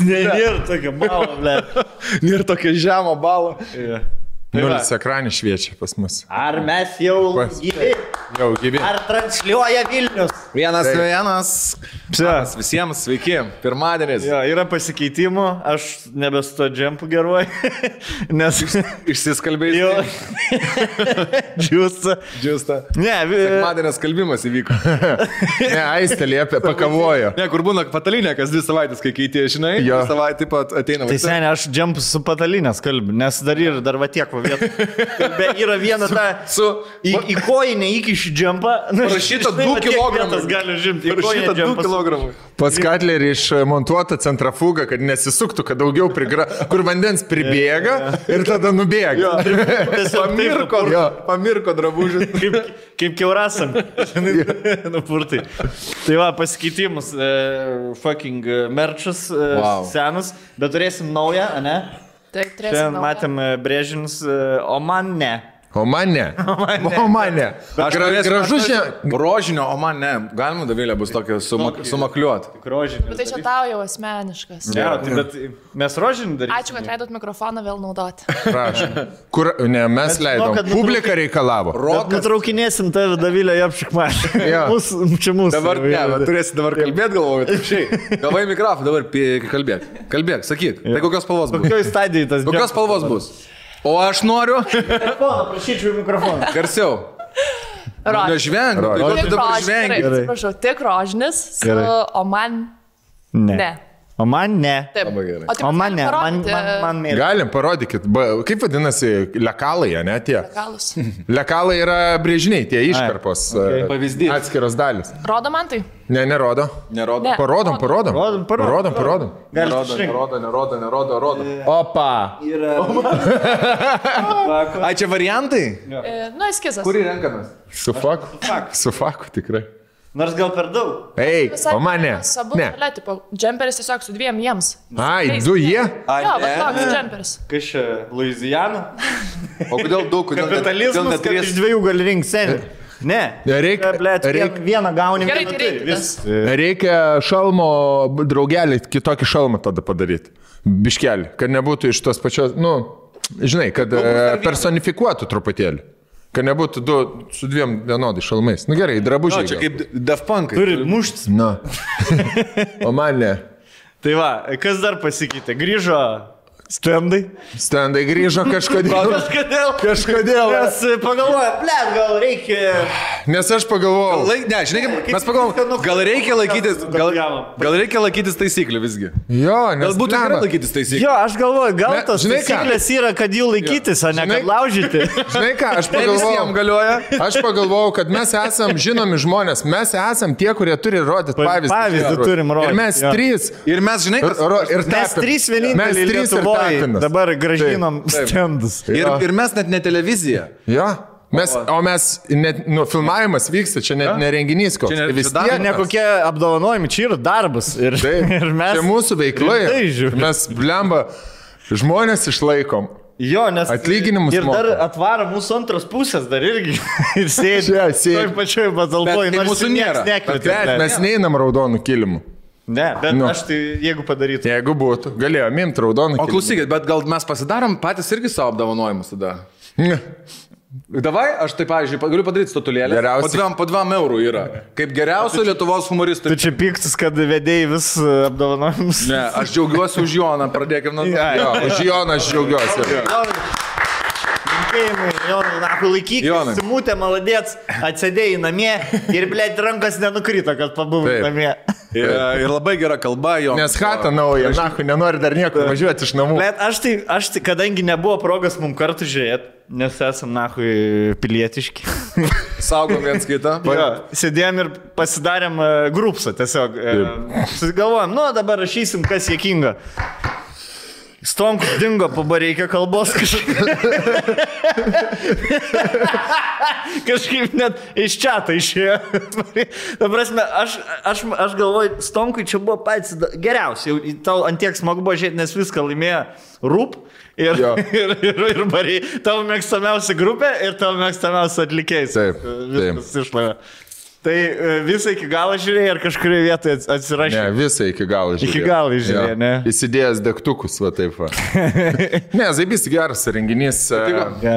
Nėra tokio balo, ble. Nėra tokio žemo balo. Nulis ekranį šviečia pas mus. Ar mes jau gyvi? Jau gyvi. Ar transliuoja Vilnius? Vienas. Visiems sveiki. Pirmadienis. Jo, yra pasikeitimų, aš nebesu to džempų geruoju, nes... Išsiskalbėjai. Jo. Džiusta. Ne, Sekmadienės kalbimas įvyko. Ne, Aistė liepė, pakavojo. Ne, kur būna patalinė, kas 2 savaitės, kai keitė, žinai, Jo. savaitę taip pat ateina. tai seniai aš džempus su patalinės kalbiu, nes dar va tiek va vietą. Yra viena ta... Į kojinę įkiši džempą. Parašyta 2 kilogramai. Gali žimti. Parašyta 2 kilogramai. Pas Katlerį išmontuota centrafugą, kad nesisuktų, kad daugiau kur vandens pribėga ir tada nubėga. Pamirko drabužis. Kaip keurasam. Nupurtai. Tai va, pasikeitimus. Fucking merčas senas. Bet turėsim naują, ne? Taip, turėsim Šiandien naują. matėm brėžinius, o man ne. O man ne. Gražu šiandien. Rožinio, o man ne. Galima, Davilė, bus tokia sumakliuot. Rožinius. Bet tai čia tau jau asmeniškas. Ne, bet mes rožinį darysime. Ačiū, kad leidot mikrofoną vėl naudoti. Prašom. Kur, ne, mes Bet leidom. žinau, kad Publika reikalavo. Bet nutraukinėsim tave, Davilė, apšikmą. Jo. Čia mūsų. Dabar ne, bet turėsi dabar kalbėti, galvoju, taip šiai. Gavai mikrofoną, dabar kalbėk, sakyk. Tai kokios spalvos bus? Kokioj stadijai tas Kokios spalvos bus? O aš noriu. Prašyčiau mikrofoną. Garsiau. Nežvengiu. Tai Rožinį. tu dabar žvengi. Atsiprašau, tik rožinis, o man ne. O man ne. Taip. Labai gerai. O, taip, O man ne. parodyti Man mėly. Galim, parodykit. Kaip vadinasi lekalai, ne tie? legalus. Lekalai yra brėžiniai, tie iškarpos. okay. Pavyzdys. Atskiros dalis. Rodo man tai? Ne, nerodo. Nerodo. Ne. Parodom. Parodom. Nerodo. Opa. Ai, čia variantai? Nu, eskizas. Kurį renkamės? Su faku tikrai. Nors gal per daug. Ei, Visai o man ne. Sabu, Ne. tipo, džemperis tiesiog su 2 jiems. Ai, 2 jie? Jo, bet toks džemperis. Kas čia, Luizijana? O kodėl daug? Kapitalizmas, kad iš 2 gali rinkti seniai. Ne. Vieną gauni. Gerai, tai reikia tas. Reikia šalmo, draugelį, kitokį šalmą tada padaryti. Biškelį, kad nebūtų iš tos pačios, žinai, kad personifikuotų truputėlį. Kad nebūtų 2 su 2 vienodai šalmais. Gerai, drabužiai. Čia kaip Daft Punk. Turi muštis. Na. O man ne. Tai va, kas dar pasikeitė? Grįžo stendai. Stendai grįžo kažkodėl. Kažkodėl. Mes pagalvoja, blėt, gal reikia... Nes aš pagalvojau. Ne, žinai, mes pagalvom, gal reikia laikytis taisyklių visgi. Jo, nes... Galbūt gerai laikytis taisyklių. Jo, aš galvoju, gal tos žinai ką? taisyklės yra, kad jų laikytis, o ne Žinai- kad laužyti. Žinai ką, aš Ne visiems pagalvojau. galioja. Aš pagalvojau, kad mes esam žinomi žmonės. Mes esam tie, kurie turi rodyti pavyzdį. Pavyzdį turim rodyti, Ir mes jo. 3. Ir mes, žinai, Ir Mes 3 vieninteliai Lietuvoje dabar gražinom stendus. ir mes net ne televizija. Jo. O mes, net, filmavimas vyksta, čia net nerenginys koks. Čia ne- Tai vis čia dar tiek. Ne kokie apdovanojimai, čia yra darbas. Ir, Taip, ir mes... čia mūsų veikla. rimtai žiūrim. Mes, blemba, žmonės išlaikom. Jo, nes... Atlyginimus Ir dar moka. atvaro mūsų antros pusės dar irgi. Ir sėdi. Čia sėdi. Toj pačioj patalpoje. Bet tai mūsų nėra. Bet mes neinam raudonų kilimų. Ne, bet Nu. aš tai, jeigu padarytų. Jeigu būtų, galėjome imti raudoną O kilimą. klausykit, bet gal mes pasidarom patys irgi savo apdovanojimus tada. Davai, aš tai, pavyzdžiui, galiu padaryti statulėlę. Geriausiai. Po 2 eurų yra. Kaip geriausio Lietuvos humoristų. Tu čia piktas, kad vedėjai vis apdovanojimus. Ne, aš džiaugiuosi už Joną, pradėkime nuo... Jo, už Joną aš džiaugiuosi. Linkėjimai, Jonai, nahu, laikyk, Jonai. simutė, maladėts, atsėdėjai namie ir, blėt, rankas nenukrito, kad pabuvai Taip. namie. Ir labai gera kalba, Jonas. Nes chata nauja, nahu, nenori dar niekur važiuoti iš namų. Blėt, aš tai, kadangi nebuvo progos mums kartu žiūrėti, nes esam, nahu, pilietiški. Saugom viens kitą. Jo, sėdėjom ir pasidarėm grupsą tiesiog. Susigalvojom, dabar rašysim, kas jėkinga. Stonkus dingo, pabareikia kalbos kažkaip net iš čiato išėjo. Ta prasme, aš galvoju, Stonkui čia buvo patys geriausiai. Tau antiek smagu buvo žiūrėti, nes viską laimėjo Rūp ir Bariai. Tavo mėgstamiausia grupė ir tavo mėgstamiausia atlikėjai. Taip, Viskas išlavė. Tai visą iki galo žiūrėjai ar kažkurioje vietoje atsirašė? Ne, visą iki galo žiūrėjai. Iki galo žiūrėjai, ne? Įsidėjęs degtukus, va taip va. Ne, zaibys geras renginys.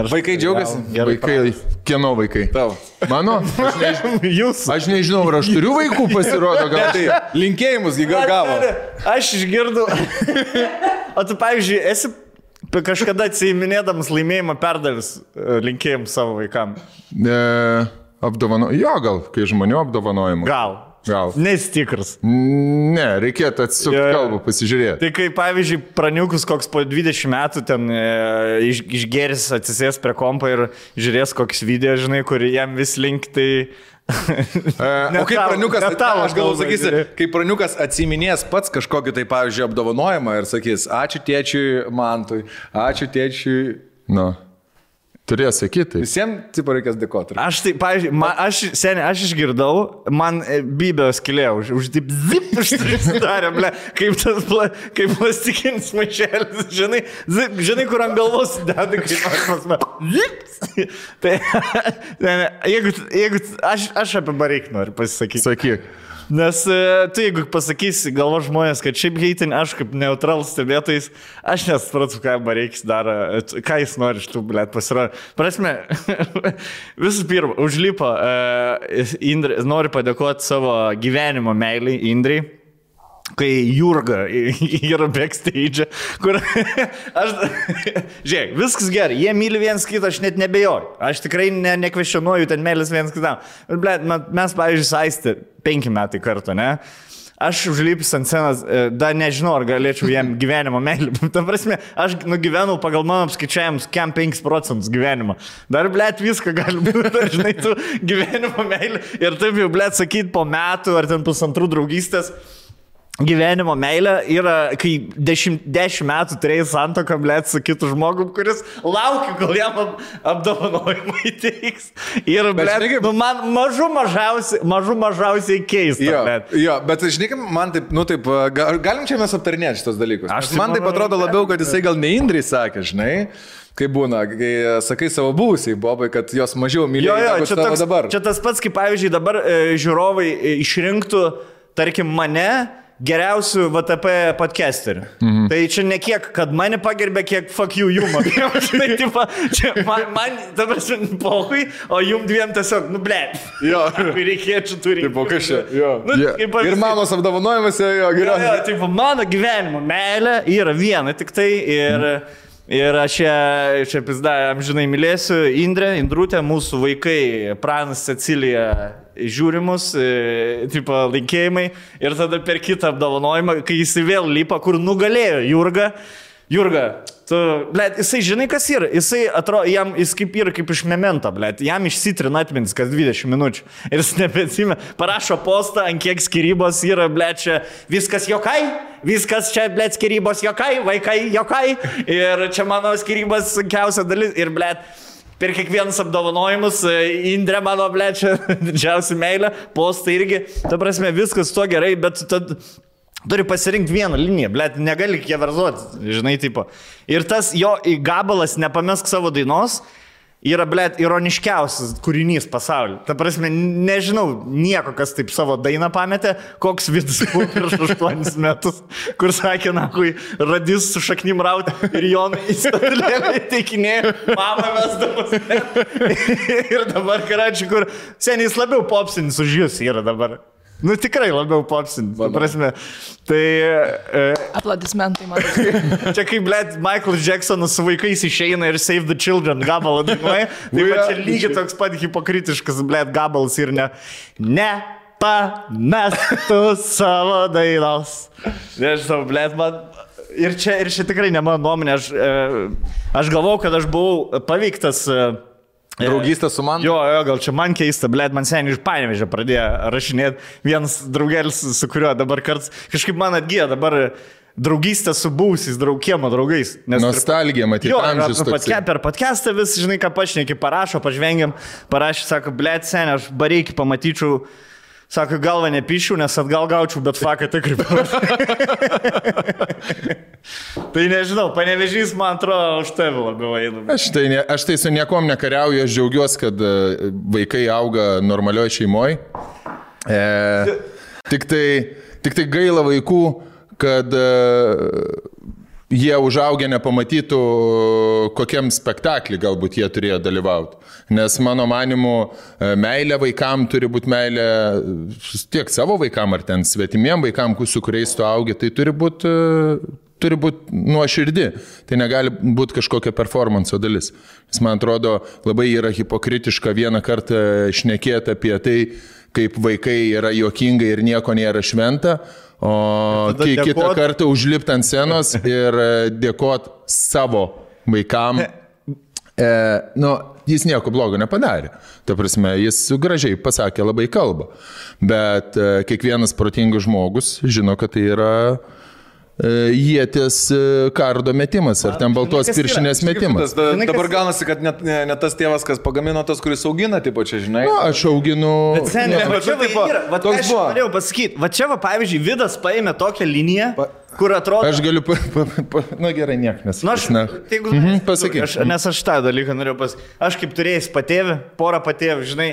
Vaikai džiaugiasi? Vaikai, kieno vaikai? Tau. Mano? Jūs. Aš nežinau, ar aš turiu vaikų, pasirodo, gal tai. Linkėjimus gavo. Aš išgirdau. O tu, pavyzdžiui, esi kažkada atsiminėdamas laimėjimą perdavis linkėjimus savo vaikam? Jo, gal, kai žmonių apdovanojimų. Gal. Nestikras. Ne, reikėtų atsisukti kalbą, pasižiūrėti. Tai kai, pavyzdžiui, praniukus koks po 20 metų ten išgeris atsisės prie kompo ir žiūrės koks video, žinai, kur jam vis link, tai... O kaip praniukas, aš galvoju, sakysi, kai praniukas atsiminės pats kažkokį tai, pavyzdžiui, apdovanojimą ir sakys, ačiū tėčiui Mantui, ačiū tėčiui... Nu. Turės sakyti. Visiems, tipo, reikės dėkoti. Aš tai, pavyzdžiui, aš išgirdau, man bybės kilėjo, už zip uždarė, ble, kaip plastikinis maišelis, žinai, kur ant galvos deda, kaip zip. Tai, jeigu aš apie Bareikį noriu pasisakyti. Sakyk. Nes tu, jeigu pasakysi galvo žmonės, kad šiaip heitin, aš kaip neutralus stebėtais, aš nesupratau, ką Bareikis daro, ką jis nori iš tų, blėt, pasirodė. Prasme, visų pirma, užlipo, noriu padėkoti savo gyvenimo meilį Indrai. Kai Jurga yra backstage, kur aš, žiūrėk, viskas gerai, jie myli vienas kitą, aš net nebejoju, aš tikrai nekvestionuoju ten meilės vienas kitam, bet mes, pavyzdžiui, Aistė 5 metai kartu, ne? Aš užlipęs ant scenos, dar nežinau, ar galėčiau jam gyvenimo meilį. Ta prasme, aš nugyvenau pagal mano apskaičiavimus, kiam 5% gyvenimo. Dar, blėt, viską gali būti, dar, žinai, tu gyvenimo meilį. Ir taip jau, blėt, sakyt, po metų ar ten 2 draugystės. Gyvenimo meilė yra, kai 10 metų turėjai santoką, blėt, su kitu žmogum, kuris laukia, kol jam apdovanojimą įteiks. Ir, blėt, nu, man mažiausiai keista, blėt. Jo, bet, žinai, man taip, nu taip, galim čia mes aptarinėti šitos dalykus. Man taip atrodo labiau, kad jisai gal ne Indrai sakė, žinai. Kaip būna, kai sakai savo buvusiai Bobai, kad jos mažiau mylėjo negu tavo dabar. Čia tas pats, kaip pavyzdžiui, dabar žiūrovai išrinktų, tarkim, mane geriausių VTP podcasterių. Tai čia ne kiek, kad mane pagerbė, kiek fuck you jumą. Žinai, tipo, čia man dabar pohui, o jum dviem tiesiog, nu, blėt. Jo. Reikėčiau turi. Tipo, kas čia? Jo. Nu, ir mamos apdovanojimuose, jo, geriausiai. Jo, tipo, mano gyvenimo meilė yra viena tik tai ir aš čia amžinai mylėsiu Indrutę, mūsų vaikai, Pranas, Cecilija, žiūrimus, tipo, linkėjimai ir tada per kitą apdovanojimą, kai jis vėl lipa, kur nugalėjo Jurga, tu, blėt, jisai žinai, kas yra, jisai atrodo, jis kaip yra kaip iš memento, blėt, jam išsitrina atmintis kas 20 minučių ir jis nebeatsimė, parašo postą, ant kiek skirybos yra, blėt, čia viskas jokai, viskas čia, blėt, skirybos jokai, vaikai jokai ir čia mano skirybos sunkiausia dalis ir, blėt, per kiekvienus apdovanojimus, Indrė mano, blėt, čia didžiausia meilė, postai irgi, ta prasme, viskas to gerai, bet tad turi pasirinkti vieną liniją, blėt, negali keverzoti, žinai, tipo. Ir tas jo gabalas nepamesk savo dainos yra, blėt, ironiškiausias kūrinys pasaulyje. Ta prasme, nežinau nieko, kas taip savo dainą pametė, koks vidus buvo prieš 8 metus, kur sakė, na, kui radis su šaknim rauti ir Jonai į statulėlę įteikinėjo, mama vesdamas. Ir dabar, karačiai, kur seniai jis labiau popsinis už jūs yra dabar. Nu, tikrai labiau popsinis, ta prasme. Tai... Aplodismentai, man. Čia kaip, blėt, Michael Jacksonas su vaikais išeina ir Save the Children gabalą dainuoja. Tai va čia lygiai toks pat hipokritiškas, blėt, gabalas ir nepamestų savo dainos. Nežinau, blėt, man... Ir čia tikrai ne mano nuomonė. Aš galvau, kad aš buvau paveiktas... Draugystė su man? Jo, gal čia man keista, blėt, man seniai iš Panevėžio pradėjo rašinėti vienas draugelis, su kuriuo dabar karts, kažkaip man atgyja dabar draugystė su buvusiais kiemo draugais. Nostalgija, matyti, amžius toksai. Per podcastą vis, žinai, ką pašneki, parašo, pažvengiam, parašė, sako, blėt, seniai, aš Bareikį pamatyčiau Sako, galva nepišiu, nes atgal gaučiau, bet faką tikrai. Tai nežinau, Panevėžys, man atrodo, už tave labiau eina. Aš tai su niekom nekariauju, aš džiaugiuosi, kad vaikai auga normalioje šeimoje. Tik tai gaila vaikų, kad jie užaugę nepamatytų, kokiam spektaklį galbūt jie turėjo dalyvauti. Nes mano manimu, meilė vaikam turi būti meilė tiek savo vaikam ar ten svetimiem vaikam, su kuriais tu augi, tai turi būti nuoširdi. Tai negali būti kažkokia performanso dalis. Nes man atrodo, labai yra hipokritiška vieną kartą šnekėti apie tai, kaip vaikai yra juokingai ir nieko nėra šventa, o kitą kartą užlipti ant scenos ir dėkoti savo vaikam. Jis nieko blogo nepadarė. Ta prasme, jis gražiai pasakė labai kalbą. Bet kiekvienas protingas žmogus žino, kad tai yra ieties kardo metimas, ar ten baltos piršinės metimas. Dabar gaunasi, kad ne tas tėvas, kas pagamino, tas, kuris augina, taip čia, žinai. Aš auginu... Bet seniai, aš norėjau pasakyti, va čia, pavyzdžiui, Vidas paėmė tokią liniją, kur atrodo... Aš galiu... gerai, niek, nes... Pasakyk. Nes aš tą dalyką norėjau pasakyti. Aš kaip turėjęs patėvį, porą patėvį, žinai,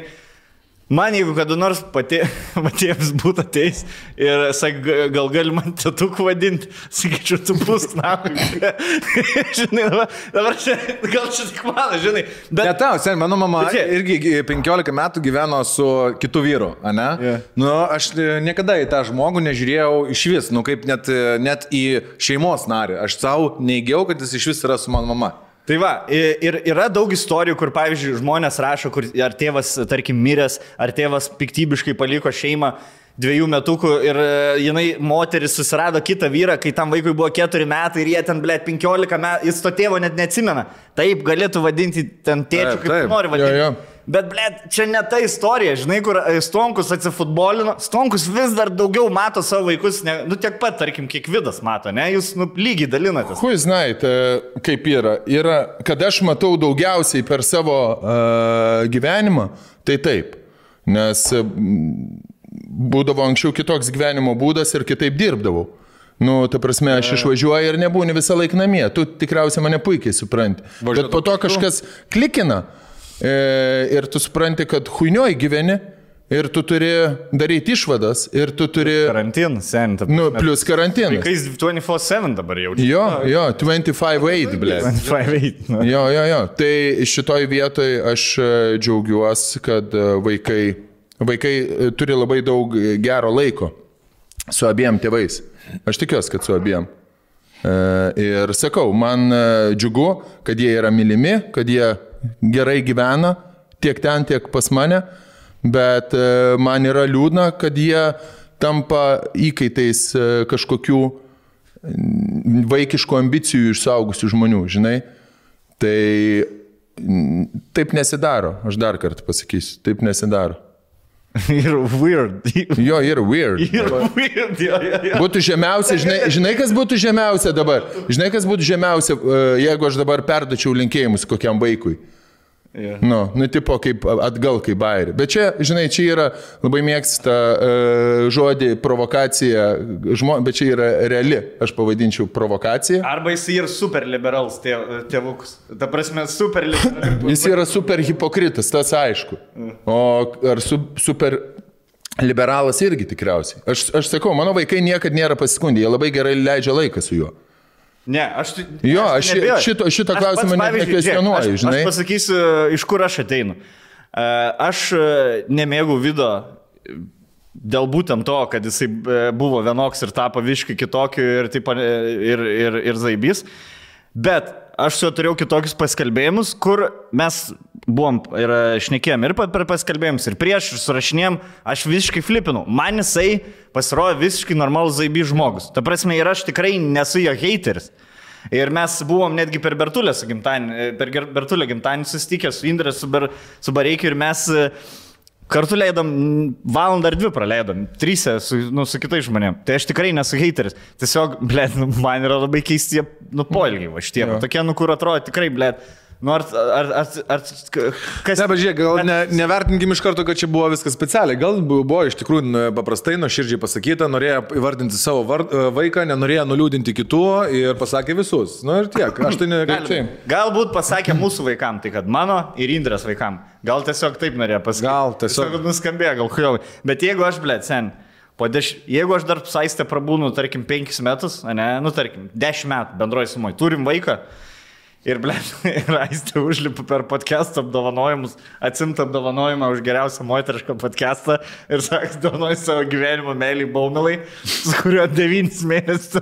man jeigu kada nors patėvis būtų ateis ir gal gali man tėtuku vadinti, sakyčiau, tu pusk nahui. Žinai, dabar gal čia tik mano, žinai. Bet... Ne tau, sen, mano mama irgi 15 metų gyveno su kitu vyru, ane? Yeah. Aš niekada į tą žmogų nežiūrėjau iš vis, kaip net į šeimos narį. Aš savo neįgiau, kad jis iš vis yra su mano mama. Tai va, ir yra daug istorijų, kur, pavyzdžiui, žmonės rašo, kur ar tėvas, tarkim, miręs, ar tėvas piktybiškai paliko šeimą 2 metukų ir jinai, moteris, susirado kitą vyrą, kai tam vaikui buvo 4 metai ir jie ten, 15 metų, jis to tėvo net neatsimena. Taip, galėtų vadinti ten tėčiu, kaip nori vadinti. Jo. Bet, čia ne ta istorija, žinai, kur Stonkus atsifutbolino. Stonkus vis dar daugiau mato savo vaikus, tiek pat, tarkim, kiek Vidas mato, ne? Jūs lygiai dalinatės. Hui, žinai, kaip yra, kad aš matau daugiausiai per savo gyvenimą, tai taip. Nes būdavo anksčiau kitoks gyvenimo būdas ir kitaip dirbdavau. Ta prasme, aš išvažiuoju ir nebūni visą laiką namie. Tu tikriausiai mane puikiai supranti. Bet po to kažkas klikina. Ir tu supranti, kad huinioj gyveni ir tu turi daryti išvadas ir tu turi... Karantinas, seniai. Plus karantinas. Vaikais 24/7 dabar jaučiu. Jo, 25/8, blė. 25/8. Jo. Tai šitoj vietoj aš džiaugiuosi, kad vaikai turi labai daug gero laiko su abiem tėvais. Aš tikiuosi, kad su abiem. Ir sakau, man džiugu, kad jie yra mylimi, kad jie gerai gyvena, tiek ten, tiek pas mane, bet man yra liūdna, kad jie tampa įkaitais kažkokių vaikiškų ambicijų iš suaugusių žmonių, žinai. Tai taip nesidaro, aš dar kartą pasakysiu, taip nesidaro. Yra weird. Jo, yra weird. Būtų žemiausia, žinai, kas būtų žemiausia dabar? Žinai, kas būtų žemiausia, jeigu aš dabar perdačiau linkėjimus kokiam vaikui? Yeah. Tipo kaip atgal, kaip bairį. Bet čia, žinai, čia yra labai mėgsta žodį provokacija, bet čia yra reali, aš pavadinčiau provokacija. Arba jis yra super liberals tėvukus. Ta prasme, super liberals. Jis yra super hipokritas, tas aišku. O ar super liberalas irgi tikriausiai. Aš sakau, mano vaikai niekad nėra pasiskundę, jie labai gerai leidžia laiką su juo. Ne, aš šito klausimą nekvestionuoju, žinai. Aš pasakysiu, iš kur aš ateinu. Aš nemėgau Vido dėl būtent to, kad jisai buvo vienoks ir tapo viškai kitokiu ir zaibys. Bet aš su juo turėjau kitokius paskalbėjimus, kur mes buvom ir šnekėjom ir per paskalbėjimus, ir prieš, ir surašinėjom, aš visiškai flipinau. Man jisai pasirodė visiškai normalus zaibys žmogus. Ta prasme, ir aš tikrai nesu jo hateris. Ir mes buvom netgi per Bertulę gimtadienį susitikę su Indre, su Bareikiu, ir mes kartu leidom, valandą ar 2 praleidom, 3 su kitais žmonėm. Tai aš tikrai nesu hateris. Tiesiog, man yra labai keisti poilgiai va šitie. Tokie, kur atrodo tikrai, Nu, kas... Ne, bet žiūrėk, gal nevertinkim iš karto, kad čia buvo viskas specialiai. Gal buvo iš tikrųjų paprastai, nuoširdžiai pasakyta, norėjo įvardinti savo vaiką, nenorėjo nuliūdinti kitų ir pasakė visus. Nu ir tiek. Aš tai Galbūt pasakė mūsų vaikam, tai kad mano ir Indrės vaikam. Gal tiesiog taip norėjo pasakyti. Gal tiesiog nuskambėjo, gal kujovai. Bet jeigu aš, sen, jeigu aš dar Saiste prabūnu, tarkim, 5 metus, ne, nu, tarkim, 10 metų bendroji sumai, turim vaiką ir, ir Aistė užlipa per podcast'o apdovanojimus, atsimta apdovanojimą už geriausią moterišką podcast'ą ir sako, dovanoju savo gyvenimo meilį Baumilai, su kuriuo 9 mėnesius,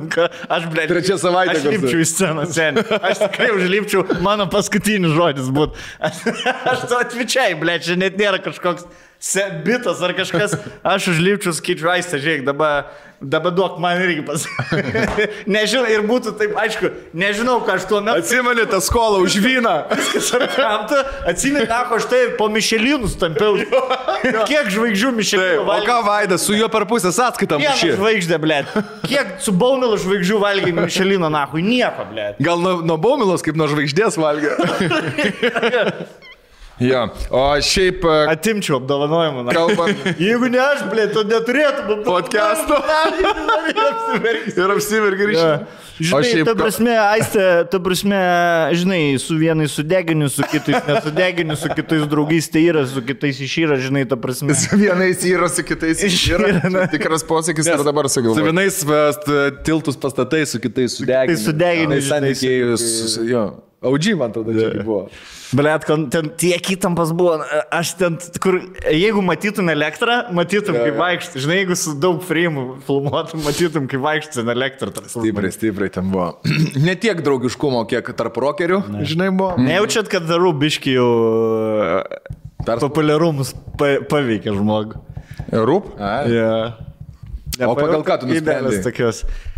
aš, trečią savaitę aš lipčiau į sceną, sen. Aš tikrai užlipčiau, mano paskutinis žodis būt. Aš to atvičiai, čia net nėra kažkoks bitas ar kažkas, aš užlipčiau, skaičiu, Aistė, žiūrėk, dabar duok man irgi pasakyti. Nežinau, ir būtų taip, aišku, nežinau, ką aš tuo metu. Atsimeni tą skolą už vyną. Viskas apkamta, atsimeni, aš tai po Mišelinus tampiau. Kiek žvaigždžių Mišelinų valgė? O ką Vaidas, su juo per pusę sąskaitą mušė? Kiek žvaigždė, blėt? Kiek su Baumilu žvaigždžių valgė Mišelino, nahui? Nieko, blėt. Gal nuo Baumilos kaip nuo žvaigždės valgė? Ja, o šiaip... Atimčiau apdovanojimą. Kalbant. Jeigu ne aš, blėt, to neturėtų podcast'o. Ir apsivergi ryšį. Žinai, šiaip... ta prasme, Aistė, žinai, su vienais sudeginiu, su kitais nesudeginiu, su kitais draugais tai yra, su kitais išyra, žinai, ta prasme. Su vienais yra, su kitais išyra. Tikras posakis ir dabar sugalvoju. Su vienais tiltus pastatai, su kitais sudeginiu. Sudeginiu, žinai. Audžiai, man tada čia buvo. Blet, ten tiek įtampas buvo, aš ten, kur, jeigu matytum elektrą, matytum, kaip vaikštai. Žinai, jeigu su daug frame'ų filmuotum, matytum, kaip vaikštai na elektrą. Stipriai ten buvo. Ne tiek draugiškumo, kiek tarp rokerių, žinai, buvo. Nejaučiat, kad darų biški jau populiarumus paveikia žmogų. Rūp? Yeah. O pagal ką tu nusprendei?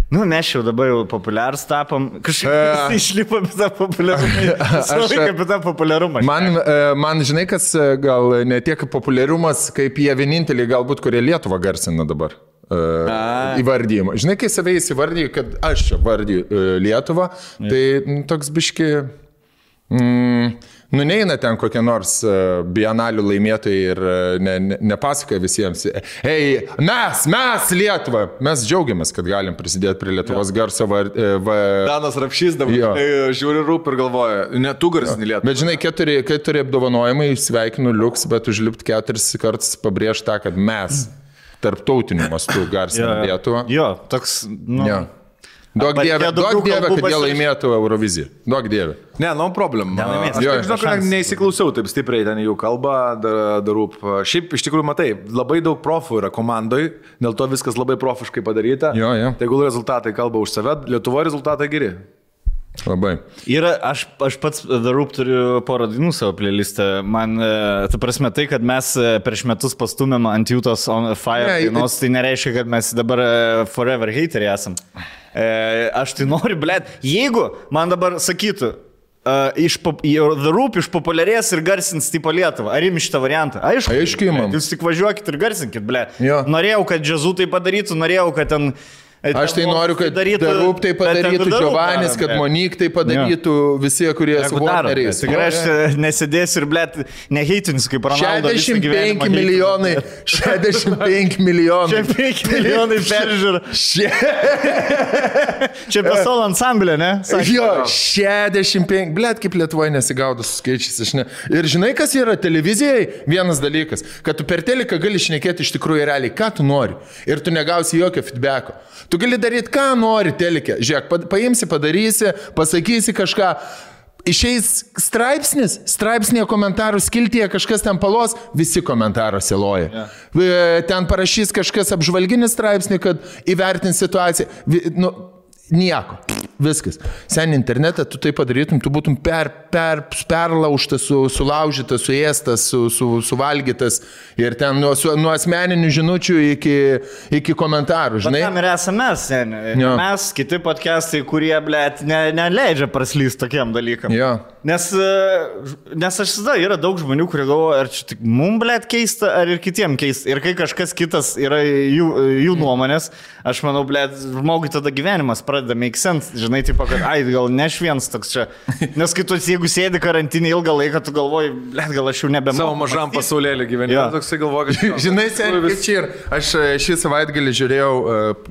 Nu, mes jau dabar jau populiarus tapom, kažkaip išlipom apie tą populiarumą. Apie tą populiarumą. Man, žinai, kas gal ne tiek populiarumas, kaip jie vieninteliai galbūt, kurie Lietuvą garsina dabar. Įvardyjimą. Žinai, kai save įsivardyju, kad aš čia vardyju Lietuvą, tai toks biški... Nu, neina ten kokie nors bienalių laimėtojai ir nepasakoja visiems. Hei, mes Lietuva, mes džiaugiamės, kad galim prisidėti prie Lietuvos garso. Danas Rapšys dabar žiūri Rūp ir galvoja, ne tu garsini Lietuvą. Bet žinai, keturi apdovanojimai, sveikinu liuks, bet užlipti 4 kartus pabrėžti tą, kad mes tarptautiniu mastu garsinam Lietuvą. Jo, toks, nu... Jo. Duok dievę, kad jie laimėtų Euroviziją. Duok dievę. Ne, no problem. Aš žinau, kad neįsiklausiau taip stipriai ten jų kalbą, Rūp. Šiaip iš tikrųjų matai, labai daug profų yra komandoj, dėl to viskas labai profiškai padaryta. Jo. Tegul rezultatai kalba už save, Lietuvoje rezultatai geri. Labai. Ir aš pats Rūp turiu porą dainų savo playlistą. Man, ta prasme, tai, kad mes prieš metus pastumėm ant Jūtos on Fire dainos, tai nereiškia, kad mes dabar forever hateriai esam. Aš tai noriu, blėt, jeigu man dabar sakytų, The Rūp išpopuliarės ir garsins tipo Lietuvą, ar imi šitą variantą? Aišku, imam. Jūs tik važiuokit ir garsinkit, blėt. Norėjau, kad Džazu tai padarytų, norėjau, kad ten... Aš tai noriu, kad The Rūp tai padarytų, Giovanis, kad Monik tai padarytų, visi, kurie su Warneriais. Tikrai aš nesėdėsiu ir, blėt, neheitinsiu kaip Ronaldo. 65 milijonai. 65 milijonai. 65 milijonai peržiūrų. Čia be solo ansamblė, ne? Jo, 65. Blėt, kaip Lietuvoje nesigaudo su skaičiais. Ir žinai, kas yra televizijai? Vienas dalykas, kad tu per teliką gali šnekėti iš tikrųjų realiai, ką tu nori. Ir tu negausi jokio feedbacko. Tu gali daryti, ką nori telike. Žiūrėk, paimsi, padarysi, pasakysi kažką. Išeis straipsnėje komentarų skiltyje kažkas ten palos, visi komentaruose loja. Ten parašys kažkas apžvalginį straipsnį, kad įvertins situaciją. Nieko. Viskas. Sen internete tu tai padarytum, tu būtum perlaužtas, sulaužytas, suėstas, suvalgytas ir ten nuo asmeninių žinučių iki komentarų, žinai. Bet tam ir esame mes, kiti podcastai, kurie, blėt, neleidžia praslysti tokiem dalykam. Jo. Nes aš tada yra daug žmonių, kurie galvoja, ar čia tik mum, blėt, keista, ar ir kitiem keista. Ir kai kažkas kitas yra jų nuomonės, aš manau, blėt, žmogui tada gyvenimas pradeda make sense. Žinai, taip, kad, gal ne aš vienas toks čia. Nes kai tu, jeigu sėdi karantinį ilgą laiką, tu galvoji, blėt, gal aš jau nebemoku. Savo mažam pasaulėlį gyvenimą. Toksai galvoju, kad... Žinai, kaip čia ir aš šį savaitgalį žiūrėjau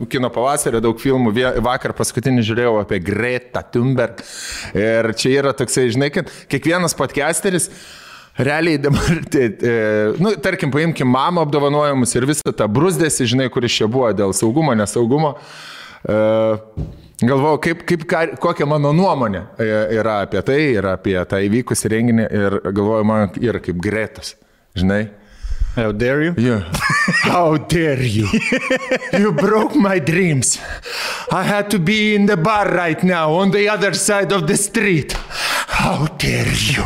kino pavasario daug filmų, vakar paskutinį žiūrėjau apie Greta Thunberg. Ir čia yra toksai, žinai, kad kiekvienas podcasteris realiai dabar, tarkim, paimkim mamą apdovanojimus ir visą tą brusdėsi, žinai, kuris čia buvo dėl saugumo, nesaugumo. Galvojau, kokia mano nuomonė yra apie tai, yra apie tą įvykusį renginį ir galvoju, man yra kaip Gretas, žinai. How dare you? Yeah. How dare you? You broke my dreams. I had to be in the bar right now on the other side of the street. How dare you?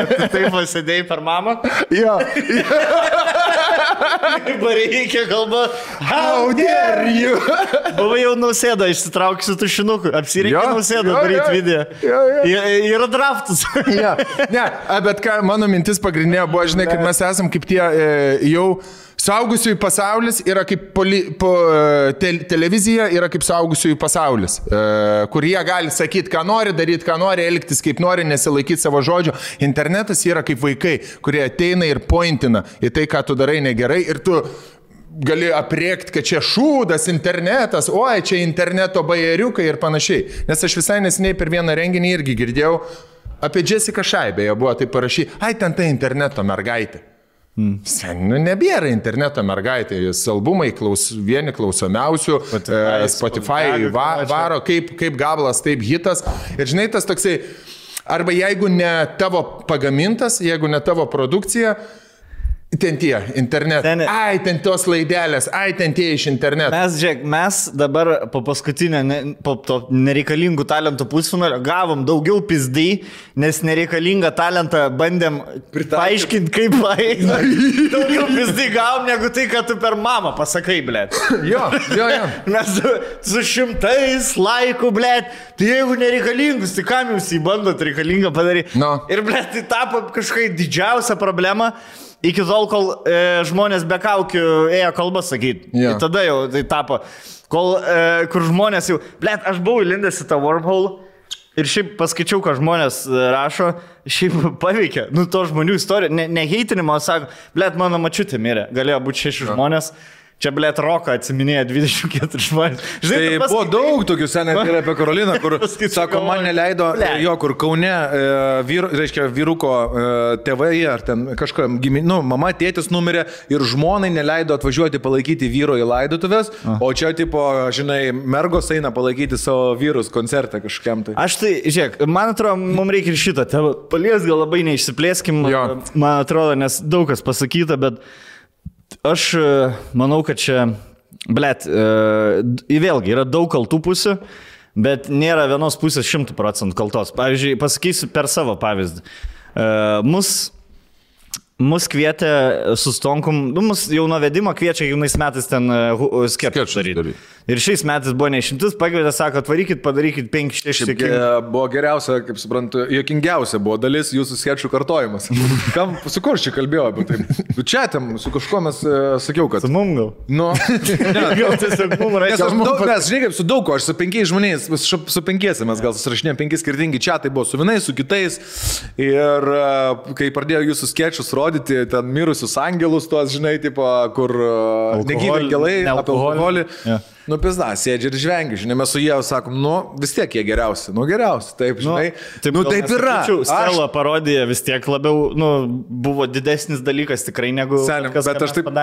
Tu taip pasėdėjai per mamą? Jo. Bareikia kalba. How dare you? Buvai jau Nausėda, išsitrauksiu tušinuku. Apsireikia Nausėda daryti video. Yra draftas. Ne, bet ką, mano mintis pagrindinė buvo, žinai, kad mes esam kaip tie jau suaugusiųjų pasaulis yra kaip televizija yra kaip suaugusiųjų pasaulis, kur jie gali sakyti, ką nori, daryti, ką nori, elgtis kaip nori, nesilaikyti savo žodžio. Internetas yra kaip vaikai, kurie ateina ir pointina į tai, ką tu darai negerai ir tu gali apriekti, kad čia šūdas internetas, oi, čia interneto bajeriukai ir panašiai. Nes aš visai nesiniai per vieną renginį irgi girdėjau apie Jessica Shy, beje, buvo tai parašy, ten tai interneto mergaitė. Nebėra interneto mergaitė, jis albumai vieni klausomiausių, Spotify varo, kaip gabalas, taip hitas. Ir žinai, tas toksai, arba jeigu ne tavo pagamintas, jeigu ne tavo produkcija, ten tie, internetas. Ten tos laidelės, ten tie iš interneto. Mes dabar po paskutinio, po to nereikalingų talentų pusfinalio gavom daugiau pizdai, nes nereikalingą talentą bandėm paaiškinti, kaip paeina. Daugiau pizdai gavom, negu tai, kad tu per mamą pasakai, blėt. Jo. Mes su 100 laikų, blėt, tai jeigu nereikalingus, tai kam jūs įbandot reikalingą padaryti? No. Ir, blėt, tai tapo kažkai didžiausia problema. Iki tol, kol žmonės be kaukių ėjo kalbas sakyti. Yeah. Tada jau tai tapo. Kur žmonės jau... Blet, aš buvau įlindęs į tą wormhole ir šiaip paskaičiau, ką žmonės rašo, šiaip paveikia. To žmonių istorija. Ne heitinimo, sako, blet, mano mačiutė mirė. Galėjo būti 6 žmonės. Čia, blėt, Roką atsiminėja 24 žmonės. Žinai, buvo daug tokių senai ir apie Karoliną, kur, sako, man neleido, kur Kaune vyruko tėvai, ar ten kažką, mama, tėtis numirė ir žmonai neleido atvažiuoti palaikyti vyro į laidotuvės, o čia, tipo, žinai, mergos eina palaikyti savo vyrus koncertą kažkam tai. Aš tai, žiūrėk, man atrodo, mums reikia ir šitą tėvą palies, gal labai neišsiplėskim, man atrodo, nes daug kas pasakyta, bet aš manau, kad čia, blėt, vėlgi yra daug kaltų pusių, bet nėra vienos pusės 100% kaltos. Pavyzdžiui, pasakysiu per savo pavyzdį. Mus kvietė su Stonkum, mus jau nuo vedimo kviečia jaunais metais ten sketchus daryti. Ir šiais metais buvo neišimtis, pakvietė, sako, atvarykit, padarykit 5-6. Buvo geriausia, kaip suprantu, juokingiausia buvo dalis jūsų sketchų kartojimas. Su kur čia kalbėjau apie tai? Čia tam, su kažkuo mes sakiau, kad... Su mum gal? Nu, gal tiesiog mum reikia. Mes, žinai, kaip su daug ko, aš su 5 žmonės, su 5 mes gal susirašinėjom 5 skirtingi čiatai, buvo su vienais, su kitais. Ir kai pradėjo jūsų sketchus rodyti, ten mirusius angelus, tuos, žinai, tipo, kur negyvi angelai, apie alkoholį. Nu, pizda, sėdži ir žvengi, žinai, mes su jie sakom, vis tiek jie geriausi, geriausi, taip, žinai, taip yra. Stela parodija vis tiek labiau, buvo didesnis dalykas tikrai negu Selim, kas, bet aš taip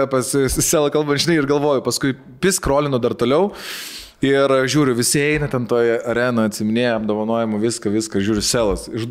pas Stelą kalbant, žinai, ir galvoju, paskui piskrolinu dar toliau. Ir žiūriu, visi eina ten toje arenoje, atsiminėja apdovanojimų, viską, žiūriu, Selas. Iš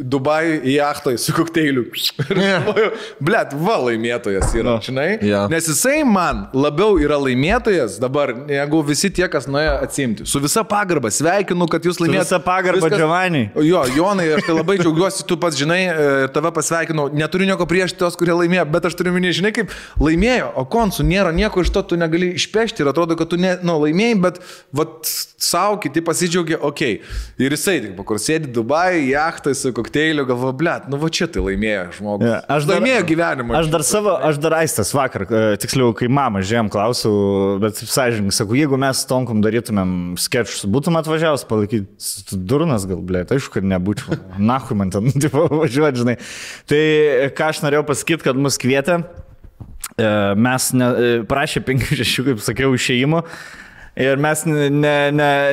Dubajų į jachtą su kokteiliu. Ir galvoju, blėt, laimėtojas yra, žinai? Nes jisai man labiau yra laimėtojas dabar, negu visi tie, kas nuėjo atsimti. Su visa pagarba, sveikinu, kad jūs laimėjote. Su visa pagarba, Giovanni. Jo, Jonai, aš tai labai džiaugiuosi, tu pats žinai, ir tave pasveikinau. Neturiu nieko prieš tos, kurie laimėjo, bet aš turiu minėti, žinai, kaip laimėjo, o konsų nėra nieko iš to, tu negali išpešti ir atrodo, kad tu laimėjai, bet kad savo kiti pasidžiaugia, okei. Ir jisai, tik kur sėdi Dubai, jachtai su kokteiliu, galvo, blėt, nu va čia tai laimėjo žmogus. Ja, laimėjo gyvenimą. Aš dar Aistas vakar, tiksliau, kai mama žiūrėjom, klausiau, bet sąžininkai, sakau, jeigu mes Tonkom darytumėm skečus, būtum atvažiavęs palaikyti durnas gal, blėt, aišku, kad nebūčiau. Nahui man ten, tipo, važiuoti, žinai. Tai ką aš norėjau pasakyti, kad mus kvietė. Mes prašė 5-6, kaip sakiau, išėjimo ir mes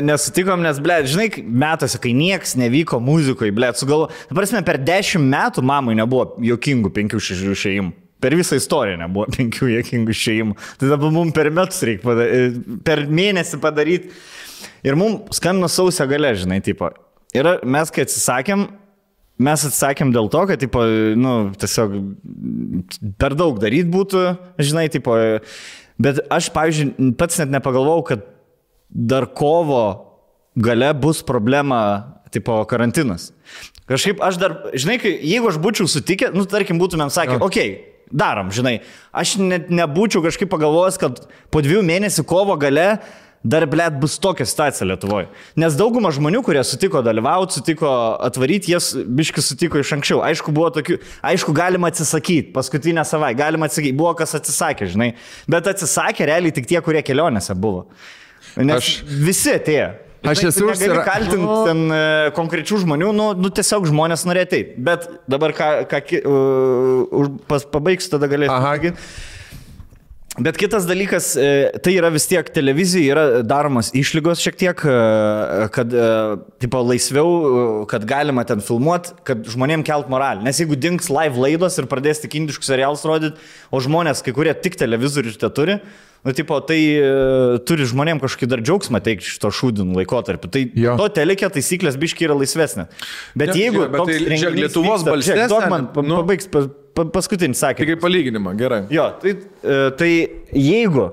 nesutikom, nes, blėt, žinai, metuose, kai nieks nevyko muzikoje, blėt, sugalvo, prasme, per 10 metų mamai nebuvo jokingų 5-6 išėjimų. Per visą istoriją nebuvo 5 jokingų išėjimų. Tai dabar mums per metus reikia per mėnesį padaryti. Ir mums skambino sausio gale, žinai, tipo. Ir mes, kai atsisakėm, dėl to, kad, tipo, nu, tiesiog per daug daryti būtų, žinai, tipo, bet aš, pavyzdžiui, pats net nepagalvojau, kad dar kovo gale bus problema, tipo, karantinas. Kažkaip aš dar, žinai, jeigu aš būčiau sutikę, nu, tarkim, būtumėm sakę, okei, darom, žinai, aš net nebūčiau kažkaip pagalvojęs, kad po 2 mėnesių kovo gale dar, blėt, bus tokia situacija Lietuvoje. Nes dauguma žmonių, kurie sutiko dalyvauti, sutiko atvaryti, jas biški sutiko iš anksčiau. Aišku, buvo tokių, aišku, galima atsisakyti, paskutinę savaitę, galima atsisakyti, buvo kas atsisakė, žinai. Bet atsisakė realiai tik tie, kurie kelionėse buvo. Nes visi atėjo. Aš esu negali kaltinti ten konkrečių žmonių, nu tiesiog žmonės norėjo ateiti. Bet dabar pabaigsiu, tada galėsiu. Bet kitas dalykas, tai yra vis tiek televizija, yra daromas išlygos šiek tiek, kad tipo, laisviau, kad galima ten filmuoti, kad žmonėm kelt moralį. Nes jeigu dings live laidos ir pradės tik indiškus serialus rodyti, o žmonės, kai kurie tik televizorių te turi, nu, tipo, tai turi žmonėm kažkokį dar džiaugsmą teikti šito šūdinų laikotarpį. Tai to telekė taisyklės biški yra laisvesnė. Bet jeigu toks renginys Lietuvos balsės, pabaigs paskutinį sakinį. Tai kaip palyginimą, gerai. Jo, tai jeigu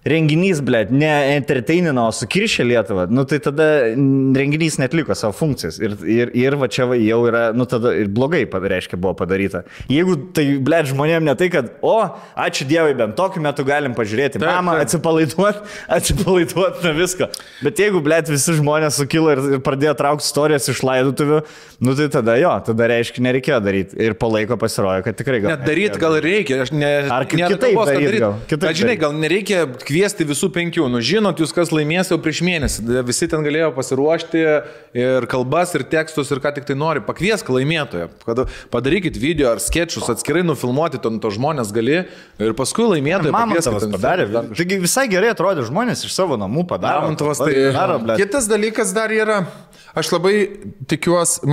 renginys, blėt, ne entertainino, o sukiršė Lietuvą, nu tai tada renginys netliko savo funkcijas. Ir va čia jau yra, nu tada ir blogai, reiškia, buvo padaryta. Jeigu tai, blėt, žmonėm ne tai, kad, ačiū Dievui, bent tokiu metu galim pažiūrėti mamą, atsipalaiduot nuo visko. Bet jeigu, blėt, visi žmonės sukilo ir pradėjo traukti istorijas iš laidotuvių, nu tai tada reiškia, nereikėjo daryti. Ir po laiko pasirodė, kad tikrai gal. Net daryti gal reikia. Ar kitaip daryti gal? Bet žinai, gal nereikia kviesti visų 5. Nu, žinot, jūs kas laimės jau prieš mėnesį. Visi ten galėjo pasiruošti ir kalbas, ir tekstus, ir ką tik tai nori. Pakviesk laimėtoją. Padarykit video ar skečus, atskirai nufilmuoti to žmonės gali ir paskui laimėtoją padarė. Taigi visai gerai atrodė žmonės iš savo namų padarė. Kitas dalykas dar yra. Aš labai tikiuosi,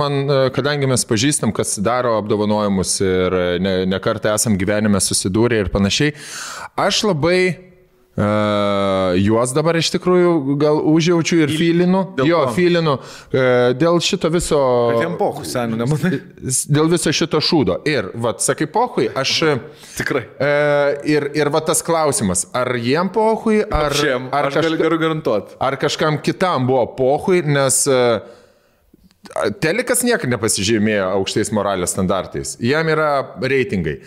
kadangi mes pažįstam, kas daro apdovanojimus ir ne kartą esam gyvenime susidūrę ir panašiai, aš labai juos dabar iš tikrųjų gal užjaučiu ir filinu. Filinu dėl šito viso... Pohui, senių, nematai. Dėl viso šito šūdo. Ir, sakai, pohui, aš... Tikrai. Ir tas klausimas, ar jiem pohui, aš galiu garantuoti. Ar kažkam kitam buvo pohui, nes... Telekas niekada nepasižymėjo aukštais moralės standartais. Jam yra reitingai.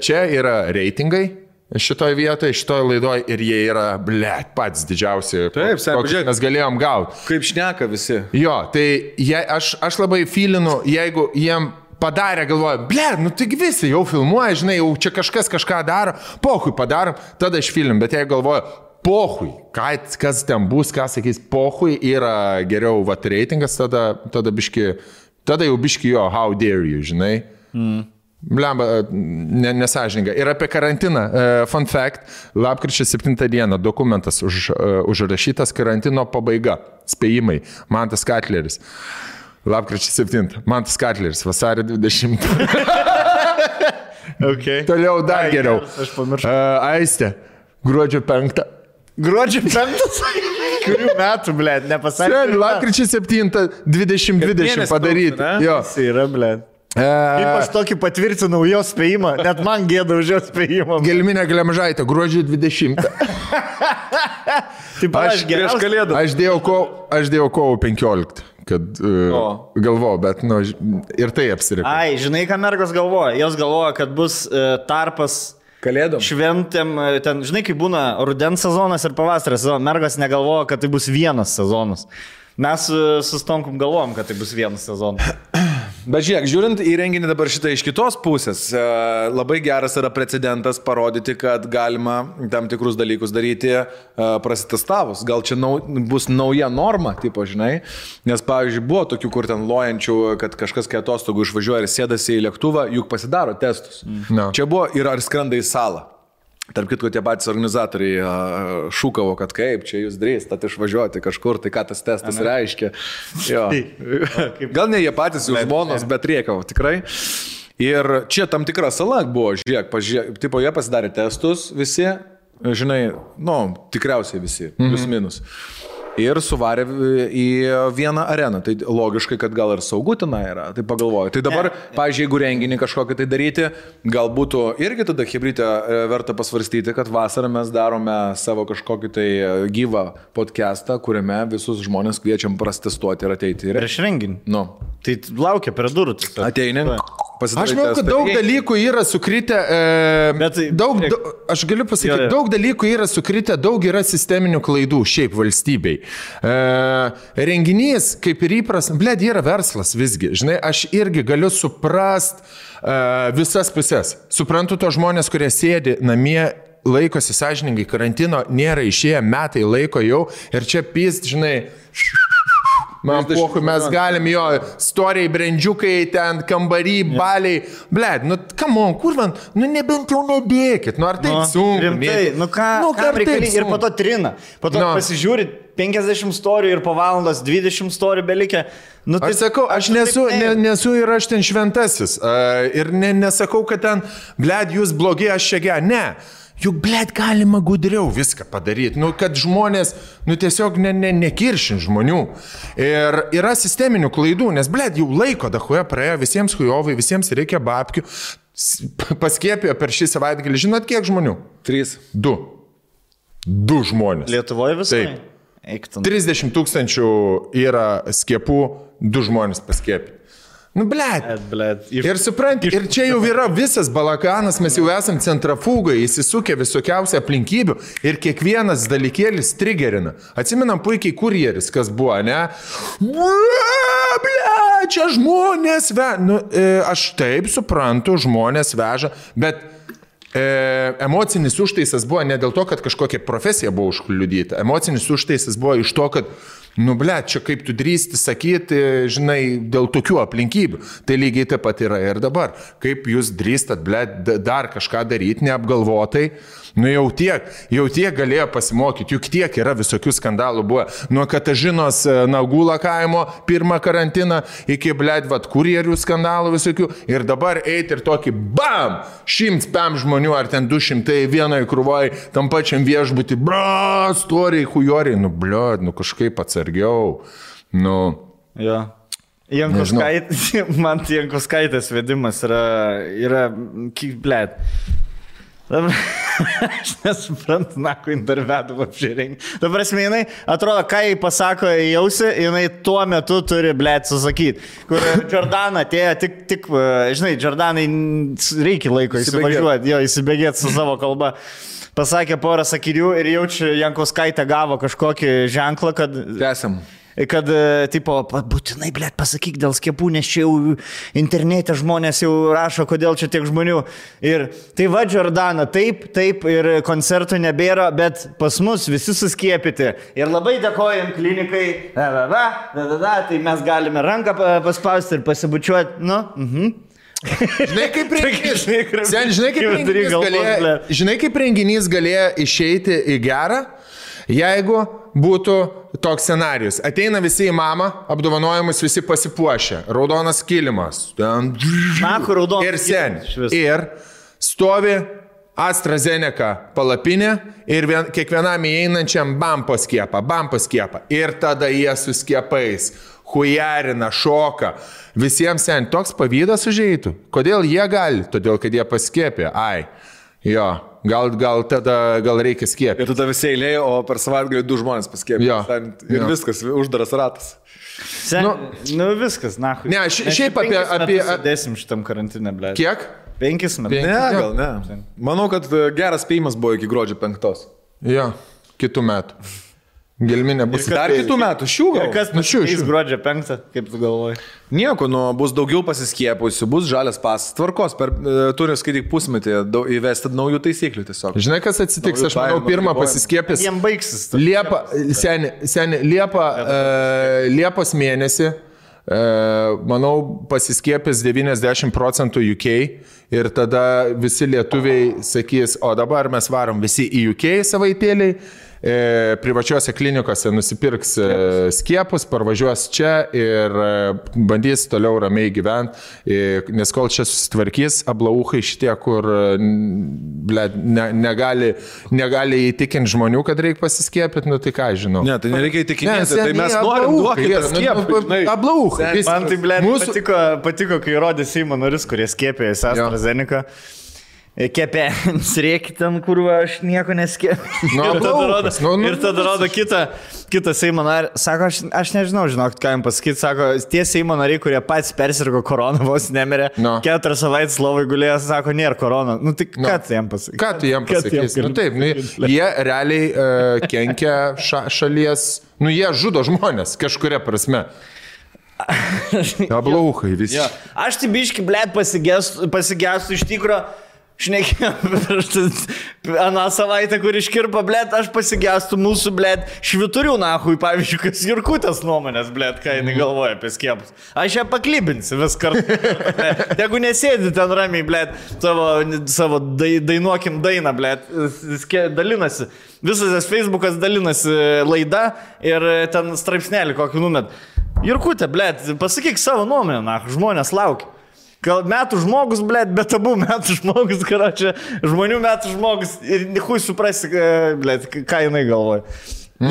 Čia yra reitingai. Šitoje vietoje, šitoje laidoje ir jie yra, blėt, patys didžiausi, kokius mes galėjom gauti. Kaip šneka visi. Jo, tai aš labai filinu, jeigu jiem padarė, galvoju, blėt, nu taigi visi jau filmuoja, žinai, jau čia kažkas kažką daro, pohui padarom, tada aš filim, bet jeigu galvoju, pohui, kas ten bus, ką sakys, pohui yra geriau, reitingas, tada jau biški jo, how dare you, žinai. Blemba, nesažininga. Ir apie karantiną. Fun fact, lapkričio 7 dieną dokumentas užrašytas karantino pabaiga. Spėjimai. Mantas Katleris. Lapkričio 7. Mantas Katleris. Vasario 20. Okay. Toliau dar geriau. Aš pamiršau. Aistė. Gruodžio 5. Gruodžio 5? Kurių metų, blėt, nepasakė. Lapkričio 7. 2020 padaryti. Jo. Jis yra, blėt. Kaip aš tokį patvirtinau jo spėjimą, net man gėda už jo spėjimą. Gelminė Glemžaitė, gruodžio 20. Taip, aš dėjau kovo 15, kad galvojau, bet ir tai apsirikau. Ai, žinai, ką mergos galvoja? Jos galvoja, kad bus tarpas Kalėdom. šventėm, ten, žinai, kai būna rudens sezonas ir pavasario sezonas, mergas negalvoja, kad tai bus vienas sezonas. Mes su Stonkum galvojom, kad tai bus vienas sezonas. Bet žiūrėk, žiūrint į renginį dabar šitą iš kitos pusės, labai geras yra precedentas parodyti, kad galima tam tikrus dalykus daryti prasitestavus. Gal čia bus nauja norma, tipo, žinai, nes, pavyzdžiui, buvo tokių, kur ten lojančių, kad kažkas kai atostogų išvažiuoja ir sėdasi į lėktuvą, juk pasidaro testus. No. Čia buvo ir ar skrenda į salą. Tarp kitko, tie patys organizatoriai šūkavo, kad kaip čia jūs drįstat išvažiuoti kažkur, tai ką tas testas reiškia. Jo. Gal ne jie patys jų žmonos, bet riekavo, tikrai. Ir čia tam tikra sala buvo, žiūrėk, tipo, jie pasidarė testus visi, žinai, tikriausiai visi, plius minus. Ir suvarė į vieną areną. Tai logiškai, kad gal ir saugu tenai yra. Tai pagalvoju. Tai dabar, pavyzdžiui, jeigu renginį kažkokį tai daryti, gal būtų irgi tada hibrytę verta pasvarstyti, kad vasarą mes darome savo kažkokį tai gyvą podcastą, kuriame visus žmonės kviečiam prastestuoti ir ateiti. Prieš renginį? Nu. Tai laukia prie durų. Ateini. Aš manau, kad daug dalykų yra sukritę, aš galiu pasakyti, daug dalykų yra sukritę, daug yra sisteminių klaidų šiaip valstybei. Renginys, kaip ir įpras, yra verslas visgi. Žinai, aš irgi galiu suprast visas pusės. Suprantu to žmonės, kurie sėdi namie, laikosi sąžiningai karantino, nėra išėję metai laiko jau ir čia pys, žinai... Man pohui, mes galim jo storiai, brendžiukai, ten kambarį, baliai. Bled, come on, kur man, nebent jau nebėkit, ar taip sunku. Rimtai, ką reikali ir po to trina. Po to pasižiūri 50 storijų ir po valandas 20 storijų belikė. Aš sakau, aš nesu ir aš ten šventasis. Ir nesakau, kad ten, bled, jūs blogi, aš čia ge. Ne. Juk, blėt, galima gudriau viską padaryti, kad žmonės, tiesiog nekiršin žmonių. Ir yra sisteminių klaidų, nes, blėt, jau laiko dahuoja praėjo, visiems hujovai, visiems reikia babkių. Paskėpėjo per šį savaitgalį, žinot, kiek žmonių? 3. 2. 2 žmonės. Lietuvoje visai? Taip. 30 000 yra skiepų, 2 žmonės paskėpė. Blėt. Ir supranti, ir čia jau yra visas balakanas, mes jau esam centrafūgai, įsisukę visokiausią aplinkybių ir kiekvienas dalykėlis trigerina. Atsimenam puikiai kurjeris, kas buvo, ne? Blėt, čia žmonės veža. Aš taip suprantu, žmonės veža, bet emocinis užtaisas buvo ne dėl to, kad kažkokia profesija buvo užkliudyta. Emocinis užtaisas buvo iš to, kad blėt, čia kaip tu drįsti sakyti, žinai, dėl tokių aplinkybių. Tai lygiai taip pat yra ir dabar. Kaip jūs drįstat, blėt, dar kažką daryti neapgalvotai. Jau tiek galėjo pasimokyti, juk tiek yra visokių skandalų buvo. Nuo Katažinos nagų lakavimo pirmą karantiną iki, blėt, kurjerių skandalų visokių. Ir dabar eiti ir tokį, bam, 105 žmonių ar ten 200 vienoje krūvoje, tam pačiam viešbutį, storiai, hujoriai, blėt, kažkaip atsargiau. Jo. Man Jankuskaitės vedimas yra blėt. Aš nesuprantu, ko intervedu apžiūrėjai. Dabar jinai, atrodo, ką jai pasako į ausį, jinai tuo metu turi, blėt, susakyti. Kur Jordana atėjo, tik, žinai, Jordanai reikia laiko įsivažiuoti, įsibėgėti su savo kalba. Pasakė porą sakinių ir jaučiu, Jankuskaitė gavo kažkokį ženklą, kad... Tęsiam. Kad, tipo, būtinai, blėt, pasakyk dėl skiepų, nes čia jau internete žmonės jau rašo, kodėl čia tiek žmonių. Ir tai va, Jordana, taip, ir koncertų nebėra, bet pas mus visi suskiepyti. Ir labai dėkojam klinikai, tai mes galime ranką paspausti ir pasibučiuoti, Žinai, kaip renginys galėjo išeiti į gerą, jeigu būtų toks scenarius. Ateina visi į mamą, apdovanojimus visi pasipuošę. Raudonas kilimas. Ir sen. Ir stovi AstraZeneca palapinė ir kiekvienam įeinančiam bampo skiepą. Ir tada jie su skiepais hujarina, šoka. Visiems sen toks pavydas užeitų. Kodėl jie gali? Todėl, kad jie paskiepė. Jo. Gal reikia skiepyti. Ir tada visi eilė, o per savaitgalį 2 žmonės paskiepė. Ir viskas, uždaras ratas. Viskas, nahui. Ne, šiaip apie... Dėsim šitam karantinę, blėt. Kiek? 5 metus. Ne, gal ne. Manau, kad geras spėjimas buvo iki gruodžio 5. Jo, kitų metų. Gelminė bus. Dar kitų metų, šių gal. Ir kas pasikeis gruodžio 5, kaip tu galvoji? Nieko, bus daugiau pasiskiepusių, bus žalias pasas. Tvarkos, turi skaityk pusmetį įvesti naujų taisyklių tiesiog. Žinai, kas atsitiks, aš manau, pirmą pasiskiepęs. Jiem baigsis. Liepos mėnesį, manau, pasiskiepęs 90% UK ir tada visi lietuviai sakys, o dabar mes varom visi į UK savaitėliai. Privačiuose klinikose nusipirks skiepus, parvažiuos čia ir bandys toliau ramiai gyventi, nes kol čia susitvarkys, ablauchai šitie, kur negali įtikinti žmonių, kad reikia pasiskiepyti, nu tai ką žinau. Ne, tai nereikia įtikinti, tai mes norim duokite skiepą. Ablauchai. Man tai, patiko, kai rodė Seimo narius, kurie skiepėjosi AstraZeneca. Kepėms reikia ten, kur aš nieko neskėpiu. Ir tada rodo kitą Seimo narį. Sako, aš nežinau, žinok, ką jam pasakyti. Sako, tie Seimo nariai, kurie pats persirgo koroną, vos nemirė. 4 savaitės lovai gulėjo, sako, nėra korona. Nu tai ką tu jam pasakysi? Ką tu jam pasakysi? Nu taip, jie realiai kenkia šalies, jie žudo žmonės kažkuria prasme. Ablauchai visi. Ja. Aš tai biški, blėt, pasigestu iš tikro. Šnekėjom aną savaitę, kur iškirpa, blėt, aš pasigestu mūsų, blėt, šviturių nahui, pavyzdžiui, kas Jurkutės nuomonės, blėt, ką jinai galvoja apie skiepus. Aš ją paklibinsiu vis kartu. Jeigu nesėdi ten ramiai, blėt, savo dainuokim dainą, blėt, dalinasi. Visas tas Facebookas dalinasi laida ir ten straipsnelį kokį numet. Jurkutė, blėt, pasakyk savo nuomonę, nahui, žmonės laukia. Gal metų žmogus, blėt, bet abu metų žmogus, karočią, žmonių metų žmogus ir hui suprasi, blėt, ką jinai galvoja.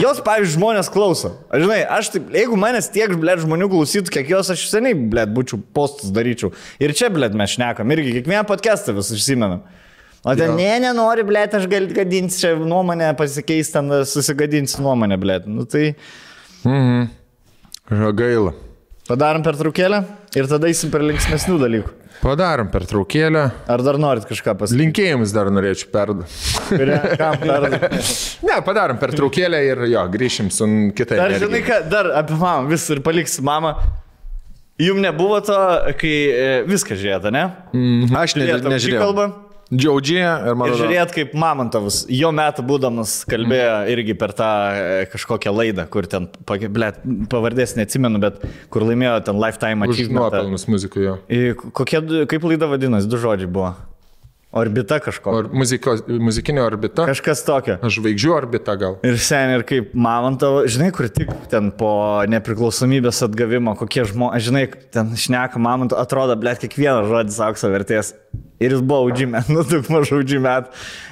Jos, pavyzdžiui, žmonės klauso. Žinai, aš taip, jeigu manęs tiek, blėt, žmonių klausytų, kiek jos, aš seniai, blėt, būčiau postus daryčiau. Ir čia, blėt, mes šnekam, irgi kiekvieną podcastą vis užsimenam. O ten, nenori, blėt, aš gal gadinti čia nuomonę, pasikeis ten, susigadinsi nuomonę, blėt. Nu tai... Gaila. Padarom pertraukėlę ir tada eisim per linksmesnių dalykų. Padarom pertraukėlę. Ar dar norit kažką pasakyti? Linkėjimus dar norėčiau perduoti. Kam perduoti? Ne, padarom pertraukėlę ir jo, grįšim su kitai. Dar žinai ką, dar apie mamą vis ir paliksi mamą. Jums nebuvo to, kai viską žiūrėta, ne? Aš nežiūrėjau. Džiaudžia ir man. Ir žiūrėt, kaip Mamontovas, jo metų būdamas, kalbėjo irgi per tą kažkokią laidą, kur ten, blėt, pavardės neatsimenu, bet kur laimėjo ten Lifetime Achievement. Už nuopelnus muzikoje. Kaip laida vadinasi, 2 žodžiai buvo. Orbita kažkokia. Muzikinė orbita. Kažkas tokio. Žvaigždžių orbita gal. Ir seniai, ir kaip Mamontovo, žinai, kur tik ten po nepriklausomybės atgavimo, kokie žmonės, žinai, ten šneka Mamontovo, atrodo, blėt, kiekvienas žodis aukso vertės. Ir jis buvo audžime, daug mažų audžime.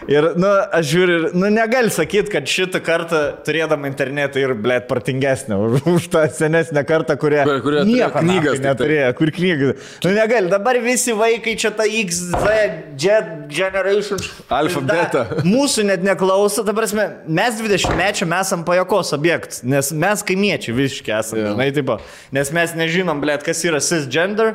Ir, aš žiūriu, negali sakyti, kad šitą kartą turėdama internetą ir, blėt, partingesnė už tą senesnę kartą, kurie nieko knygas neturėjo, kur knygas. Negali, dabar visi vaikai čia ta X, Z, Generation. Alfa, beta. Mūsų net neklauso, ta prasme, mes 20-mečiam esam pajokos objektas, nes mes kaimiečiai visiškai esame, žinai, taip, nes mes nežinom, blėt, kas yra cisgender.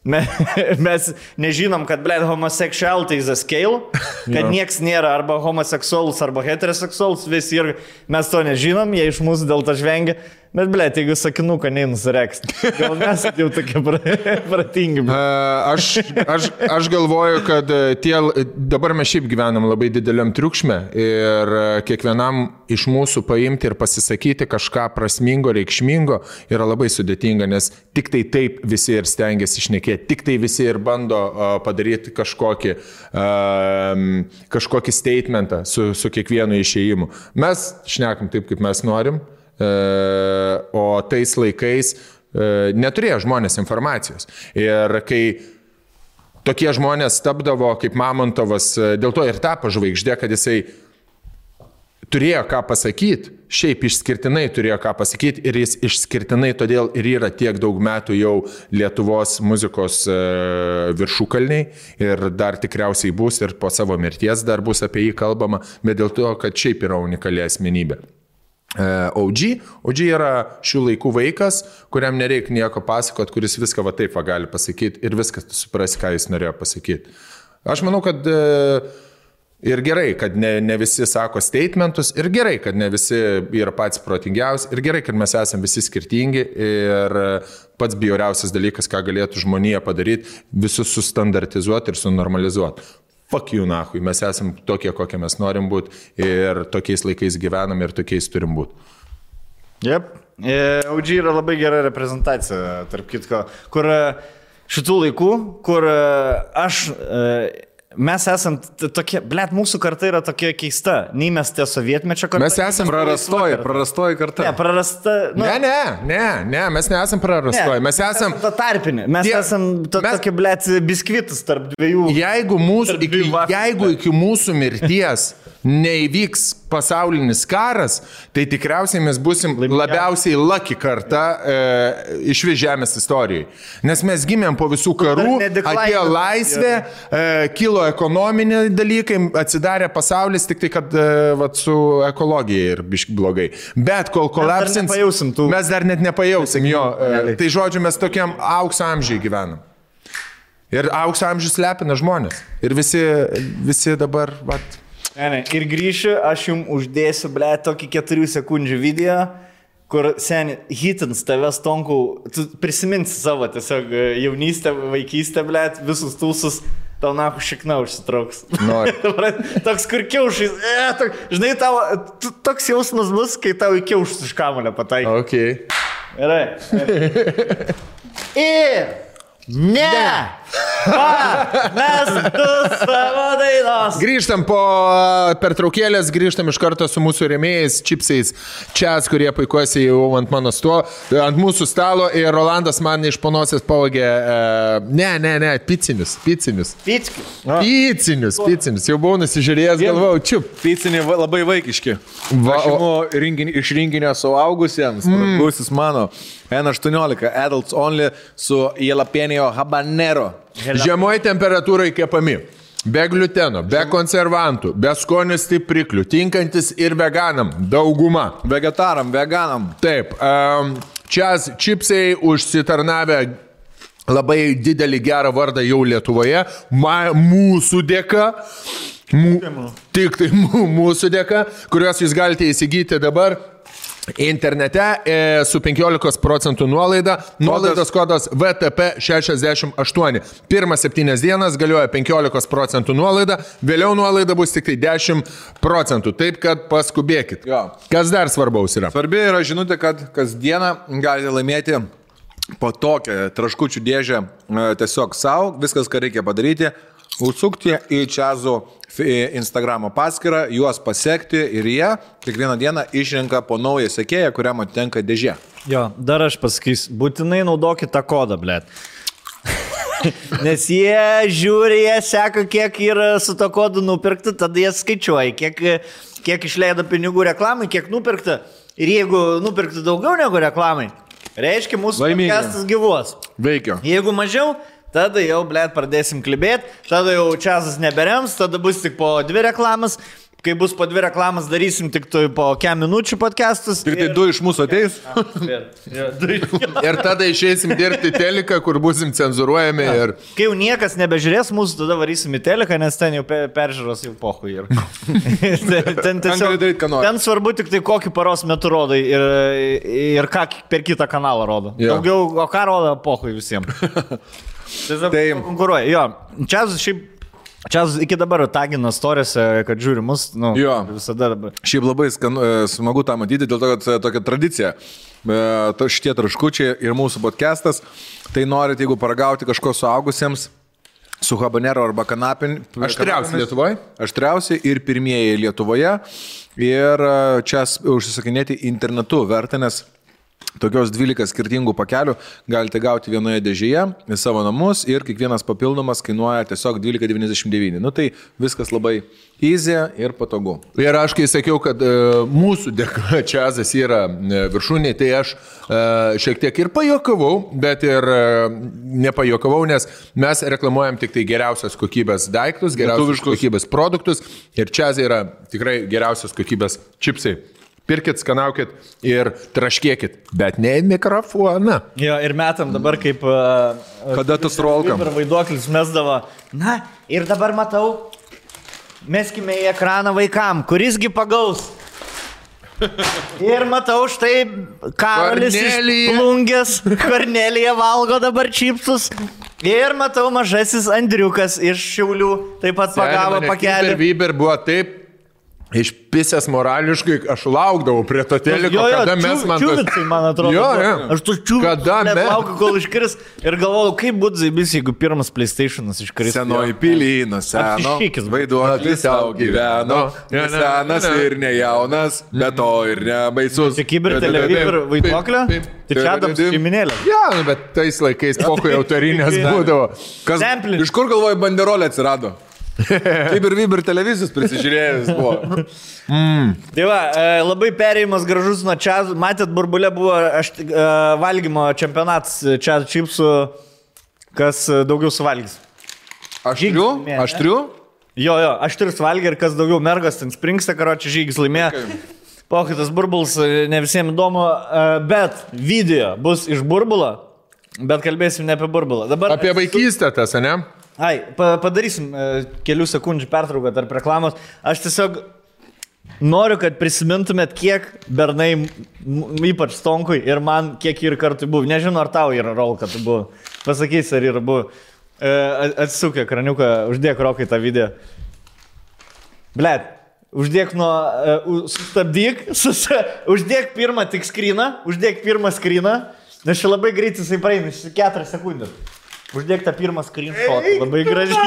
Mes nežinom, kad, blėt, homosexuality is a scale, kad nieks nėra arba homoseksualus, arba heteroseksualus, visi ir mes to nežinom, jie iš mūsų dėl to žvengia. Bet, blėt, jeigu sakinuką neįnusireks, gal mes jau tokie pratingi. Aš galvoju, kad dabar mes šiaip gyvenam labai dideliam triukšme ir kiekvienam iš mūsų paimti ir pasisakyti kažką prasmingo, reikšmingo yra labai sudėtinga, nes tik tai taip visi ir stengiasi išnekėti, tik tai visi ir bando padaryti kažkokį statementą su kiekvienu išėjimu. Mes šnekam taip, kaip mes norim. O tais laikais neturėjo žmonės informacijos. Ir kai tokie žmonės tapdavo kaip Mamontovas, dėl to ir tapo žvaigždė, kad jisai turėjo ką pasakyti, šiaip išskirtinai turėjo ką pasakyti ir jis išskirtinai todėl ir yra tiek daug metų jau Lietuvos muzikos viršukalniai ir dar tikriausiai bus ir po savo mirties dar bus apie jį kalbama, bet dėl to, kad šiaip yra unikali asmenybė. OG yra šių laikų vaikas, kuriam nereikia nieko pasakot, kuris viską va taip va gali pasakyti ir viskas tu suprasi, ką jis norėjo pasakyti. Aš manau, kad ir gerai, kad ne visi sako statementus, ir gerai, kad ne visi yra patys protingiausi, ir gerai, kad mes esame visi skirtingi ir pats bjauriausias dalykas, ką galėtų žmonija padaryti, visus sustandartizuoti ir sunormalizuoti. Fuck you, nahui, mes esam tokie, kokie mes norim būti ir tokiais laikais gyvenam ir tokiais turim būti. Jep, OG yra labai gera reprezentacija, tarp kitko, kur šitų laikų, kur mes esam tokie, mūsų karta yra tokia keista, nei mes tie sovietmečio karta. Mes esam prarastoji karta. Ne, prarasta. Nu, ne, mes nesam prarastoji, mes esam ta tarpinė, mes esam tokie, biskvitas tarp dviejų. Jeigu iki mūsų mirties neįvyks pasaulinis karas, tai tikriausiai mes busim labiausiai lucky karta iš žemės istorijai. Nes mes gimėm po visų karų, atėjo laisvė, kilo ekonominiai dalykai, atsidarė pasaulis, tik tai, kad su ekologija ir biški blogai. Bet kol kolapsins, mes dar net nepajausim jo. Tai žodžiu, mes tokiam aukso amžiai gyvenam. Ir aukso amžius lepina žmonės. Ir visi dabar, Ne, ir grįšiu, aš jums uždėsiu, tokį 4 sekundžių video, kur seni hitins tavęs tonkų, tu prisiminsi savo tiesiog jaunystę, vaikystę, visus tūsus, tau nahu šikna užsitrauks. Toks kur kiaušais, žinai, toks jausmas bus, kai tau į kiaušus iš kamulio pataikai. Okay. Gerai. Ir ne! Mes du savo dainos. Grįžtam po pertraukėlės, grįžtam iš karto su mūsų rėmėjais, čipsais, čias, kurie puikuosi jau ant mūsų stalo ir Rolandas man iš panosės pavogė, picinius. Picinius, jau buvau nusižiūrėjęs, galvau, čiup. Piciniai labai vaikiški. Iš rinkinio suaugusiems, pragusis mano, N18, adults only su jalapenio habanero. Žemoj temperatūrai kepami. Be gliuteno, be konservantų, be skonio stipriklių, tinkantis ir veganam, dauguma. Vegetaram, veganam. Taip, čias čipsai užsitarnavę labai didelį gerą vardą jau Lietuvoje, mūsų dėka. Tik tai mūsų dėka, kuriuos jūs galite įsigyti dabar internete su 15% nuolaida. Nuolaidos kodas VTP68. Pirmas 7 dienas galioja 15% nuolaida, vėliau nuolaida bus tik tai 10%. Taip, kad paskubėkit. Jo. Kas dar svarbaus yra? Svarbi yra žinutė, kad kasdieną galite laimėti po tokią traškučių dėžę tiesiog savo. Viskas, ką reikia padaryti, užsukti į Čiazų Instagramo paskyrą, juos pasiekti ir jie kiekvieną dieną išrenka po naują sekėją, kuriam atitenka dėžė. Jo, dar aš pasakysiu, būtinai naudokit tą kodą, Nes jie žiūri, jie seka, kiek yra su to kodu nupirkta, tada jie skaičiuoja, kiek išleido pinigų reklamai, kiek nupirkta. Ir jeigu nupirkta daugiau negu reklamai, reiškia mūsų podcastas gyvuos. Veikia. Jeigu mažiau, tada jau, pradėsim klibėti, tada jau Čiazas neberems, tada bus tik po 2 reklamas. Kai bus po 2 reklamas, darysim tik po 4 minučių podcastus. Ir tai 2 iš mūsų ateis. Ir tada išeisim dirbti teliką, kur busim cenzuruojami. Ir... Kai jau niekas nebežiūrės mūsų, tada varysim į teliką, nes ten jau peržiūros jau pohui. Ten svarbu tik tai kokį paros metu rodai ir ką per kitą kanalą rodo. Daugiau, o ką rodo pohui visiems. Tai konkuruoja. Jo, Čiazas iki dabar tagina storiuose, kad žiūri mus, visada dabar. Šiaip labai smagu tą matyti, dėl to, kad tokia tradicija. Šitie traškučiai ir mūsų podcastas, tai norit, jeigu paragauti kažko suaugusiems, su habanero arba kanapin. Aštriausi Lietuvoje. Aštriausi ir pirmieji Lietuvoje. Ir čia užsisakinėti internetu verta, nes tokios 12 skirtingų pakelių galite gauti vienoje dėžėje į savo namus ir kiekvienas papildomas kainuoja tiesiog 12,99. Tai viskas labai easy ir patogu. Ir aš kai sakiau, kad mūsų dėka Čiazas yra viršūnė, tai aš šiek tiek ir pajokavau, bet ir nepajokavau, nes mes reklamuojam tik tai geriausios kokybės daiktus, geriausios kokybės produktus ir Čiazai yra tikrai geriausios kokybės čipsai. Pirkit, skanaukit ir traškėkit, bet ne į mikrofoną. Jo, ir metam dabar kaip... Kada tas rolkam? Ir vaiduoklis mesdavo. Na, ir dabar matau, meskime į ekraną vaikam, kurisgi pagaus. Ir matau štai Karolis iš Plungės, Kornelija valgo dabar čipsus. Ir matau mažasis Andriukas iš Šiaulių, taip pat pagavo pakelį. Vyber buvo taip. Išpisęs morališkai, aš laukdavau prie to teliko, kada mes man... Čiūvicai, man atrodo. Jo. Aš tu čiūvicai laukiu, kol iškris. Ir galvoju, kaip būtų zaibis, jeigu pirmas PlayStation'as iškris. Senoji pilyno, seno. Vaiduoklis savo gyveno. Senas ir nejaunas, bet to ir nebaisus. Čia kiber televizor vaiduoklio? Tai čia Adams šeiminėlė. Ja, bet tais laikais pokui autorinės būdavo. Iš kur galvoju banderolė atsirado? Kaip ir Viber televizijos prisižiūrėjus buvo. Tai va, labai perėjimas gražus nuo čia. Matėt, burbulė buvo valgymo čempionatas čia čipsų, kas daugiau suvalgys. Aštrių? Aštrių? Jo, aštrius valgė ir kas daugiau mergas ten springsta, karoči žygis laimėjo. Pokytas burbulas, ne visiems įdomu, bet video bus iš burbulo, bet kalbėsim ne apie burbulą. Dabar apie vaikystę tas, ne? Ai, padarysim kelių sekundžių pertrauką tarp reklamos. Aš tiesiog noriu, kad prisimintumėt, kiek bernai, ypač Stonkui ir man, kiek ir kartų buvo. Nežinau, ar tau yra rolka, tu buvo. Pasakysi, ar yra buvo. Atsisuk ekraniuką, uždėk Rokai tą video. Blet, uždėk sustabdyk, uždėk pirmą tik skryną, uždėk pirmą skryną, nes čia labai greit jisai praeina, 4 sekundės. Uždėk tą pirmą screenshot, labai gražiai.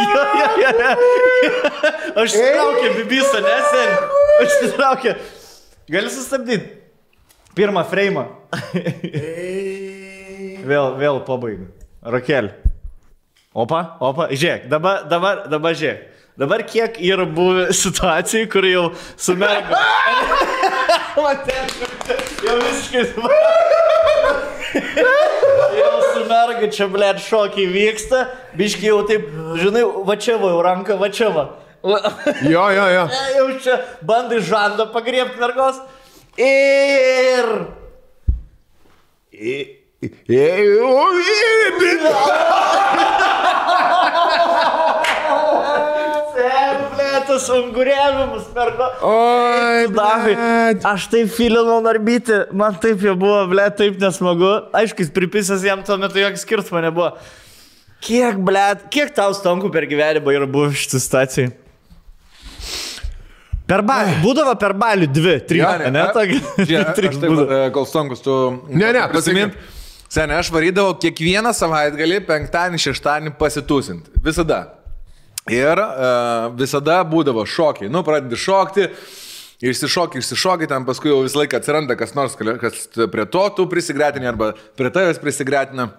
Aš įsitraukė bibisą, nesen. Aš įsitraukė. Gali sustabdyti. Pirmą freimą. Vėl pabaigu. Rokelį. Opa. Žiūrėk, dabar žiūrėk. Dabar kiek yra buvę situacijų, kur jau su merga. Jau visiškai jau su merga čia, blėt, šokiai vyksta, biškai jau taip, žinai, va čia va, jau ranka, va čia va. Jo. Jau čia bandai žandą pagriebti mergos. Tas unguriavimus mergo. Oi, blėt. Aš taip filinau narbyti, man taip jau buvo, blėt, taip nesmagu. Aišku, jis pripisęs jam tuo metu jokio skirtumo nebuvo. Kiek tau Stonkų per gyvenimą yra buvo šitą situaciją? Būdavo per balių 2-3, ne? Aš taip, kol Stonkus tu... Ne, pasimint. Seniai, aš varydavau kiekvieną savaitgalį, penktadienį, šeštadienį pasitūsint. Visada. Ir visada būdavo šokiai. Nu, pradedi šokti, išsišoki, ten paskui jau visą laiką atsiranda kas nors, kas prie to tu prisigretini arba prie tavęs prisigretina.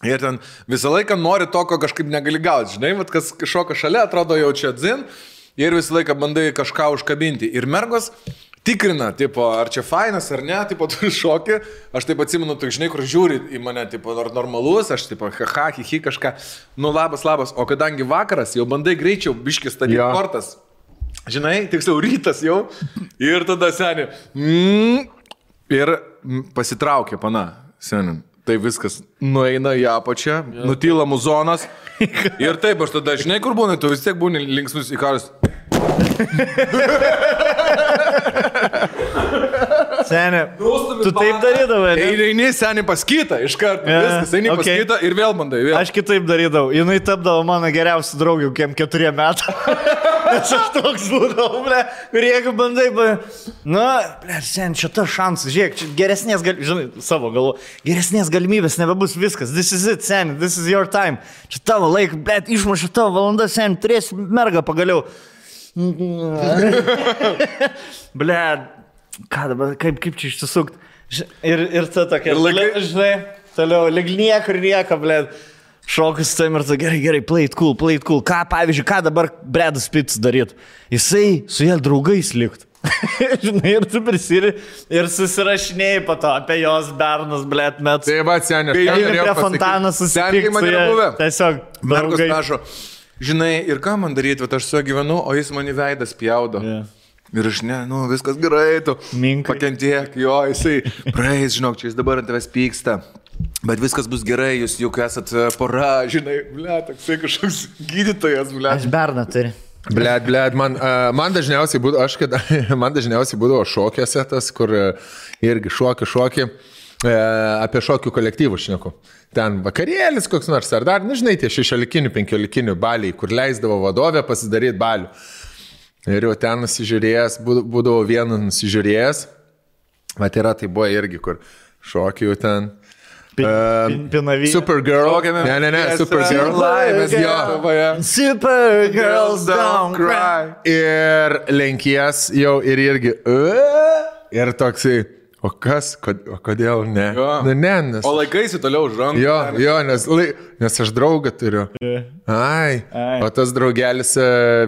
Ir ten visą laiką nori to, ko kažkaip negali gauti. Žinai, vat, kas šoka šalia, atrodo jau čia dzin ir visą laiką bandai kažką užkabinti. Ir mergos tikrina, tipo, ar čia fainas ar ne, tipo, tu šoki. Aš taip atsimenu, tu žinai, kur žiūri į mane, tipo, normalus, aš tipo, haha, hihi kažką. Nu, labas. O kadangi vakaras, jau bandai greičiau biškis statyti kortas. Žinai, tiksliau rytas jau. Ir tada seni. Ir pasitraukė pana, seni. Tai viskas nueina į apačią, nutyla muzonas. Ir taip, aš tada, žinai, kur būna, tu vis tiek būni linksmus į karus. Seni, tu taip darydavai, ne? Eini seni pas kitą, iš karto, viskas, eini pas kitą ir vėl bandai. Aš kitaip darydavau, jinai tapdavo mano geriausia draugė, kiem 4 metų. Nes aš toks būdavau, ble, ir jeigu bandai, nu, ble, seni, čia ta šansas, žiūrėk, čia geresnės galimybės, žinai, savo galvo, geresnės galimybės nebebus viskas, this is it, seni, this is your time. Čia tavo laik, ble, išmušė tavo valandą, seni, turėsi mergą pagaliau. Ble, ką dabar, kaip čia išsisukt? Ir ta tokia, žinai, toliau, lyg niekur nieko, ble, šokus tam ir ta, gerai, play it cool. Ką, pavyzdžiui, ką dabar Bredas Pittas daryt? Jisai su jie draugais likt. Žinai, ir tu prisiri ir susirašinėjai po to apie jos bernus, blėt, metus. Tai va, seniai, prie fontaną susitikti su jie. Tiesiog, mergos prašo. Žinai, ir ką man daryti, aš su juo gyvenu, o jis mani veidą spjaudo. Yeah. Ir aš viskas gerai, tu pakentiek, jo, jisai praeis, žinok, čia jis dabar ant tavęs pyksta. Bet viskas bus gerai, jūs juk esat pora, žinai, toksai kažkoks gydytojas, Aš berną turi. Man dažniausiai būdavo šokiuose tas, kur irgi šoki, apie šokių kolektyvų šneku. Ten vakarėlis koks nors, ar dar, žinai, tie 16-15 baliai, kur leisdavo vadovė pasidaryti balių. Ir jau ten nusižiūrėjęs, būdavo vieną nusižiūrėjęs, bet tai buvo irgi, kur šokių ten. Pinavy. Supergirl. Ne, Supergirl. Supergirls don't cry. Ir lenkies jau ir irgi. Ir toksai. O kas? O kodėl ne? Nes... O laikaisi toliau už rankų. Jo, nes aš draugą turiu. Ai. O tas draugelis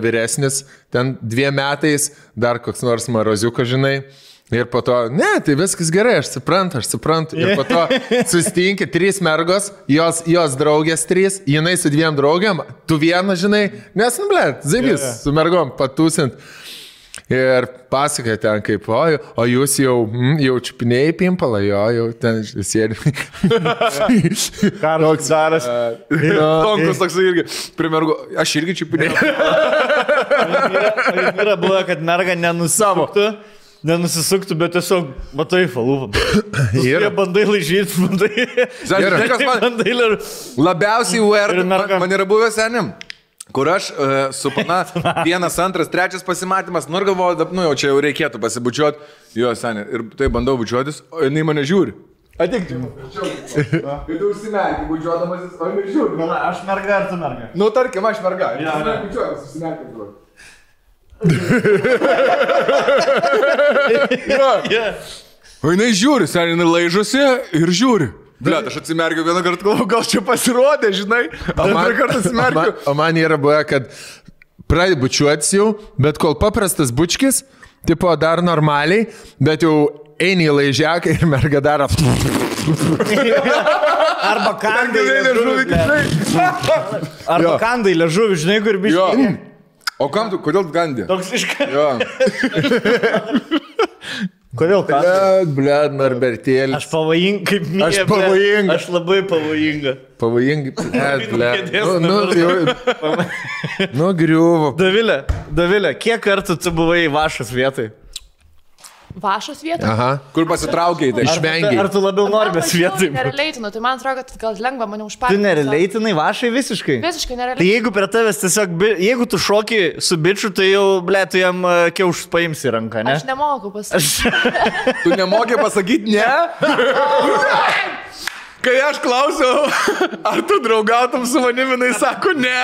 vyresnis, ten 2 metais, dar koks nors maroziukas, žinai. Ir po to, tai viskas gerai, aš suprantu. Ir po to susitinki 3 mergos, jos draugės 3, jinai su 2 draugiam, tu vieną, žinai, nes, zaibys, su mergom patūsint. Ir pasakoja ten kaip, o jūs jau čiupinėjai pimpalą, jau ten sėdi. Karoks daras. Tonkus toks irgi, primergo, aš irgi čiupinėjau. Yra buvo, kad merga nenusisuktų, bet tiesiog matai falūpą. Ir bandai laižyti, bandai. Labiausiai man yra buvęs senim. Kur aš su pana 1, 2, 3 pasimatymas, ir galvoju, jau čia jau reikėtų pasibučiuoti, jo senė, ir tai bandau bučiuotis, o jinai mane žiūri. Atik čia. Ir tu užsimerki, bučiuodamasis, o jinai žiūri. Aš merga ar tu merga? Tarkim, aš merga. Bučiuotis, užsimerki. O jinai žiūri, senė, jinai laižosi ir žiūri. Blet, aš atsimerkiu vieną kartą, galvoju, gal čia pasirodė, žinai, antrą kartą atsimerkiu. O man yra buvę, kad pradė bučiuotis jau, bet kol paprastas bučkis, tipo dar normaliai, bet jau eini į laižiaką ir merga daro. Arba kandai liežuvį. Arba kandai liežuvį, žinai, kur biškai. O kam tu, kodėl gandė? Toks iškai. Jo. Kodėl ką? Blet, Norbertėlis. Aš pavojinga, kaip mėgė. Aš pavojinga. Aš labai pavojinga. Blet. Griuvo. Dovilė, kiek kartų tu buvai Vašos vietai? Vašos vietai? Aha. Kur pasitraukiai tai? Išvengiai. Ar tu labiau Norbės vietai? Nereleitinu, tai man atrodo, kad gal lengva mane užpakti. Tu nerelaitinai Vašai visiškai? Visiškai nereleitinu. Tai jeigu prie tavęs tiesiog, jeigu tu šoki su bičiu, tai jau, tu jam kiaušus paimsi į ranką, ne? Aš nemoku pasakyti. Tu nemoki pasakyti ne? Kai aš klausiau, ar tu draugautum su manimi, jinai sako ne.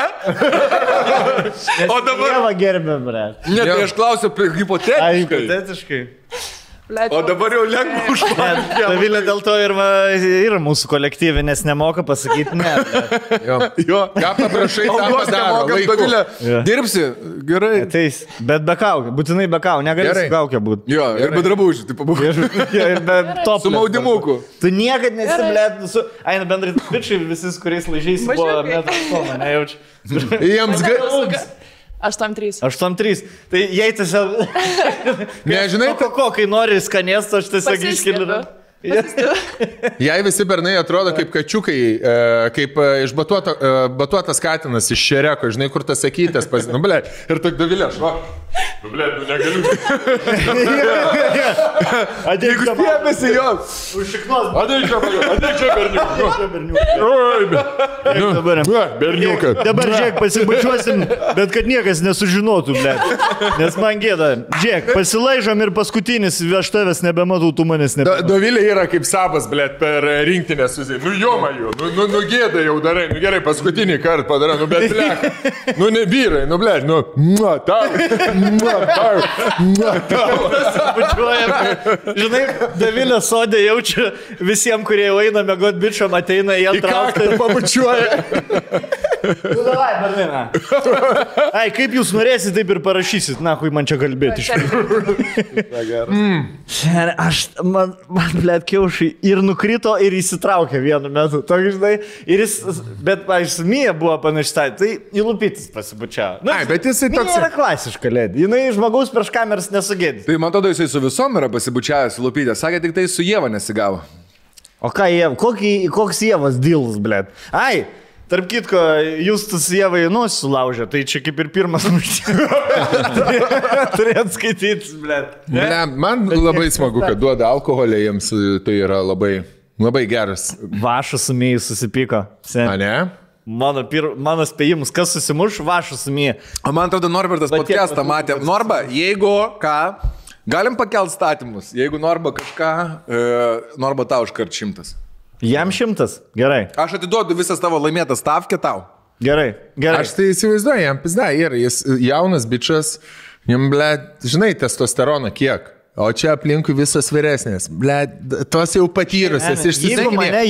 O dabar... Dievą gerbė, bre. Ne, tai aš klausiu hipotetiškai. Hipotetiškai. O dabar jau lengva užpakti. Dovilė dėl to yra mūsų kolektyvė, nes nemoka pasakyti ne. Jo. Ką paprašai, tą padaro. Dovilė, dirbsi, gerai. Ateis, bet be kaukė, būtinai be kaukė, negali su kaukė būti. Jo, ir be drabužių, tai pabūk. Ir be top. Su maudimuku. Tu niekad nesiblėt, aina bendrai bičiai, visis, kuriais laižiais buvo metras, nejaučiu. Jiems 8-3. 8-3. Tai jei tiesiog... Nežinai, kai nori skanėsto, aš tiesiog iškeliu. Jei visi bernai atrodo kaip kačiukai, kaip išbatuotas katinas iš šereko, žinai, kur tas sakytės, ir tak Dovilė, aš va. Negaliu. Jeigu stėmėsi jos. Užšiknos. Ateik čia, berniukai. Dabar, žiūrėk, pasibučiuosim, bet kad niekas nesužinotų, nes man gėda. Žiūrėk, pasilaižom ir paskutinis, aš tavęs nebematau, tu manęs nebematau. Dovilė yra kaip sabas, per rinktinę susiai. Jomaju, gėda jau darai, gerai, paskutinį kartą padarai, bet nevyrai, tau. Žinai, Dovilė sodė jaučia visiems, kurie jau eina mėgot bičiom, ateina į antrą aukštą ir pabučiuoja. Nu, davai, Berlina. Ai, kaip jūs norėsit, taip ir parašysit. Na, kui man čia kalbėti iš tikrųjų. Man blėt, kiaušai ir nukrito, ir įsitraukė vienu metu. Tokia, žinai, ir jis, bet, pavyzdžiui, Mija buvo panaštai, tai įlupytis pasibučiavo. Nu, Ai, bet jisai toks... Mija yra klasiška lėdė. Jinai žmogaus prieš kameras nesugėdė. Tai man atrodo, jisai su visom yra pasibučiavęs lupytė. Sakė, tik tai su Ieva nesigavo. O ką Ieva, koks Ievas dealas, blėt? Ai, tarp kitko, Justus Ievai nosį sulaužė, tai čia kaip ir pirmas muštymas. Turėt skaityti, blėt. Man labai smagu, kad duoda alkoholį jiems, tai yra labai, labai geras. Vašas su Mija susipyko. A, ne? Mano spėjimus, kas susimuš, Vašas su Mija. O man atrodo, Norbertas podcastą matė. Norba, jeigu ką, galim pakelt statymus. Jeigu Norba kažką, Norba tau iškart 100. Jam 100? Gerai. Aš atiduodu visas tavo laimėtas stavkę tau. Gerai. Aš tai įsivaizduoju, jam pizda, jis jaunas bičias, jam, ble, žinai, testosteroną kiek. O čia aplinkui visos vyresnės. Ble, tos jau patyrusios, išsisakinė.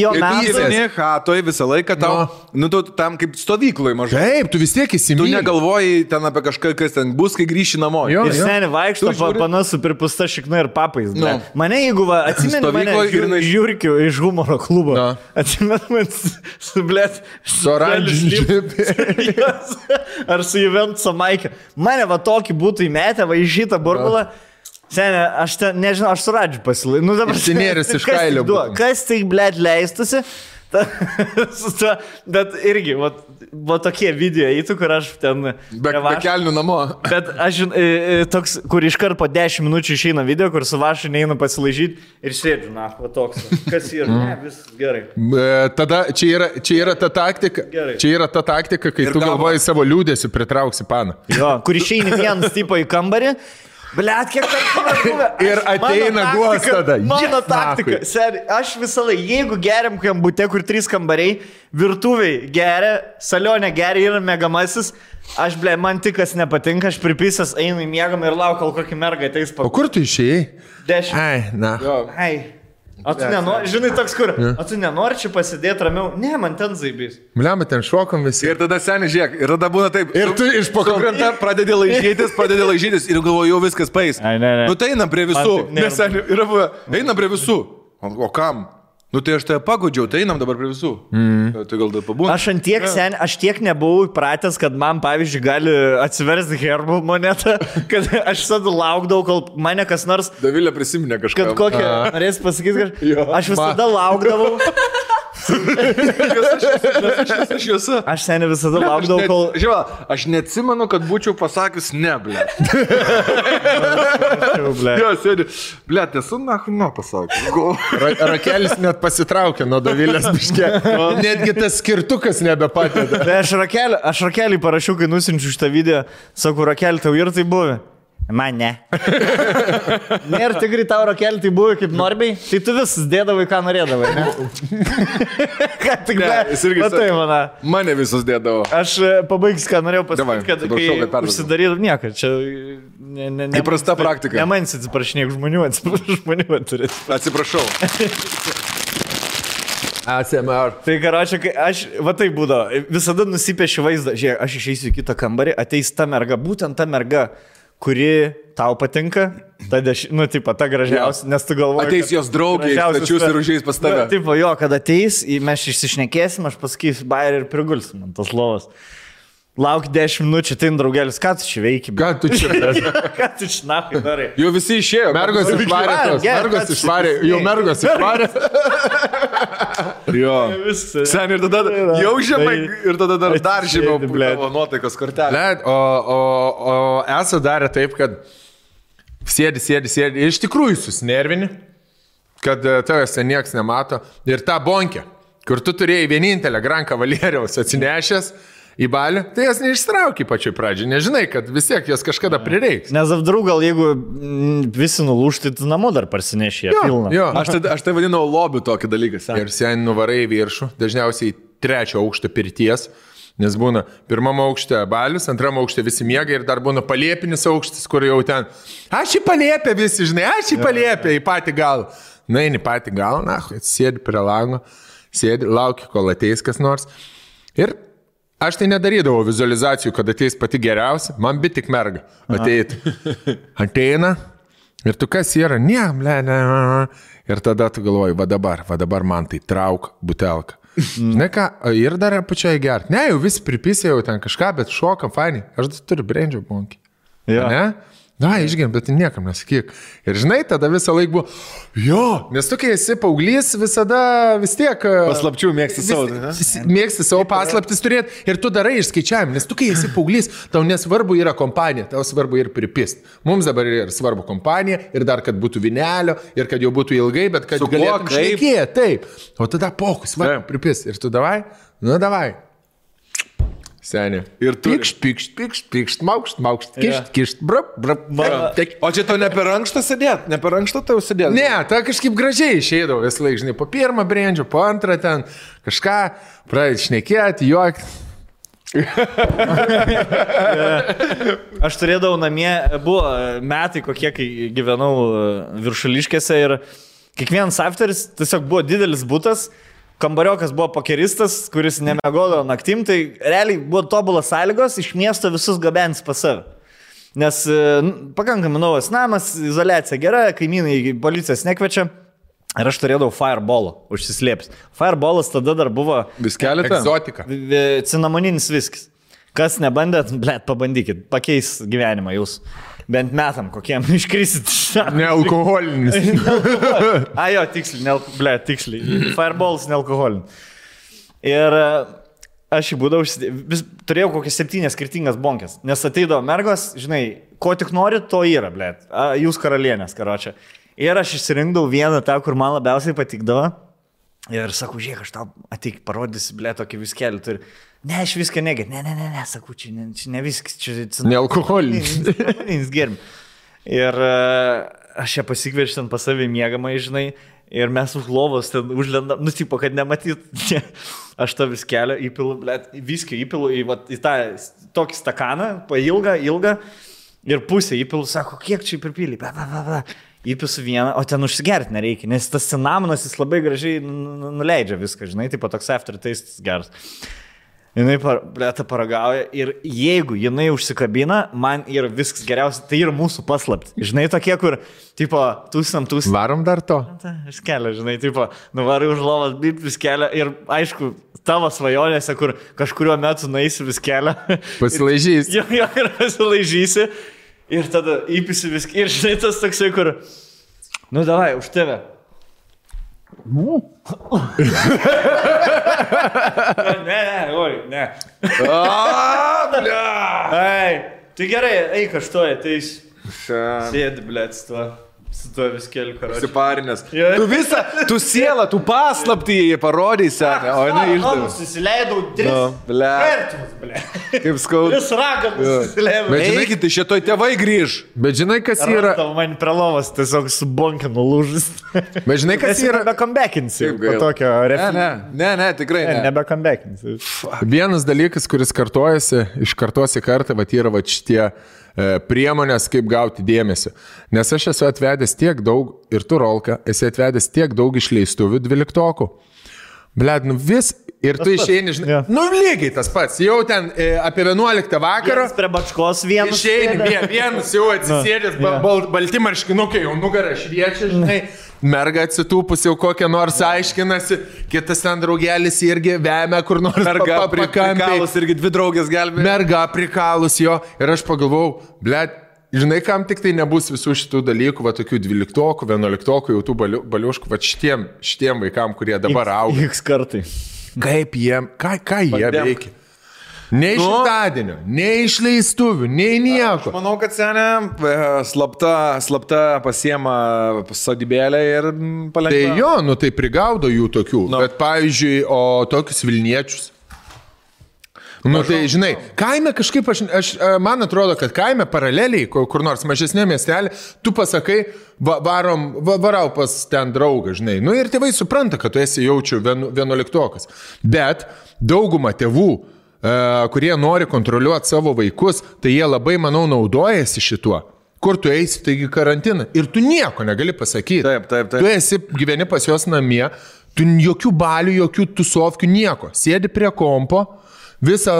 Toj visą laiką tau, tu tam kaip stovyklai mažai. Taip, tu vis tiek įsimylė. Tu negalvoji ten apie kažką, kas ten bus, kai grįši namo. Ir seniai vaikšto panasu pripusta šikna ir papais. Mane, jeigu atsimeni mane žiūrkiu iš humoro klubo, atsimeni man su, blėt, su oranžiniu džipi. Ar su Juventuso Maikė. Mane va tokį būtų įmetę, va į šitą burbulą. Senė, aš nežinau, aš suradžiu pasilai. Nu, dabar Sinėris iš kailio. Kas tai, blėt, leistusi? Bet irgi, va tokie video įtų, kur aš ten... Be kelnių namo. Bet aš toks, kur iškart po 10 minučių išeina video, kur su Vašu neina pasilaižyti ir sėdžiu, na, va toks. Kas yra? Ne, viskas gerai. Tada čia yra ta taktika, kai tu galvoji savo liūdėsiu pritrauksi paną. Jo, kur išeini vienas tipo į kambarį. Blet, kiek tai buvę. Ir ateina guos tada. Mano taktika. Seri, aš visą laiką, jeigu geriam kambute, kur 3 kambariai, virtuviai geria, salionė geria ir mėgamasis, aš, ble, man tik kas nepatinka, aš pripisęs einu į mėgamą ir laukiu, kol kokį mergą ateis. O kur tu išėjai? 10. Ai, na. Ai. O tu nenori, žinai, toks kur, o tu nenori čia pasidėti ramiau? Ne, man ten zaibys. Bliam, ten šokom visi. Ir tada seniai žiūrėk, ir tada būna taip. Ir tu iš pakrantą pradedi laižytis ir galvoju, jau viskas paeis. Nu tai einam prie visų. Nes seniai yra buvę, einam prie visų. O kam? Nu tai aš tai pagodžiau, tai einam dabar prie visų. Tai gal tai pabūna. Aš tiek nebuvau įpratęs, kad man, pavyzdžiui, gali atsiversti herbų monetą, kad aš visada laukdavau, kol mane kas nors... Davilė prisiminė kažką. Kad kokią, norės pasakyti kažką. Aš visada laukdavau. Aš seniai visada laukdavau, kol... Žiūrėk, aš neatsimenu, kad būčiau pasakius ne, ble. Jo, sėdi. Ble, esu na pasakęs. Rakelis net pasitraukė nuo Davilės biškė. Netgi tas skirtukas nebepatėda. Tai aš Rakelį parašiau, kai nusinčiu šitą video. Sakau, Rakelį, tau ir tai buvo? Man ne. Nėra tikrai tau, Rakelį, tai buvo kaip Norbiai. Tai tu vis dėdavai, ką norėdavai, ne? Ką tik matai, mana. Mane visus dėdavo. Aš pabaigsiu, ką norėjau pasakyti, kad kai užsidarydavau nieko. Čia įprasta praktika. Ne man atsiprašinėk žmonių, žmonių turi. Atsiprašau. ASMR. Tai karočią, kai aš, va tai būdavo, visada nusipiešiu vaizdą. Žiūrėk, aš išeisiu į kitą kambarį, ateis ta merga, būtent ta merga, kuri tau patinka, ta gražiausia, nes tu galvoji... Ateis jos draugiai, stačius ir užeis pas tave. Tipo, jo, kad ateis, mes išsišnekėsim, aš pasakysiu bairį ir prigulsim ant tos lovos. Lauk 10 minučių, tai draugelis, ką tu čia veiki? Ką tu čia veiki? Ką tu čia nakai darai? Jau visi išėjo. Mergos išvarė. Jau mergos išvarė. Jo. Sen ir tada jau žemai ir tada dar žemiau tavo nuotaikos kortelė. O esu darę taip, kad sėdi. Iš tikrųjų susinervini, kad tavęs nieks nemato. Ir tą bonkę, kur tu turėjai vienintelę Gran Cavalieriaus atsinešęs į balį, tai jas neištrauki pačioj pradžiai. Nežinai, kad vis tiek jas kažkada prireiks. Nes apdrau, gal jeigu visi nulūšti, tu namo dar parsinešė pilną. Jo. Aš tai vadinau lobių tokį dalyką. Ir sen nuvarai į viršų, dažniausiai 3 aukštą pirties, nes būna 1 aukšte balius, 2 aukšte visi miega ir dar būna paliepinis aukštis, kur jau ten, aš į paliepę visi, žinai, aš į paliepę, į patį galą. Na, į patį galą, sėdi prie lango, sėdi, lauki, kol ateis kas nors. Ir Aš tai nedarydavau vizualizacijų, kad ateis pati geriausia, man bet tik merga ateit. Ateina ir tu kas yra, ne. Ir tada tu galvoji, va dabar man tai trauk butelką. Žinai ką, ir dar pačiai gert. Ne, jau visi pripisė jau ten kažką, bet šokam, fainai. Aš turiu brandžio bonkį. Ne? Na, išgėm, bet niekam nesakyk. Ir žinai, tada visą laiką buvo, jo, nes tu, kai esi paauglys, visada vis tiek... Paslapčių mėgsti savo. Mėgsti savo paslaptis turėti ir tu darai išskaičiavimą, nes tu, kai esi paauglys, tau nesvarbu yra kompanija, tau svarbu ir pripist. Mums dabar yra svarbu kompanija ir dar, kad būtų vinelio ir kad jau būtų ilgai, bet kad galėtum šnekėti, taip. O tada pokus, svarbu pripist. Ir tu davai, Seniai. Ir tu... Pikšt, maukšt, kišt, brap. O čia tau ne per ankštą sėdėt? Ne per ankštą tau sėdėt? Ne, ta kažkaip gražiai išeidavo vis laik, žinai, po pirmą brandžio, po antrą ten kažką, pradėti šnekėti, juokti. Aš turėdavau namie, buvo metai kokie, kai gyvenau Viršuliškėse ir kiekvienas afteris tiesiog buvo didelis butas. Kambariokas buvo pokeristas, kuris nemiegodavo naktim, tai realiai buvo tobulas sąlygos iš miesto visus gabens pas save. Nes pakankamai naujas namas, izoliacija gera, kaimynai policijos nekviečia. Ir aš turėdavau fireballą užsislėpęs. Fireballas tada dar buvo... Viskelį? Egzotika. Cinamoninis viskis. Kas nebandėt, blėt, pabandykit, pakeis gyvenimą jūs. Bent metam kokiem iškrisit. Nealkoholinis. Jo, tiksliai. Fireballs nealkoholinis. Ir aš jį būdavau, turėjau kokias 7 skirtingas bonkės. Nes ateidavo mergos, žinai, ko tik nori, to yra, blėt. Jūs karalienės, karočią. Ir aš išsirinkdavau vieną tą, kur man labiausiai patikdavo. Ir sakau, žiūrėk, aš tau ateik, parodysi, blėt, tokį viskelį turi. Ne, aš viską negėt. Ne, sakau, čia ne viskas, čia... Nealkoholinis. Gerim. Ir aš ją pasikviečiu ten pas savį miegamą, žinai, ir mes už lovos ten užlendam, tipo, kad nematyt. Aš tą viskelį įpilu, blėt, viskį įpilu į tą tokį stakaną, ilgą, ir pusę įpilu, sako, kiek čia pripylį, įpisu vieną, o ten užsigerti nereikia, nes tas cinamonas jis labai gražiai nuleidžia viską, žinai, tipo toks aftertaste geras. Jinai paragauja ir jeigu jinai užsikabina, man yra viskas geriausia, tai yra mūsų paslapti. Žinai, tokie, kur, tipo, tūsam. Varom dar to? Aš kelią, žinai, tipo, nuvarai už lovas, bit vis kelią ir, aišku, tavo svajonėse, kur kažkurio metu nueisi vis kelią. Pasilaižysi. Jo, ir pasilaižysi. Ir tada įpisi viską. Ir žinai, tas toksai, kur, davai, už tave. Ne. Tai gerai, eik aš toje, tai sėdi, blėt, su tuo viskeliu karočiu. Siparinės. Tu sielą, tu paslaptį parodysi, o jinai išdavė. Susileidau 3 kartus, blėt. Kaip skaudu. 3 ragatus susileidau. Bet žinai, tai šitoj tėvai grįž. Bet žinai, kas yra... Man prie lovos tiesiog su bonkinu lūžis. Bet žinai, kas yra... Nebekambekinsi. Po tokio Ne, tikrai ne. Nebekambekinsi. Vienas dalykas, kuris kartojasi, iš kartos į kartą, yra šitie priemonės, kaip gauti dėmesį. Nes aš esu atvedęs tiek daug, ir tu, Rolka, esi atvedęs tiek daug išleistuvių 12-okų. Bled, vis, ir tu išeini, žinai, lygiai tas pats, jau ten apie 11 vakaro. Vienas prie bačkos vienas. Išeini, vienas jau atsisėdęs, balti marškinukai, jau nugarą šviečia, žinai. Merga atsitūpus jau kokią nors aiškinasi, kitas ten draugelis irgi vemia kur nors prikalus, irgi 2 draugės gelbė. Merga prikalus jo ir aš pagalvojau, blėt, žinai, kam tik tai nebus visų šitų dalykų, va tokių 12-okų, 11-okų, jau tų baliuškų, va šitiem vaikam, kurie dabar auga. X kartai. Kaip jiem, ką jie veikia? Nei šimtadienio, nei išleistuvių, nei nieko. Aš manau, kad senė slapta pasiema sodybėlę ir palengva. Tai tai prigaudo jų tokių, bet pavyzdžiui, o tokius Vilniečius. Tai žinai, kaime kažkaip, man atrodo, kad kaime paraleliai, kur nors mažesnė miestelė, tu pasakai, varau pas ten draugą, žinai. Ir tėvai supranta, kad tu esi jaučiu 11-okas. Bet dauguma tėvų, kurie nori kontroliuoti savo vaikus, tai jie labai, manau, naudojasi šituo. Kur tu eisi, taigi karantiną. Ir tu nieko negali pasakyti. Taip. Tu esi, gyveni pas jos namie, tu jokių balių, jokių tusovkių, nieko. Sėdi prie kompo, Visą.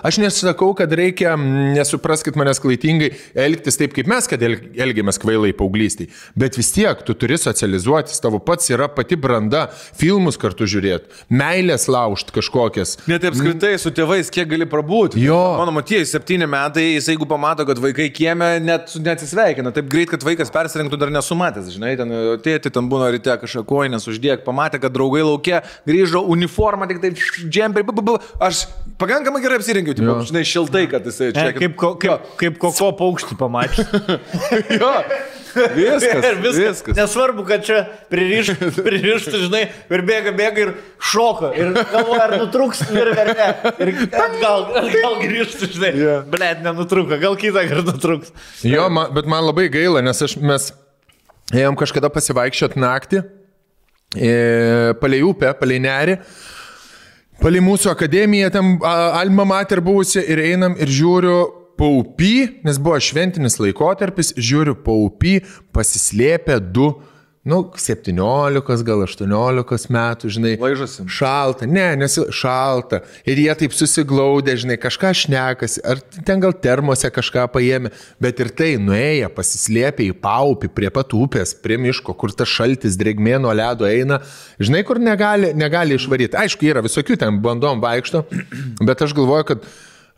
Aš nesakau, kad reikia, nesupraskit manęs klaidingai, elgtis taip, kaip mes, kad elgiamės kvailai paauglystėj. Bet vis tiek, tu turi socializuotis, tavo pats yra pati branda, filmus kartu žiūrėti, meilės laužt kažkokias. Net apskritai su tėvais, kiek gali prabūti. Jo. Mano matėjai, 7 metai, jis jeigu pamato, kad vaikai kieme, net neatsisveikina. Taip greit, kad vaikas persirinktų dar nesumatęs. Žinai, tėti ten būna ryte kažką koinės uždėk, pamatė, kad draugai laukia, grįžo uniformą, tik taip džemperį. Aš pakankamai gerai apsirinkiau, tipo, žinai, šiltai, kad jisai čia. Kaip koko paukštį pamačiau. Jo, viskas. Nesvarbu, kad čia pririštų, žinai, ir bėga ir šoka. Ir galvoja, ar nutrūks ir vertė. Ir gal grįžtų, žinai. Blet, nenutruko, gal kitą kartą nutrūks. Jo, bet man labai gaila, nes mes ėjom kažkada pasivaikščiot naktį, palei upę, palei nerį. Palei mūsų akademiją, ten Alma Mater buvusi ir einam ir žiūriu paupy, nes buvo šventinis laikotarpis, žiūriu paupy, pasislėpę 17 gal 18 metų, žinai. Laižosi. Šalta, nes šalta. Ir jie taip susiglaudė, žinai, kažką šnekasi, ar ten gal termose kažką paėmė, bet ir tai nuėję, pasislėpė į paupį prie pat upės, prie miško, kur tas šaltis drėgmė nuo ledo eina, žinai, kur negali išvaryti. Aišku, yra visokių ten bandom vaikšto, bet aš galvoju, kad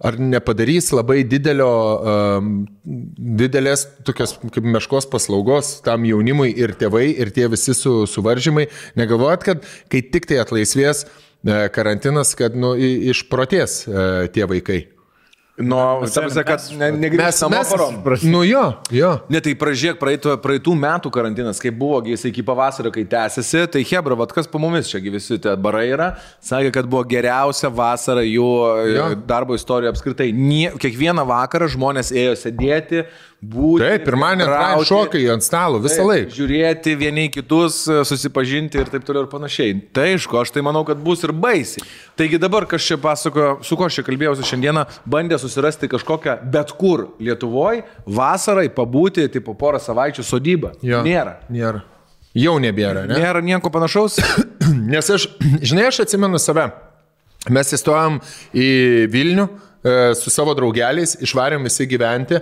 ar nepadarys labai didelės tokios kaip meškos paslaugos tam jaunimui ir tėvai, ir tie visi suvaržymai. Negalvojat, kad kai tik tai atlaisvės karantinas, kad išprotės tie vaikai? Kad negrįžti namo parom. Jo. Ne, tai pražiūrėk, praeitų metų karantinas, kai buvo jis iki pavasario, kai tęsiasi, tai hebra, kas po mumis čia visi tie barai yra, sakė, kad buvo geriausia vasara jų darbo istorijoje apskritai. Kiekvieną vakarą žmonės ėjo sėdėti, būti. Taip, pirmąjį šokai ant stalo visą laiką. Žiūrėti vieni kitus, susipažinti ir taip toliau ir panašiai. Tai aišku, aš tai manau, kad bus ir baisiai. Taigi dabar, kas čia pasakojo, su ko aš čia kalbėjausi šiandieną, bandė susirasti kažkokią bet kur Lietuvoje vasarai pabūti, tipo porą savaičių sodybą. Nėra. Jau nebėra, ne? Nėra nieko panašaus. Nes aš atsimenu save. Mes įstojom į Vilnių su savo draugeliais, išvarėm visi gyventi,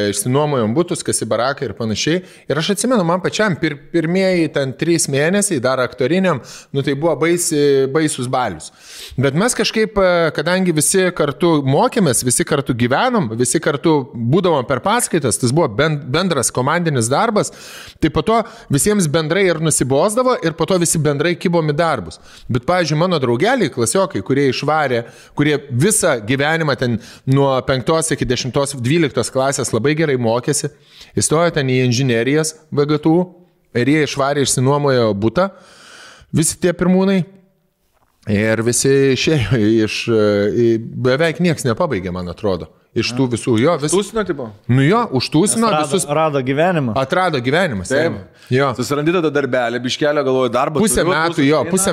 išsinuomojom butus, kas į baraką ir panašiai. Ir aš atsimenu, man pačiam pirmieji ten 3 mėnesiai, dar aktoriniam, tai buvo baisus balius. Bet mes kažkaip, kadangi visi kartu mokėmės, visi kartu gyvenom, visi kartu būdavom per paskaitas, tas buvo bendras komandinis darbas, tai po to visiems bendrai ir nusibosdavo ir po to visi bendrai kibom į darbus. Bet, pavyzdžiui, mano draugeliai, klasiokai, kurie išvarė, kurie visą gyvenimą ten nuo 5 iki 10-12 klasės labai gerai mokėsi, įstojo ten į inžinerijas VGTU ir jie išvarė, išsinuomojo butą, visi tie pirmūnai. Ir visi išėjo beveik nieks nepabaigė, man atrodo. Iš tų visų, Tūsino, tipo? Užtūsino visus. Atrado gyvenimą. Atrado gyvenimas. Taip. Susirandi tada darbelį, biškelio galvoju darbą. Pusę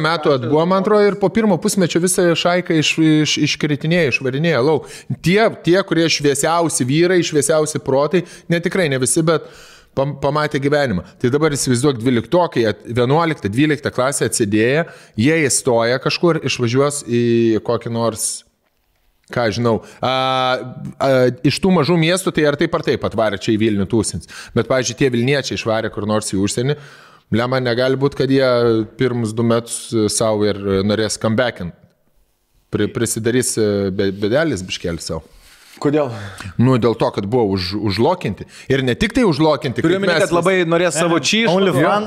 metų atbuvo, man atrodo, ir po pirmo pusmečio visą šaiką iškritinėja, išvarinėja lauk. Tie, kurie šviesiausi vyrai, šviesiausi protai, netikrai ne visi, bet pamatė gyvenimą. Tai dabar įsivaizduok 11-12 klasę atsidėję, jie įstoja kažkur, išvažiuos į kokį nors, ką žinau, iš tų mažų miestų, tai ar taip atvarė čia į Vilnių tūsins. Bet, pavyzdžiui, tie Vilniečiai išvarė kur nors į užsienį, lemą negali būti, kad jie pirmus 2 metus savo ir norės comebackinti. Prisidarys bedelis biškelį savo. Kodėl? Dėl to, kad buvo užlokinti. Ir ne tik tai užlokinti. Turiu minėti, kad labai norės savo čyšų.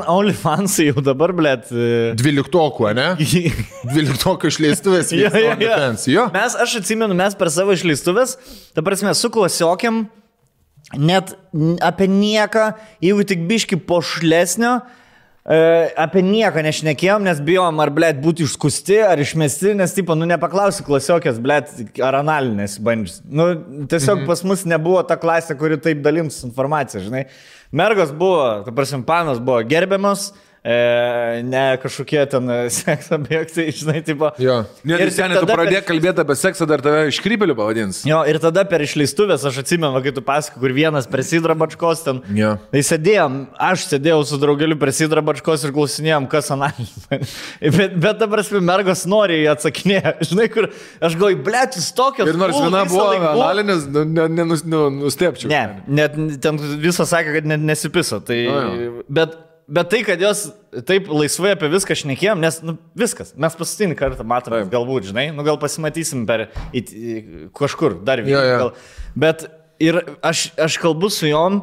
OnlyFansai jau dabar, blėt. 12, ne? 12 išleistuvės. Aš atsimenu, mes per savo išleistuvės, ta prasme, su klasiokiam, net apie nieką, jeigu tik biški pošlesnio, apie nieką nešnekėjom, nes bijom, ar, blėt, būti išskusti, ar išmesti, nes, tipo, nepaklausi klasiokės, blėt, ar analinės bandžius. Tiesiog pas mus nebuvo ta klasė, kuri taip dalims informaciją, žinai. Mergos buvo, ta prasme, panos buvo gerbiamos, ne kažkokie ten sekso objektai, žinai, tipo. Jo. Ir seniai, tu pradėjai kalbėti apie seksą, dar tave iškrypeliu pavadins. Jo, ir tada per išleistuvės, aš atsimenu, kai tu pasakai, kur vienas prie Sidra Bačkos ten. Jo. Tai aš sėdėjau su draugeliu prie Sidra Bačkos ir klausinėjom, kas analinis. bet dabar mergos nori atsakinėti. Žinai, kur aš galvoju, blėt, jūs tokios. Ir nors viena buvo analinis, nustepčiau. Ne, net ten visą sakė, kad net nesipiso. Tai, bet tai, kad jos taip laisvai apie viską šnekėjom, nes viskas, mes paskutinį kartą matome, galbūt, žinai, gal pasimatysim kažkur dar vieną. Bet ir aš kalbu su jom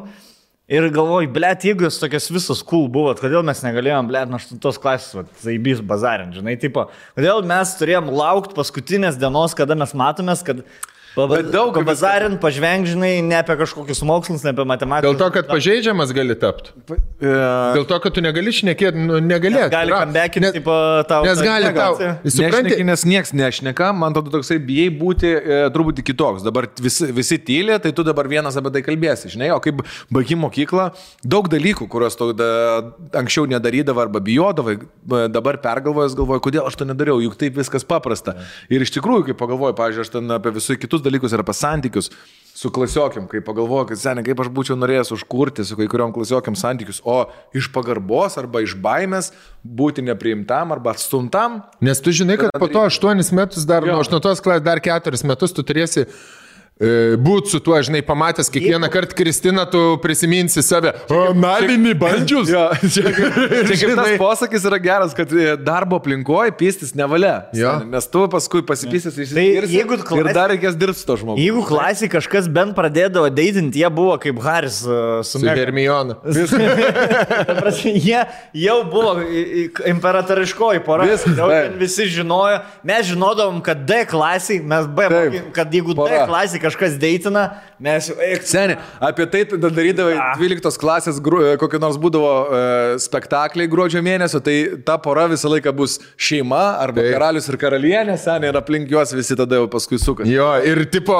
ir galvoju, blėt, jeigu jūs tokios visos cool buvot, kodėl mes negalėjom, blėt, nuo 8 klasės, zaibys bazarint, žinai, tipo, kodėl mes turėjom laukti paskutinės dienos, kada mes matomės, kad pabazarint, pažvengžinai, ne apie kažkokius mokslus, ne apie matematiką. Dėl to, kad pažeidžiamas gali tapti. Dėl to, kad tu negali šnekėti, negalėti. Gali kambekinti, tipo, tau. Nes gali tau. Nešneki, nes nieks nešneka, man tada toksai bijai būti truputį kitoks. Dabar visi tylė, tai tu dabar vienas apie tai kalbėsi, žinai, o kaip baigi mokyklą, daug dalykų, kuriuos tu anksčiau nedarydavai arba bijodavai, dabar pergalvojęs galvoju, kodėl aš to nedariau, juk taip viskas paprasta. Ir iš tikrųjų, kai pagalvoju, pavyzdžiui, aš ten apie visus kitus dalykus ir apie santykius su klasiokiam, kai pagalvoju, kad seniai, kaip aš būčiau norėjęs užkurti su kai kuriom klasiokiam santykius, o iš pagarbos arba iš baimės būti nepriimtam arba atstumtam. Nes tu žinai, kad po to 8 metus dar, nuo 8 klasės dar 4 metus tu turėsi būt su tuo, žinai, pamatęs kiekvieną kartą Kristiną, tu prisiminsi save. Nalinį bandžius. Čia kaip tas posakis yra geras, kad darbo aplinkoje pystis nevalia. Nes tu paskui pasipysis ir dar reikės dirbti su to žmogu. Jeigu klasėje kažkas bent pradėdavo deitinti, jie buvo kaip Haris su Hermiona. Jie jau buvo imperatoriškoji pora. Visi žinojo. Mes žinodavom, kad D klasėje, kad jeigu D klasėje kažkas deitina, mes jau... Seniai, apie tai darydavai 12 klasės, kokį nors būdavo spektakliai gruodžio mėnesio, tai ta pora visą laiką bus šeima arba karalius ir karalienė, seniai, ir aplink juos visi tada jau paskui suka. Jo, ir tipo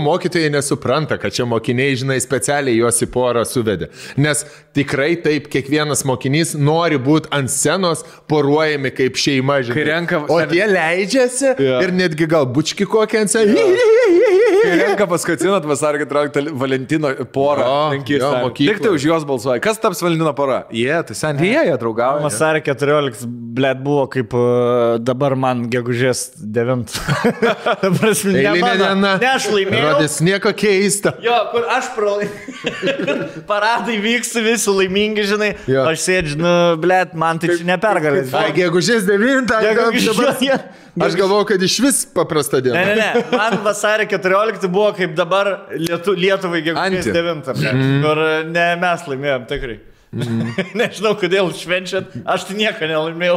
mokytojai nesupranta, kad čia mokiniai, žinai, specialiai juos į porą suvedė. Nes tikrai taip, kiekvienas mokinys nori būti ant scenos poruojami kaip šeima, žinai. O tie leidžiasi ir netgi gal bučki kokią ant sceną. Kai renka paskutinot vasario 14 Valentino porą. Tik tai už juos balsuoja. Kas taps Valentino pora? Tai seniai jie draugauja. Vasario 14, blėt, buvo kaip dabar man gegužės 9. Eilinė diena. Ne, aš laimėjau. Rodės nieko keista. Jo, kur aš paradai vyksta, visi laimingi, žinai. Aš sėdžiu, blėt, man tai čia nepergalės. Gegužės 9. Aš galvoju, kad iš vis paprasta diena. Ne. Man vasario 14 buvo kaip dabar Lietuvai gegužės 9. Kur ne mes laimėjom, tikrai. Nežinau, kodėl švenčiat. Aš tai nieko nelaimėjau.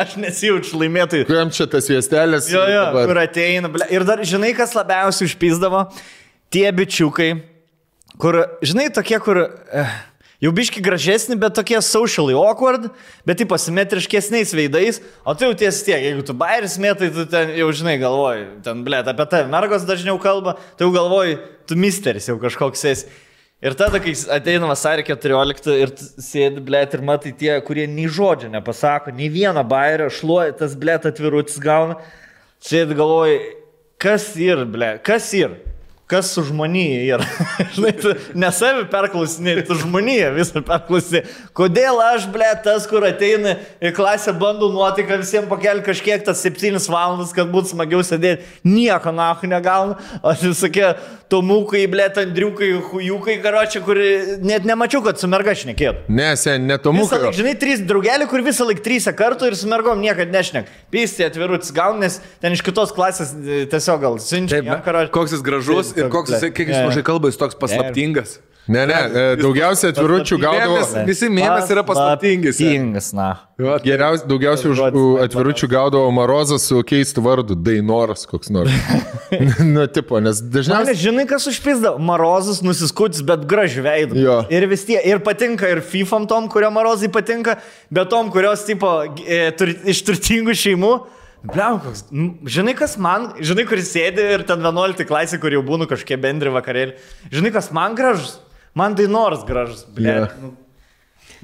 Aš nesijaučiu laimėtojai. Kuriam čia tas viestelės? Jo, kur ateina. Ir dar, žinai, kas labiausiai užpysdavo? Tie bičiukai, kur, žinai, tokie, kur... Jau biški gražesni, bet tokie socially awkward, bet tai pasimetriškesniais veidais, o tai jau ties tiek, jeigu tu bairis mėtai, tu ten jau žinai galvoji, ten, blėt, apie tave mergos dažniau kalba, tai jau galvoji, tu misteris jau kažkoks esi. Ir tada, kai ateina vasario 14 ir sėdi, blėt, ir matai tie, kurie nei žodžio nepasako, nei vieną bairio, šluoja, tas, blėt, atvirutis gauna, sėdi galvoji, kas ir, blėt, kas ir? Kas su žmonija yra. Žinai, tu nesavi perklausinė, tu žmonija visą perklausinė. Kodėl aš, blėt, tas, kur ateina į klasę, bandau nuotaiką visiems pakelti kažkiek tas 7 valandas, kad būtų smagiau sėdėti. Nieko nahu negauna. O visokie tomukai, blėt, andriukai, hujukai, karočią, kur net nemačiau, kad su merga šnekėtų. Ne tomukai. Laik, žinai, 3 draugelių, kur visą laik 3 kartų ir su mergom niekad nešnek. Pystė atvirutis gauna, nes ten iš kitos klasės tiesiog gal siunčia. Koks jis gražus. Ir koks jis, kiek jis mažai kalba, jis toks paslaptingas. Ne, daugiausiai atviručių gaudavo. Visi mėmes yra paslaptingis. Na. Daugiausiai atviručių gaudavo Marozas su keistu vardu, Dainoras koks nors. Nu, tipo, nes dažniausiai... Žinai, kas užpizdavo? Marozas nusiskutis, bet gražiu veidu. Ir vis tie, ir patinka ir FIFAm tom, kurio Marozai patinka, bet tom, kurios, tipo, iš turtingų šeimų. Bliau, žinai, kas man, žinai, kuris sėdi ir ten 11 klasė, kur jau būnu kažkiek bendri vakarėlį. Žinai, kas man gražus? Man Dainoras gražus, bliau.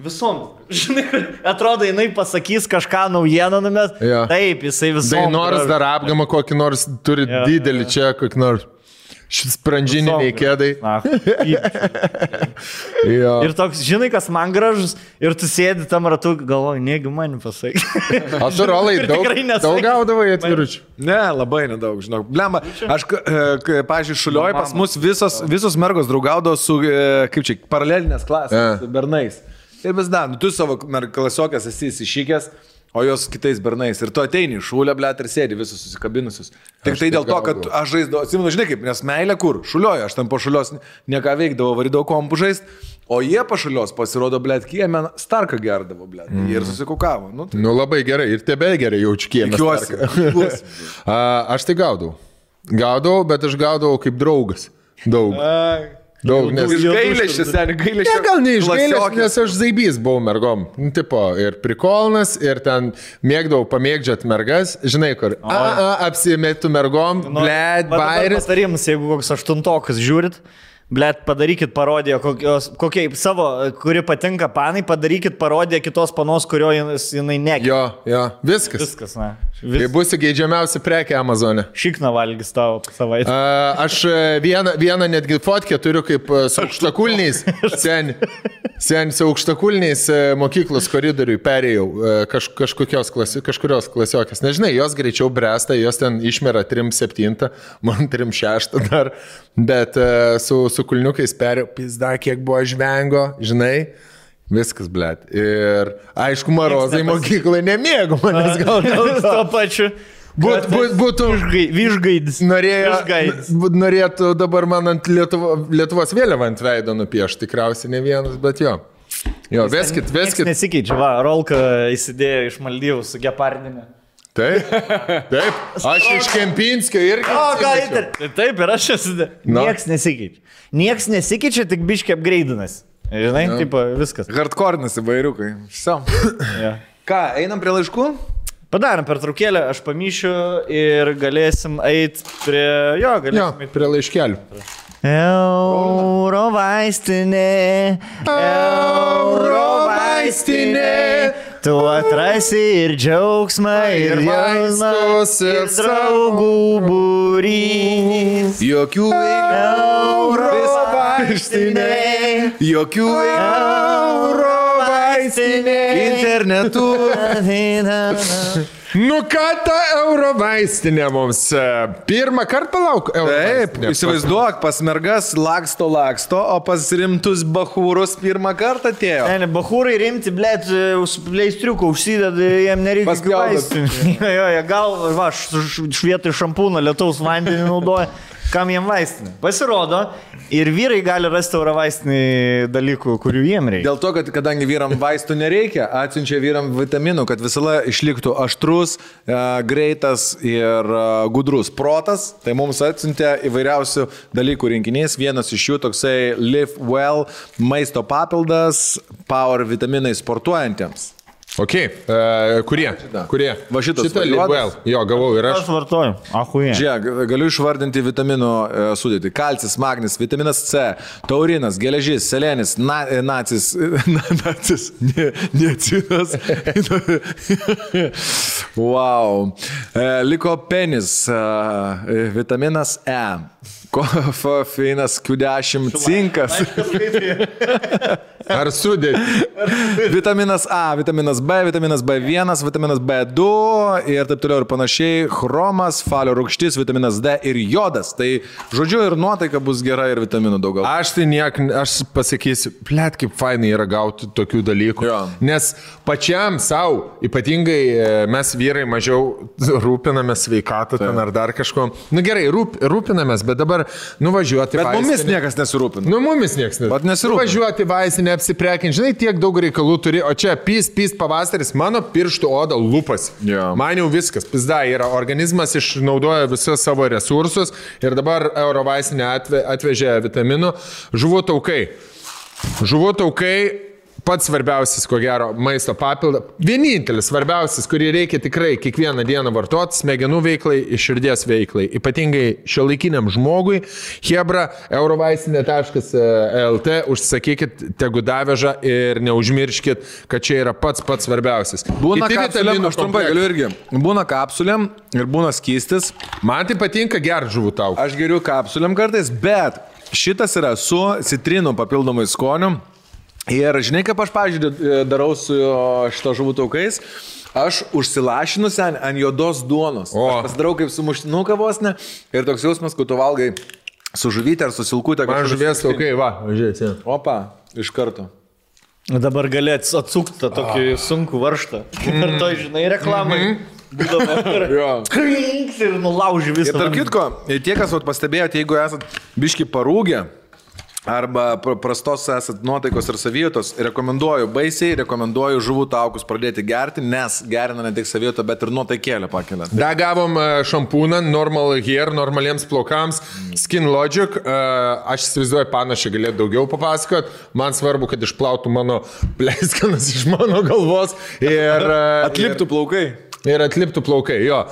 Visom. Žinai, atrodo, jinai pasakys kažką naujieną numes. Jo. Taip, jisai visom. Tai nors dar apgamą kokį nors turi didelį čia, kokį nors sprandžininiai kėdai. Ir toks, žinai, kas man gražus, ir tu sėdi tam ratu, galvoji, negi man pasakai. O tu, Rolai, daug gaudavai atviručių? Ne, labai nedaug, žinau. Blemba, aš, pažiūrėjau, Šulioj pas mus visos mergos draugaudavo su, kaip čia, paralelinės klasės, bernais. Ir vis dar, tu savo klasiokės esi įsišykęs, o jos kitais bernais. Ir tu ateini iš Šulio, blėt, ir sėdi visus susikabinusius. Tik tai dėl to, kad aš žaisdavau, atsimenu, žinai kaip, nes meilė kur? Šulioje, aš tam po Šulios nieką veikdavau, varydavau kompų žaist, o jie po Šulios pasirodo, blėt, kieme Starką gerdavo, blėt. Ir susikukavo. Nu labai gerai, ir tebe gerai jaučiu kieme Starką. Aš tai gaudavau, bet aš gaudavau kaip draugas. Daug. Daug, nes iš gailėščio, seniai, gailėščio. Ne, gal ne iš gailėščio, nes aš zaibys buvau mergom. Tipo, ir prikolnas, ir ten mėgdavau pamėgdžiat mergas, žinai kur. Apsimėtų mergom, blėt, bairis. Patarimas, jeigu koks 8-tokas žiūrit, blėt, padarykit parodiją, kokie savo, kuri patinka panai, padarykit parodiją kitos panos, kurio jinai nekia. Jo, viskas. Viskas, ne. Tai bus geidžiamiausia prekė Amazone. Šikna valgys tavo savaitę. Aš vieną netgi fotkę turiu kaip su aukštakulniais. Sen su aukštakulniais mokyklos koridoriui perėjau kažkurios klasiokės. Nežinai, jos greičiau bręsta, jos ten išmera 3-7, man 3-6 dar, bet su kulniukais perėjau, pizda, kiek buvo žvengo, žinai. Viskas, blėt. Ir aišku, marozai mokyklai nemėgo manęs gal to pačiu. Būtų Višgaidis. Norėtų dabar man ant Lietuvos vėliavą ant veido nupiešti, tikriausiai ne vienas, bet jo. Jo, veskit. Nesikeičia, va, Rolka įsidėjo iš Maldyvų su gepardinė. Taip. Aš iš Kempinskio irgi. Taip, ir aš esu. Nieks nesikeičia. Nieks nesikeičia, tik biškiai apgreidinas. Žinai, taip, viskas. Hardcore'nas įvairiukai. Ką, einam prie laiškų? Padarom pertraukėlę, aš pamyšiu ir galėsim eiti prie... prie laiškelių. Eurovaistinė, tu atrasi ir džiaugsmą, ir vaistus, ir draugų būrys. Jokių Eurovaistinė, jokių Eurovaistinė, internetu. Nu ką ta Eurovaistinė mums? Pirmą kartą palauk Taip, įsivaizduok, pas mergas laksto, o pas rimtus bachūrus pirmą kartą atėjo. Ne, bachūrai rimti, blėt, su pleistriuku užsideda, jiem nereikia vaistinį. Jo, gal, va, švietui šampūną lietaus vandenį naudoja. Kam jiem vaistinė? Pasirodo, ir vyrai gali rasti eurovaistinį dalykų, kurių jiem reikia. Dėl to, kad kadangi vyram vaistų nereikia, atsiunčia vyram vitaminų, kad visada išliktų aštrus, greitas ir gudrus protas. Tai mums atsiuntė įvairiausių dalykų rinkinys. Vienas iš jų toksai Live Well maisto papildas, Power vitaminai sportuojantiems. Ok, kurie? Va šitas. Šitą Live Well. Jo, gavau ir aš. Aš vartoju. Ahuje. Žiūrėk, galiu išvardinti vitaminų sudėtį. Kalcis, magnis, vitaminas C, taurinas, geležis, selenis, niacinas. Wow. Likopenis, vitaminas E. Kofeinas, Q10, cinkas. Ar sudėti? Vitaminas A, vitaminas B, vitaminas B1, vitaminas B2 ir taip toliau ir panašiai. Chromas, falio rūgštis, vitaminas D ir jodas. Tai žodžiu ir nuotaika bus gera ir vitaminų daugiau. Aš pasakysiu, blėt, kaip fainai yra gauti tokių dalykų. Jo. Nes pačiam savo, ypatingai mes vyrai mažiau rūpinamės sveikatą ten ar dar kažko. Nu gerai, rūpinamės, bet dabar nuvažiuoti vaistinę. Bet mumis niekas nesirūpina. Nu mumis niekas nesirūpina. Nuvažiuoti vaistinę, apsiprekinti, žinai, tiek daug reikalų turi, o čia pys pavasaris, mano pirštų oda lupas. Yeah. Man jau viskas, pizda yra, organizmas išnaudoja visus savo resursus ir dabar Eurovaistinė atvežė vitaminų. Žuvų taukai. pats svarbiausias, ko gero, maisto papildas. Vienintelis svarbiausias, kurį reikia tikrai kiekvieną dieną vartoti, smegenų veiklai ir širdies veiklai. Ypatingai šiuolaikiniam žmogui. Hebra, eurovaistinė.lt, užsakykit, tegu daveža ir neužmirškit, kad čia yra pats svarbiausias. Būna kapsulėm, aš trumpai galiu irgi. Būna kapsulėm ir būna skystis. Man tai patinka gerti žuvų tau. Aš geriu kapsulėm kartais, bet šitas yra su citrinų papildomai skoniu. Ir žinai, kaip aš, pavyzdžiui, darau su šito žuvų taukais, aš užsilašinu ant juodos duonos. Aš pasidarau kaip su muštinuka vos ne. Ir toks jausmas, kad tu valgai su žuvytė ar su silkutė. Man žuvies taukai, va, žiūrėsi. Opa, iš karto. Dabar gali atsukti tą tokį sunkų varštą. Ir to, žinai, reklamai. Būdavo krinks ir nulauži visą. Ir tarp kitko, tie, kas pastebėjote, jeigu esat biški parūgę, arba prastos esat nuotaikos ir savijautos, baisiai rekomenduoju žuvų taukus pradėti gerti, nes gerina ne tik savijautą, bet ir nuotaikėlę pakelia. Da gavom šampūną Normal Hair, normaliems plaukams, Skin Logic. Aš įsivaizduoju, panašiai galėtų daugiau papasakot. Man svarbu, kad išplautų mano pleiskanas iš mano galvos ir atliptų plaukai. Ir atliptų plaukai, jo.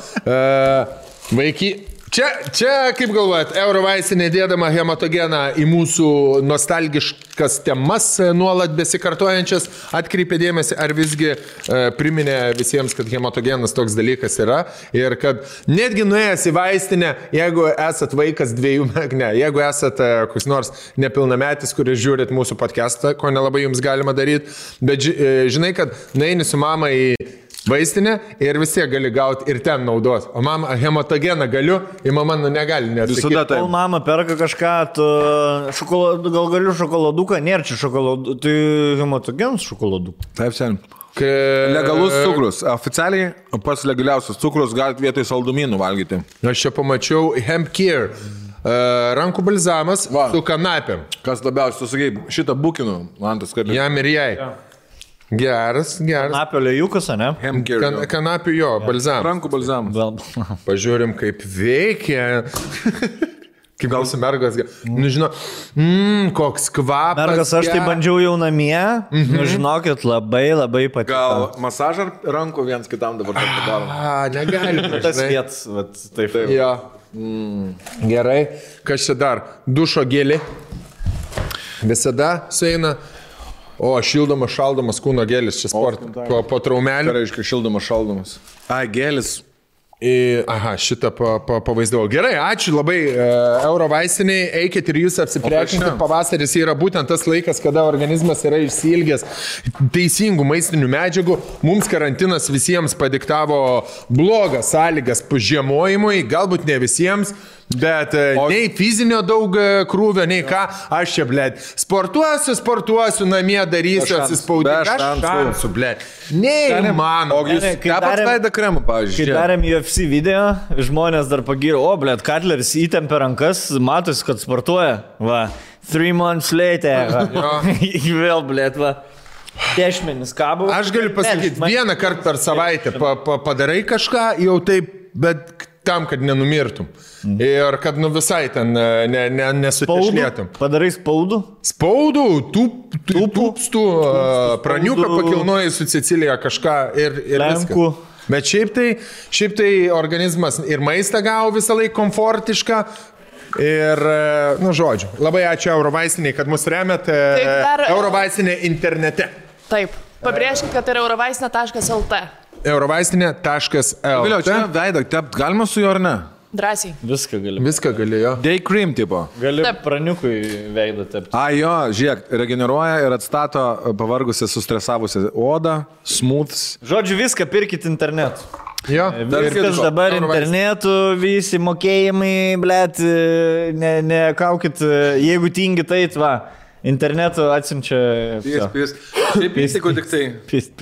Vaiky. Čia, kaip galvojat, Eurovaistinė dėdama hematogeną į mūsų nostalgiškas temas nuolat besikartojančias atkreipė dėmesį, ar visgi priminė visiems, kad hematogenas toks dalykas yra ir kad netgi nuėjęs į vaistinę, jeigu esat vaikas 2 metų, jeigu esat koks nors nepilnametis, kuris žiūrit mūsų podcastą, ko nelabai jums galima daryti, bet žinai, kad nueini su mama į vaistinė ir vis tiek gali gauti ir ten naudos. O mama hematogeną galiu, ir mama negali nesakyti. Kol mama perka kažką, gal galiu šokoladuką, nėra čia šokoladų, tai hematogenas šokoladuką. Taip, sen. Legalus cukrus. Oficialiai pats legaliausias cukrus galite vietoj saldumynų valgyti. Aš čia pamačiau Hemp Care. Rankų balzamas su kanapėm. Kas labiausiai, tu sakai, šitą bukinu, man tas kartais. Jam ir jai. Ja. Geras. Kanapio lėjukas, ne? Kanapio jo, balzamas. Rankų balzamas. Pažiūrim, kaip veikia. Kaip gal su mergas. Nu, žinau, koks kvapas. Mergas, aš tai bandžiau jau namie. Nu, žinokit, labai patiko. Gal masažą rankų viens kitam dabar padarom? Negali. Tas vietas, taip. Jo. Gerai. Kas čia dar? Dušo gėlė. Visada sueina. O, šildomas, šaldomas kūno gėlis, čia po traumelių. Tai reiškia šildomas, šaldomas. Gėlis. Aha, šitą pavaizdavau. Gerai, ačiū labai Eurovaistiniai, eikit ir jūs apsiprekinkit. Pavasaris yra būtent tas laikas, kada organizmas yra išsiilgęs teisingų maistinių medžiagų. Mums karantinas visiems padiktavo blogas sąlygas žiemojimui, galbūt ne visiems. Bet nei fizinio daug krūvio, nei ką, aš čia, blėt, sportuosiu, namie darysiu, atsispaudžiu, šansų, blėt. Nei man. O jūs tepat veidą kremą, pavyzdžiui. Kai darėm UFC video, žmonės dar pagyrė, blėt, Katleris įtempė rankas, matosi, kad sportuoja, va, 3 months later, vėl, blėt, va. Dešmenis kabo. Aš galiu pasakyti, vieną kartą per savaitę padarai kažką, jau taip, bet tam, kad nenumirtum. Ir kad visai ten nesutešlėtum. Padarai spaudų? Spaudų, tūpstų, praniuką pakilnoji su Cecilija kažką ir viską. Bet šiaip tai organizmas ir maistą gavo visą laiką komfortišką. Ir, žodžiu, labai ačiū Eurovaistiniai, kad mus remiat. Eurovaistinė internete. Taip, pabrėžkit, kad tai yra eurovaistinė.lt. Eurovaistinė.lt. Vėliau, čia veidą tept galima su juo ar ne? Drąsiai. Viską gali, jo. Day cream tipo. Gali praniukui veidą tepti. Jo, žiūrėk, regeneruoja ir atstato pavargusią, sustresavusią odą, smooths. Žodžiu, viską pirkit internetu. Jo. Viskas dabar internetu, visi mokėjimai, blėt, nekaukit, jeigu tingit eit, va, internetu atsimčia. Pys. Šiaip įstikų tik tai. Pys.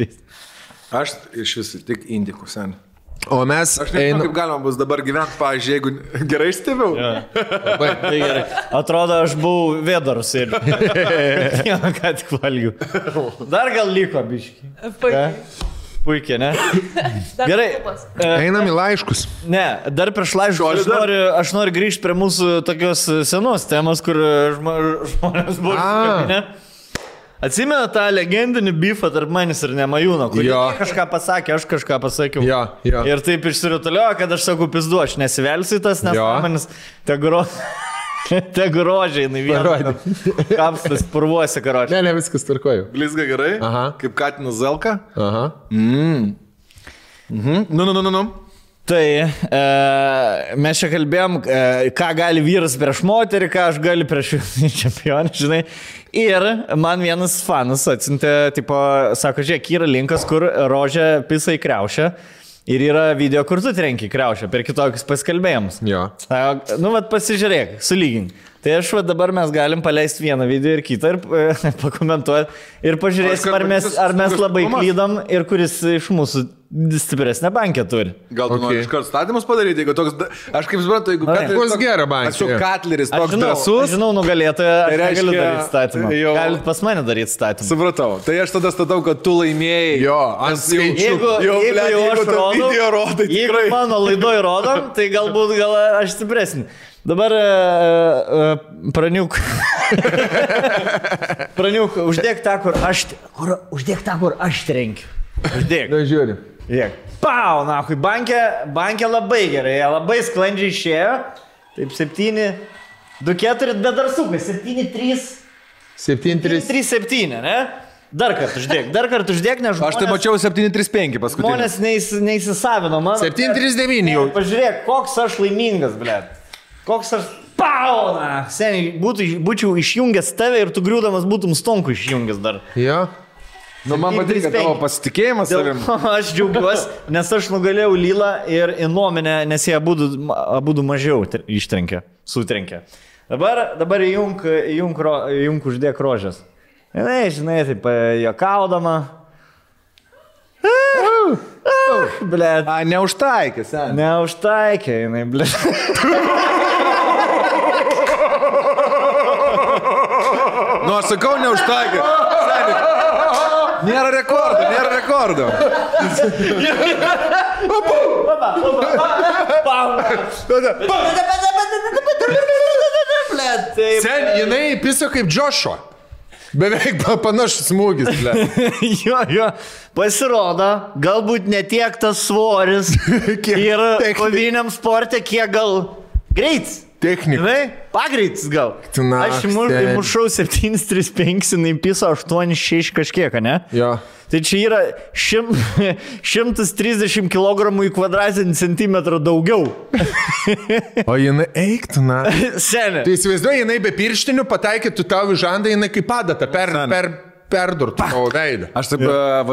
Aš iš visų tik indikų sen. O mes... Aš nežinau, kaip galima bus dabar gyventi, pavyzdžiui, jeigu gerai stebėjau. Labai gerai. Atrodo, aš buvau vėdarus ir ką tik valgiu. Dar gal liko, biški. Puikiai, ne? Gerai. Einam į laiškus. Ne, dar prieš laiškus aš noriu grįžti prie mūsų tokios senos temos, kur žmonės buvo iškabinę. Atsimena tą legendinį bifą tarp manęs ir Nemajūno, kur kažką pasakė, aš kažką pasakiau. Jo. Ir taip išsirutuliojo, kad aš sakau, pizdu, aš nesivelsiu tas, nes manis te grožiai, vieną kapstas purvuosi, karočiai. Ne, viskas tvarkoju. Blizga gerai? Aha. Kaip Katinas Zelka? Aha. Nu. Tai mes čia kalbėjom, ką gali vyras prieš moterį, ką aš galiu prieš čempionį, žinai. Ir man vienas fanas atsintė, tipo, sako, žiūrėk, yra linkas, kur rožė pisa į kriaušę. Ir yra video, kur tu trenki kriaušę per kitokius paskalbėjimus. Jo. Nu, vat pasižiūrėk, sulygink. Tai aš dabar mes galim paleisti vieną video ir kitą ir pakomentuoti. Ir pažiūrėsim, ar mes labai klydom ir kuris iš mūsų stipresnę bankę turi. Gal tu nori iškart statymus padaryti, jeigu toks... Aš kaip suprantu, jeigu Katleris... Gerą bankę. Aš jau Katleris toks drąsus. Aš žinau, nugalėtoją, aš negaliu daryti statymą. Galit pas mane daryti statymą. Supratau. Tai aš tada statau, kad tu laimėjai. Jo, ant skaičių. Jeigu mano laidoj rodom, tai galbūt aš stipresnį. Dabar praniuk, uždėk tą, kur aš trenkiu. Uždėk. Na, žiūri. Pau, nahui, bankė labai gerai, labai sklandžiai išėjo. Taip, 7, 2, 4, bet dar sukai, 7, 3. 7, 3, 7, ne? Dar kartą uždėk, nes žmonės... Aš tai mačiau 7-3-5 paskutinį. Žmonės neįsisavino mano. 7-3-9 jau. Pažiūrėk, koks aš laimingas, blėt. Koks aš... Pauna! Seniai, būčiau išjungęs tave ir tu griūdamas būtum Stonku išjungęs dar. Jo. Nu, man patinka tavo pasitikėjimas savim. Aš džiaugiuosi, nes aš nugalėjau Lylą ir Inominę, nes jie abudu mažiau sutrenkė. Dabar įjunk uždėk rožės. Žinai, taip, juokaudama. Blet. Neužtaikė, seniai. Neužtaikė, jinai, blet. Nu, aš sakau, neužtaikė. Nėra rekordo. Sen, jinai piso kaip Joshua. Beveik panašus smūgis, ble. Jo. Pasirodo, galbūt ne tiek tas svoris ir koviniam sporte, kiek gal greits. Technika. Pagreitis gal. Aš mušau 7-3-5, jinai piso 8-6 kažkiek, ne? Jo. Tai čia yra 130 kg į kvadratinį centimetrą daugiau. O jinai eiktų, na. Senė. Tai įsivaizduoju, jinai be pirštinių pataikytų tau į žandą, jinai kaip padata perdurtų tavo veidą.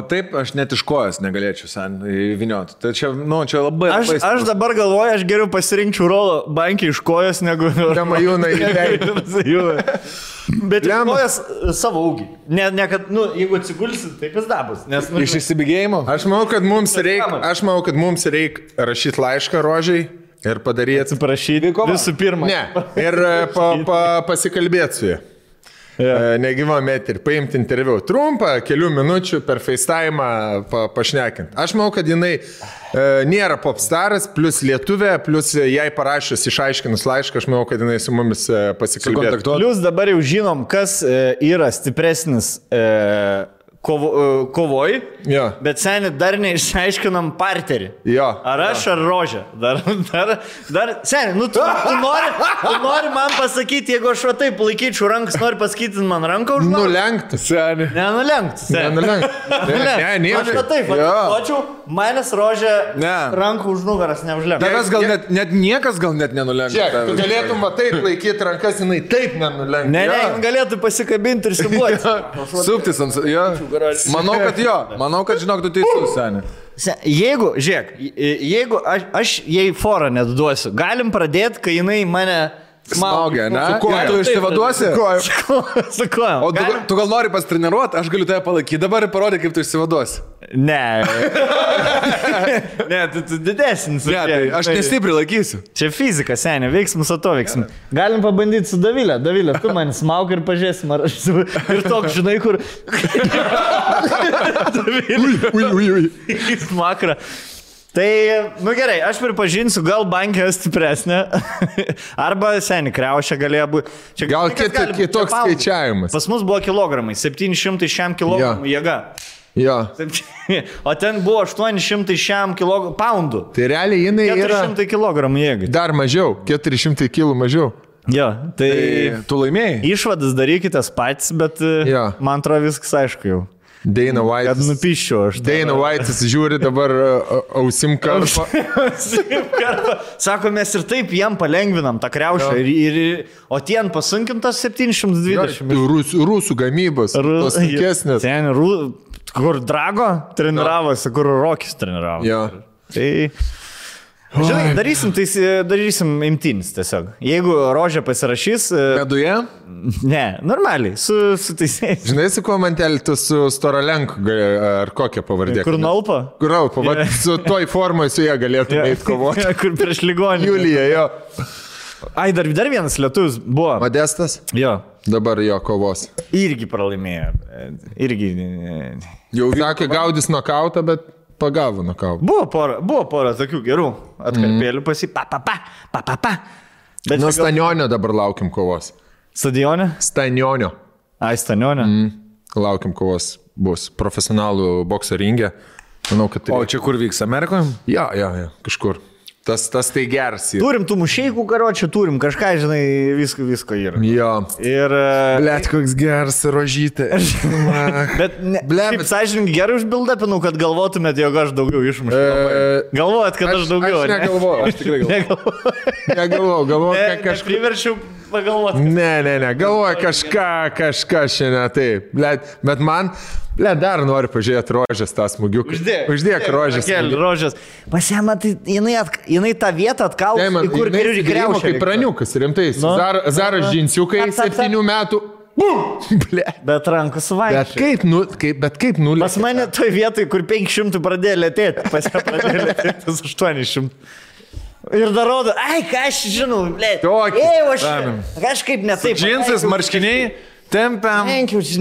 Taip, aš net iš kojas negalėčiau sen įvinioti. Tai čia labai... Aš dabar galvoju, aš geriau pasirinkčiau rolą bankį iš kojas, negu... Nemajūną į veidą. Bet iš kojas savo ūgį. Ne, kad, jeigu atsigulsit, taip jis dabus. Iš įsibėgėjimo? Aš manau, kad mums reikia rašyti laišką rožiai ir padaryti... Atsiprašyti visų pirma. Ne, ir pasikalbėti su jie. Negyvam eterį, paimti interviu trumpą, kelių minučių per FaceTime pašnekint. Aš manau, kad jinai nėra popstaras, plus lietuvė, plus jai parašęs išaiškinus laišką, aš manau, kad jinai su mumis pasikalbėtų. Plus dabar jau žinom, kas yra stipresnis kovoj, bet seniai dar neišaiškinam parterį. Ar aš, ar rožė. Dar seniai, tu nori man pasakyti, jeigu aš taip laikyčiau rankas, nori pasakyti man ranką už man? Nulenkti, seniai. Nenulenkti. Aš taip, atkočiau, manęs rožė rankų už nugaras neužlenkti. Tavęs gal net niekas gal net nenulenkti. Žiūrėk, tu galėtum taip laikyti rankas, jinai taip nenulenkti. Ne, galėtų pasikabinti ir simuoti. Suptis ant... Manau, kad žinok, tu teisus, seniai. Jeigu aš jai forą net duosiu, galim pradėti, kai jinai mane smaugia, ne? Tu išsivaduosi? Su kojom. O tu gal nori pasitreniruoti, aš galiu tave palaikyti dabar ir parodyti, kaip tu išsivaduosi. Ne. Ne, tu didesnis. Ne, tai aš nestipriai laikysiu. Čia fizika, seniai, veiksmus atoveiksmus. Galim pabandyti su Davilė. Davilė, tu man smaug ir pažiūrėsim, ar aš ir toks, žinai, kur... Davilė. Smakra. Tai, gerai, aš pripažinsiu, gal bankė stipresnė, arba seni kriaušė galėjo būti. Gal kitoks skaičiavimas. Pas mus buvo kilogramai, 700 šiam kilogramų jėga. Jo. O ten buvo 800 šiam poundų. Tai realiai jinai 400 kilogramų jėgai. Dar mažiau, 400 kilų mažiau. Jo, tai tu laimėjai. Išvadas darykitės patys, bet man atrodo viskas aišku jau. Dana White. Kad nupiščiau aš. Dana White žiūri dabar ausim karpą. Sako, mes ir taip jam palengvinam tą kriaušę. O tien pasunkintas 720. Rusų gamybos. Tos sunkesnės. Ten, kur Drago treniravosi, kur Rokis treniravo. Jo. Tai... Žinai, darysim imtynis tiesiog. Jeigu Rožė pasirašys... Meduje? Ne, normaliai, su teisėjais. Žinai, su kuo man teltų su Storalenku, ar kokią pavardė? Kur Nalpa? Kur Nalpa, su toj formai su jie galėtume eiti kovoti. Kur prieš ligonį. Julija, jo. Ai, dar vienas lietuvis buvo. Modestas? Jo. Dabar jo kovos. Irgi pralaimėjo. Irgi... Jau sakė, gaudys nokautą, bet... Pagavo nokautą. Buvo pora tokių gerų atkarpėlių pasi. Nuo Stanionio dabar laukim kovos. Stadionė? Stanionio. Ai, Stanionė. Laukim kovos bus profesionalų bokso ringė. Manau, kad... O čia kur vyks, Amerikoje? Jo, kažkur. Tas tai geras. Turim tų mušeikų karočių, turim kažką, žinai, visko yra. Jo. Ir... Blet, koks geras rožytė. Bet kaip sąžininkai gerai užbildapinau, kad galvotumėt, jog aš daugiau išmušiu. Galvojat, kad aš daugiau. Aš negalvoju, aš tikrai galvoju. Negalvoju, kažkaip priverčiau pagalvoti. Ne, galvoju kažką šiandien taip. Bet man... dar noriu pažiūrėti Rožės tą smūgiuką. Uždėk Rožės. Rožės. Pasiema, tai jinai tą vietą atkalus, į kur kriaušė. Kaip praniukas, rimtai. Zaras džinsiukai 7 metų. Bet rankų suvaikščiai. Bet kaip nulė. Pas mane toj vietoj, kur 500 pradėjo lėtėti. Pas ją pradėjo lėtėti 800. Ir dar rodo, ką aš žinau, blėt. Kažkaip netaip. Džinsas, marškiniai. Tempiam.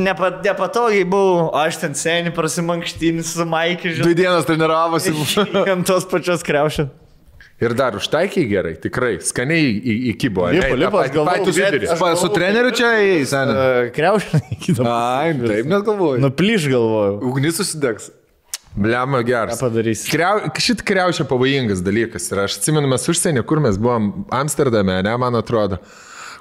Nepatogiai buvau, aš ten seniai prasimankštinis su Maikį, žinau. 2 dienas treniravosi. Ant tos pačios kriaušės. Ir dar užtaikiai gerai, tikrai, skaniai įkybo. Lipas, galvoju. Su treneriu čia eis, seniai. Kriaušė įkybo. Ai, taip net galvoju. Nuplyš galvoju. Ugnis susidegs. Bliama geras. Ką padarysi? Šit kriaušė pavojingas dalykas. Ir aš atsimenu, mes užsienį, kur mes buvom Amsterdame, ne, man atrodo.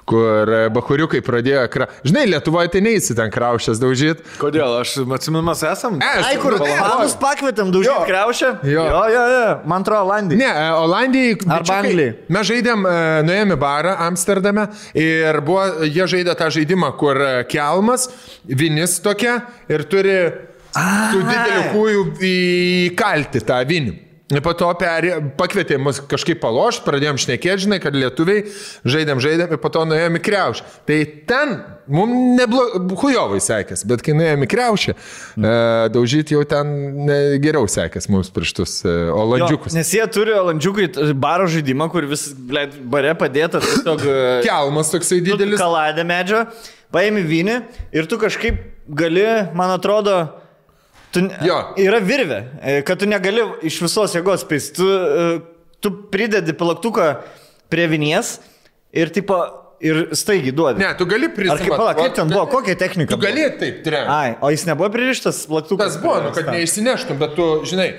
Kur bahuriukai pradėjo Žinai, Lietuvoje tai neįsi ten kriaušės daužyti. Kodėl? Aš atsimenu, mes esam. Ai, kur panus pakvietėm daužyti kriaušę? Jo. Man atrodo, Olandijai. Ne, Olandijai. Arba Anglijai. Mes žaidėm, nuėjome į barą Amsterdame ir jie žaidė tą žaidimą, kur kelmas, vinis tokia ir turi su dideliu kūju įkalti tą vinį. Ir po to pakvietė mus kažkaip palošti, pradėjom šnekėti, žinai, kad lietuviai žaidėm ir po to nuėjom į kriaušę. Tai ten mums hujovai sekės, bet kai nuėjom į kriaušę, daužyti jau ten geriau sekės mums prieš tus olandžiukus. Nes jie turi olandžiukai baro žaidimą, kur vis bare padėta tiesiog... Kelmas toksai didelis. Kaladė medžio, paėmi vinį ir tu kažkaip gali, man atrodo... Yra virvė, kad tu negali iš visos jėgos spėsti. Tu pridedi plaktuką prie vinies ir staigiai duodi. Ne, tu gali prisimti. Kaip ten buvo, kokia technika? Tu gali taip tremti. Ai, o jis nebuvo pririštas plaktukas? Tas buvo, kad neišsineštum, bet tu, žinai,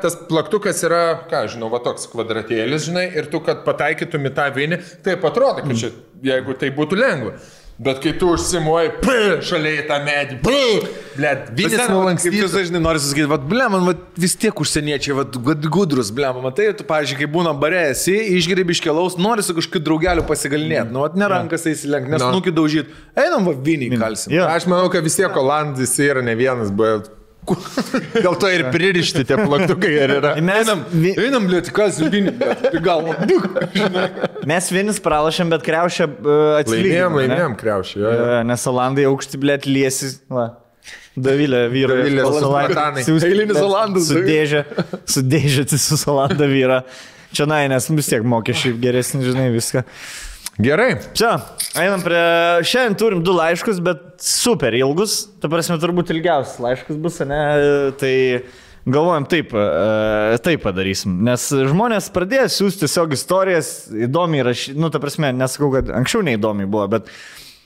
tas plaktukas yra, žinau, va toks kvadratėlis, žinai, ir tu, kad pataikytum į tą vinį, taip atrodo, kad čia, jeigu tai būtų lengva. Bet kai tu užsimuoji, šalia į tą medį, vinis nulankstytas. Kaip tu dažnai nori susakyti, man vis tiek užsieniečiai, gudrus, matai, tu, pavyzdžiui, kai būna bare esi, išgeri biškelaus, nori su kažkokiu draugeliu pasigalinėti, nerankas įsilenk, nes nukį daužyti, einam vinį kalsim. Aš manau, kad vis tiek Olandis yra ne vienas, bet... Dėl to ir pririšti tie plaktukai ir yra. Einam lieti, kas vinį, bet galvo. Mes vinis pralašėm, bet kriaušę atsilygėm. Laimėjom kriaušę. Nes Olandai aukšti, blėt, liesi. Davilė vyro. Eilinis Olandas. Sudėžėti su Olanda vyra. Čia nes vis tiek mokesčiai geresni, žinai, viską. Gerai. Čia, einam prie... Šiandien turim 2 laiškus, bet super ilgus. Ta prasme, turbūt ilgiausias laiškas bus, ne? Tai galvojam taip padarysim, nes žmonės pradėjo siūsti tiesiog istorijas, įdomiai rašyti, ta prasme, nesakau, kad anksčiau neįdomiai buvo, bet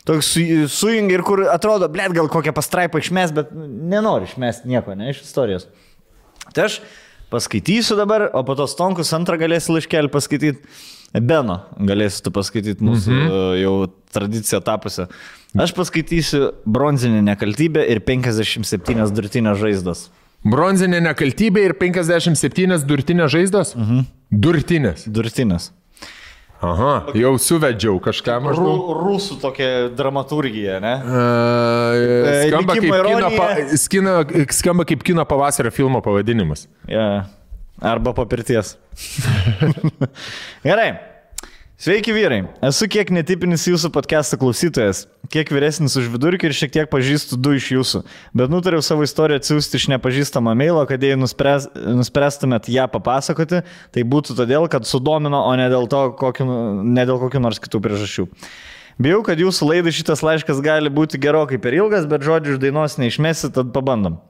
toks sujungi ir kur atrodo, blėt, gal kokią pastraipą išmes, bet nenori išmesti nieko, ne, iš istorijos. Tai aš paskaitysiu dabar, o po to Stonkus antrą galėsi laiškelį paskaityti. Beno galėsi tu paskaityti mūsų jau tradiciją tapusią. Aš paskaitysiu Bronzinė nekaltybė ir 57 durtinės žaizdos. Bronzinė nekaltybė ir 57 durtinės žaizdos? Durtinės. Aha, jau suvedžiau kažką maždaug. Rusų tokia dramaturgija, ne? Skamba kaip kino pavasario filmo pavadinimas. Yeah. Arba po pirties. Gerai. Sveiki vyrai. Esu kiek netipinis jūsų podcast'o klausytojas, kiek vyresnis už vidurkį ir šiek tiek pažįstu 2 iš jūsų. Bet nutariau savo istoriją atsiųsti iš nepažįstamą mailo, kad jei nuspręstumėt ją papasakoti, tai būtų todėl, kad sudomino, o ne dėl kokių nors kitų priežasčių. Bijau, kad jūsų laidai šitas laiškas gali būti gerokai per ilgas, bet žodžių iš dainos neišmesi, tad pabandom.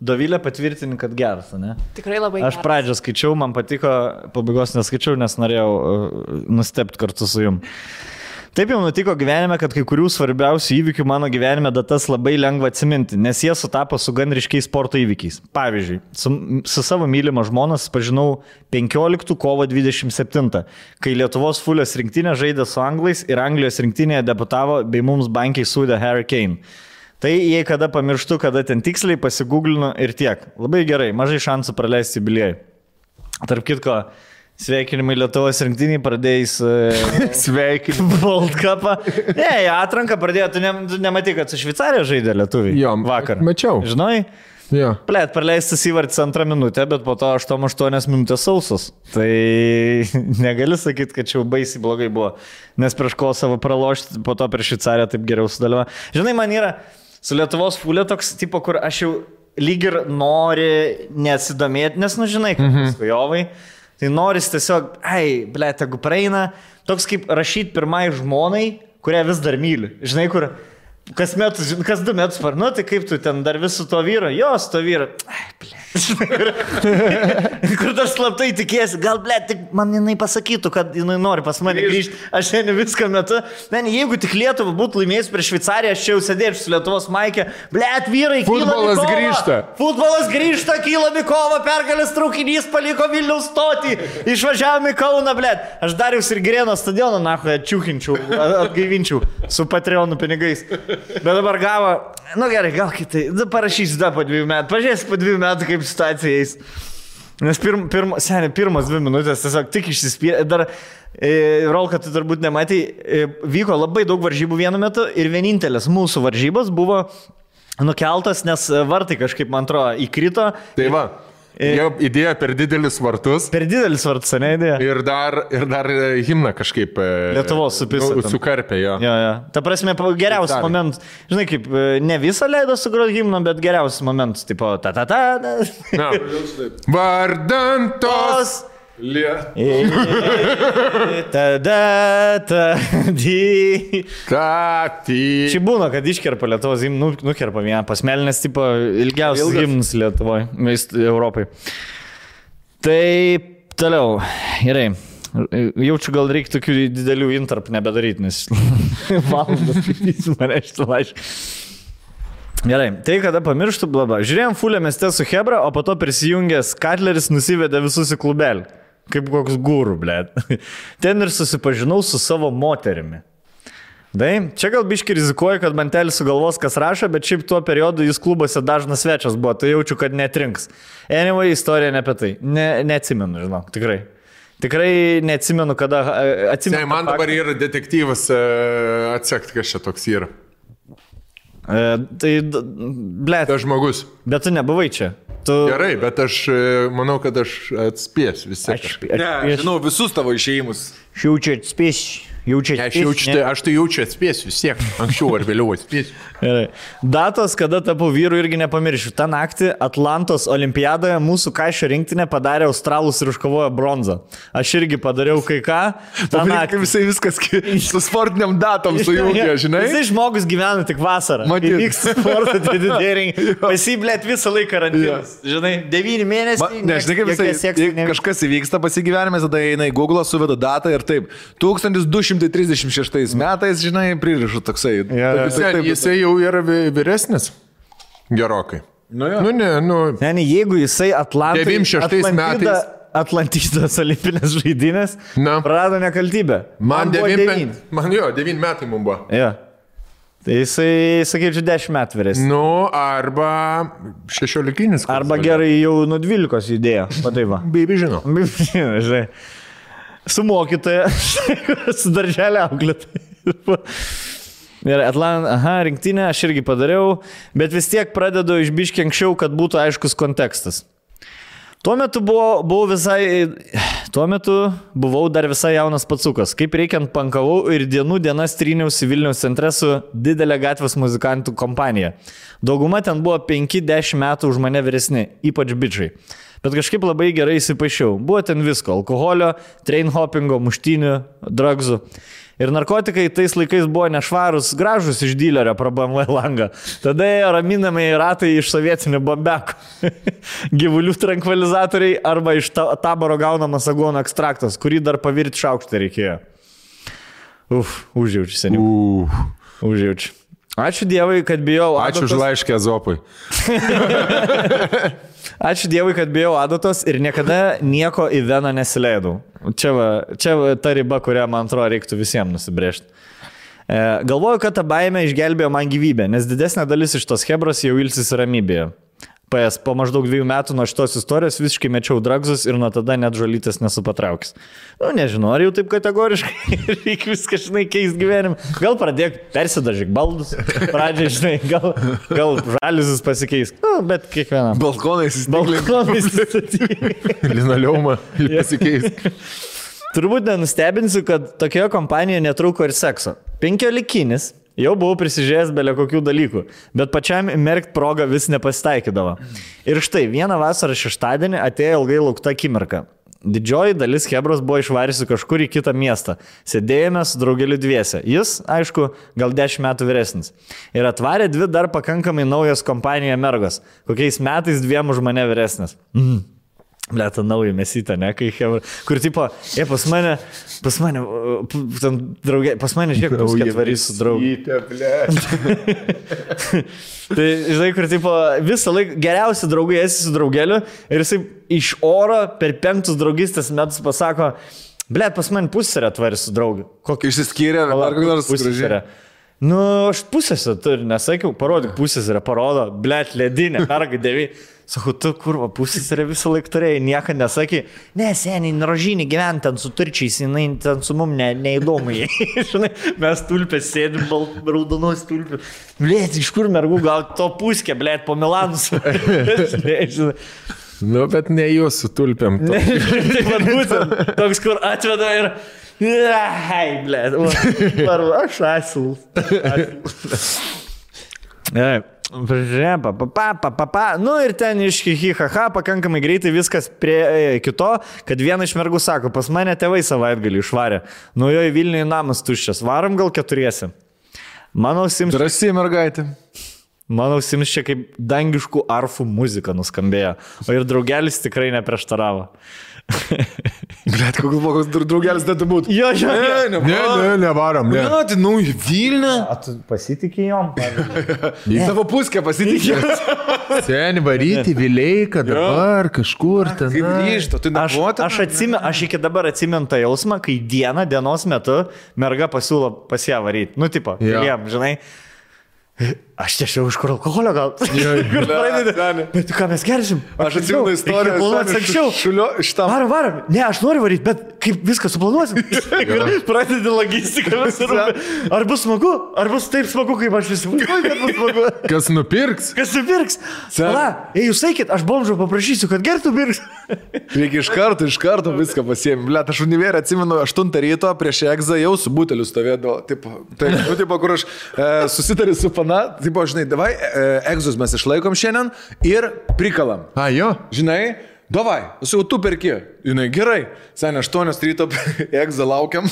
Dovilė patvirtini, kad geras, ne? Tikrai labai geras. Aš pradžią skaičiau, man patiko, pabaigos neskaičiau, nes norėjau nustebti kartu su jum. Taip jau nutiko gyvenime, kad kai kurių svarbiausių įvykių mano gyvenime datas labai lengva atsiminti, nes jie sutapo su gan ryškiais sporto įvykiais. Pavyzdžiui, su savo mylima žmona susipažinau 15 kovo 27, kai Lietuvos Fulės rinktinė žaidė su anglais ir Anglijos rinktinėje debutavo bei mums bankiai sūdė Harry Kane. Tai jei kada pamirštu, kada ten tiksliai pasigūglinu ir tiek. Labai gerai, mažai šansų praleisti jubiliejų. Tarp kitko, sveikinimai Lietuvos rinktiniai pradėjus sveikinimai World Cup'ą. Atranką pradėjo, tu nematai, kad su Šveicarija žaidė lietuviai. Jo, vakar. Mačiau. Žinai? Jo. Plėt, praleistas įvartis 2 minutę, bet po to 8 minutės sausos. Tai negali sakyti, kad čia jau baisiai blogai buvo. Nes prieš Kosovą pralošti, po to prieš Šveicariją taip geriau sudaliavo. Žinai, man yra su Lietuvos Fulė toks tipo, kur aš jau lyg ir nori nesidomėti, nes, žinai, kaip skujovai. Tai noris tiesiog, tegu praeina, toks kaip rašyti pirmai žmonai, kurią vis dar myli. Žinai, kur kas 2 metus parnu, tai kaip tu ten dar vis su to vyru? Jo, su to vyru. Kur dar slaptai tikėsi, gal, tik man jinai pasakytų, kad jinai nori pas mane grįžti, aš šiandien viską metu. Jeigu tik Lietuva būtų laimėjus prieš Šveicariją, aš čia jau sėdėčiau su Lietuvos maikė. Vyrai, futbolas grįžta. Futbolas grįžta, kyla Mikova, pergalės traukinys paliko Vilniaus stotį, išvažiavome į Kauną, Aš Dariaus ir Girėno stadioną, atčiūkinčiau, atgaivinčiau su Patreonų pinigais. Bet dabar gavo, gerai, gal kitai, parašysiu dar po 2 metų, pažiūrėsiu po 2 metų, kaip situacija eis. Nes pirmas 2 minutės tiesiog tik išsispyrė. Dar, Rolka, tu turbūt nematai, vyko labai daug varžybų vienu metu ir vienintelės mūsų varžybos buvo nukeltas, nes vartai kažkaip, man atrodo, įkrito. Tai va. Jau idėja per didelis vartus. Per didelis vartus, ne idėja. Ir dar himną kažkaip Lietuvos supisą. Sukarpė, jo. Ta prasme, geriausias momentas. Žinai, kaip ne visą leido sugroti himną, bet geriausias momentas. Tipo, ta-ta-ta. Vardan tos. Čia būna, kad iškerpa Lietuvos himną, nukerpa vieną pasmelinės, tipo, ilgiausias himnas Lietuvoje, Europai. Tai toliau, gerai. Jaučiu, gal reikia tokių didelių intarpų nebedaryti, nes valandas skaitysiu mane šitą laišką. Gerai, tai kada pamirštų, blaba. Žiūrėjom Fulė mieste su Hebra, o po to prisijungęs Katleris nusivedė visus į klubelį. Kaip koks gūrų, Ten ir susipažinau su savo moterimi. Čia gal biški rizikuoju, kad mantelis sugalvos, kas rašo, bet šiaip tuo periodu jis klubuose dažnas svečias buvo, tai jaučiu, kad netrinks. Anyway, istorija ne apie tai. Neatsimenu, žinok, tikrai. Tikrai neatsimenu, kada atsimenu. Man dabar yra detektyvas atsekti, kas čia toks yra. Tai, Tas žmogus. Bet tu nebuvai čia. Gerai, bet aš manau, kad aš atspėsiu vis tiek. Žinau visus tavo išėjimus. Šiaučiu atspėsiu. Aš tai jaučiu atspėsiu vis tiek, anksčiau ar vėliau atspėsiu. Datos, kada tapau vyru, irgi nepamiršiu. Ta naktį Atlantos olimpiadoje mūsų kaišio rinktinė padarė australus ir iškovojo bronzą. Aš irgi padariau kai ką. Kaip visai viskas su sportiniam datom sujungia, žinai? Visai žmogus gyvena tik vasarą. Matyt. Vyksta sporto didėriai. Pasiblėt visą laiką karantinas. Žinai, 9 mėnesiai. Nežinai, kaip visai kažkas įvyksta pasigyvenime, tada eina į Google, suveda datą ir taip. 1236 metais, žinai, pririšu toksai. Jisai jau yra vyresnis. Gerokai. Ne, jeigu jisai 96 metais. Atlantidos olimpinės žaidynės prarado nekaltybę. Man 9 metai mums buvo. Ja. Tai jisai, sakyčiau, 10 metų vyresnis. Arba 16. Arba gerai jau nuo 12 judėjo. Pataiva. Baby žino. Žinai. Su mokytoja, su darželio auklėtoja. Ir rinktinę aš irgi padariau, bet vis tiek pradedu iš biškį anksčiau, kad būtų aiškus kontekstas. Tuo metu buvau dar visai jaunas pacukas. Kaip reikiant pankavau ir dienas tryniausi Vilniaus centre su didelė gatvės muzikantų kompanija. Dauguma ten buvo 5-10 metų už mane vyresni, ypač bičiai. Bet kažkaip labai gerai įsipaišiau. Buvo ten visko - alkoholio, train hoppingo, muštynių, drugsų. Ir narkotikai tais laikais buvo nešvarus, gražus iš dylerio pro BMW langą. Tada ėjo raminamai ratai iš sovietinių bombekų. Gyvulių trankvilizatoriai arba iš taboro gaunamas aguono ekstraktas, kurį dar pavirti šaukštą reikėjo. Užjaučiu seniau. Užjaučiu. Ačiū Dievui, kad bijau adatos. Ačiū už laiškę Zopui. Ačiū Dievui, kad bijau adatos ir niekada nieko į veną nesileidau. Čia ta riba, kurią, man atrodo, reiktų visiems nusibrėžti. Galvoju, kad ta baimė išgelbėjo man gyvybę, nes didesnė dalis iš tos hebros jau ilsis ramybėje. Po maždaug 2 metų nuo šitos istorijos visiškai mečiau dragzus ir nuo tada net žolytės nesu patraukęs. Nežinau, ar jau taip kategoriškai reikia viską, žinai, keist gyvenimą. Gal pradėk persidažyk baldus, pradžiai, žinai, gal žaliusis pasikeis. Bet kiekvieną. Balkonais įstatyk. Linoleumą pasikeis. Turbūt nenustebinsiu, kad tokioje kompanijoje netrūko ir sekso. 15. Jau buvau prisižiūrėjęs belė kokių dalykų, bet pačiam merkt progą vis nepasitaikydavo. Ir štai, vieną vasarą šeštadienį atėjo ilgai laukta akimirka. Didžioji dalis hebros buvo išvarysi kažkur į kitą miestą. Sėdėjome su draugeliu dviese. Jis, aišku, gal 10 metų vyresnis. Ir atvarė 2 dar pakankamai naujos kompanijoje mergos. Kokiais metais 2 už mane vyresnis. Blėta nauja mesyta, ne, kai hebra. Kur tipo, pas mane, žiūrėk, puskę atvarys su draugu. Tai, žinai, kur tipo, visą laiką geriausi draugai esi su draugeliu ir jisai iš oro per 5 draugystės metus pasako, blėt, pas mane pusserę atvarys su draugu. Kokį išsiskyrė, ar kokį nors pusserę. Aš pusėse turiu, nesakiau, parodyk pusėse, parodo, blėt, ledinė, merga 9. Sakau, tu kurva, pusėse visą laiką turėjai, nieko nesakė. Ne, seniai, rožinį gyventi ten su turčiais, jinai ten su mum neįdomu. Žinai, mes tulpės sėdim, raudonos tulpės. Blėt, iš kur mergų, gal to puskė, blėt, po Milanus. Bet ne jūs su tulpėm. Taip pat būtent, toks, kur atveda ir... Ai, blėt, aš asilu. Ir ten iš hihihaha pakankamai greitai viskas prie kito, kad viena iš mergų sako, pas mane tėvai savaitgalį išvarė. Jo į Vilnių namas tuščias, varom gal 4. Mano ausims... Drąsiai mergaitė. Mano ausims čia kaip dangiškų arfų muzika nuskambėjo, o ir draugelis tikrai neprieštaravo. Blet, koks draugelis dėtų būti? Jo. Nevarom. Ne, tai į Vilnių. Tu pasitikė jom? Į savo puskę pasitikė. Seni varyti, Vileika, dabar kažkur ten. Kaip grįžto, tu nebuvote? Aš iki dabar atsimenu tą jausmą, kai dienos metu merga pasiūlo pas ją varyti. Tipo, jiem, žinai. aš tiesiog iš kur alkoholio gal. Bet ką mes gersim? Aš atsimenu istoriją. Varom. Ne, aš noriu varyti, bet kaip viską suplanuosim. Pradedi logistiką. Ar bus smagu? Ar bus taip smagu, kaip aš įsivaizduoju, kad bus smagu? Kas nupirks? Pala, jūs sakėt, aš bomžo paprašysiu, kad gertų pirks. Reikia iš karto viską pasiėmė. Blet, aš univerį atsimenu 8 ryto prieš egzą jau su buteliu stovėdavo. Taip, kur aš susitariu su pana. Taip, žinai, davai, egzus mes išlaikom šiandien ir prikalam. Jo. Žinai, davai, jau tu perki. Žinai, gerai. Seniai, 8 ryto egzą laukiam,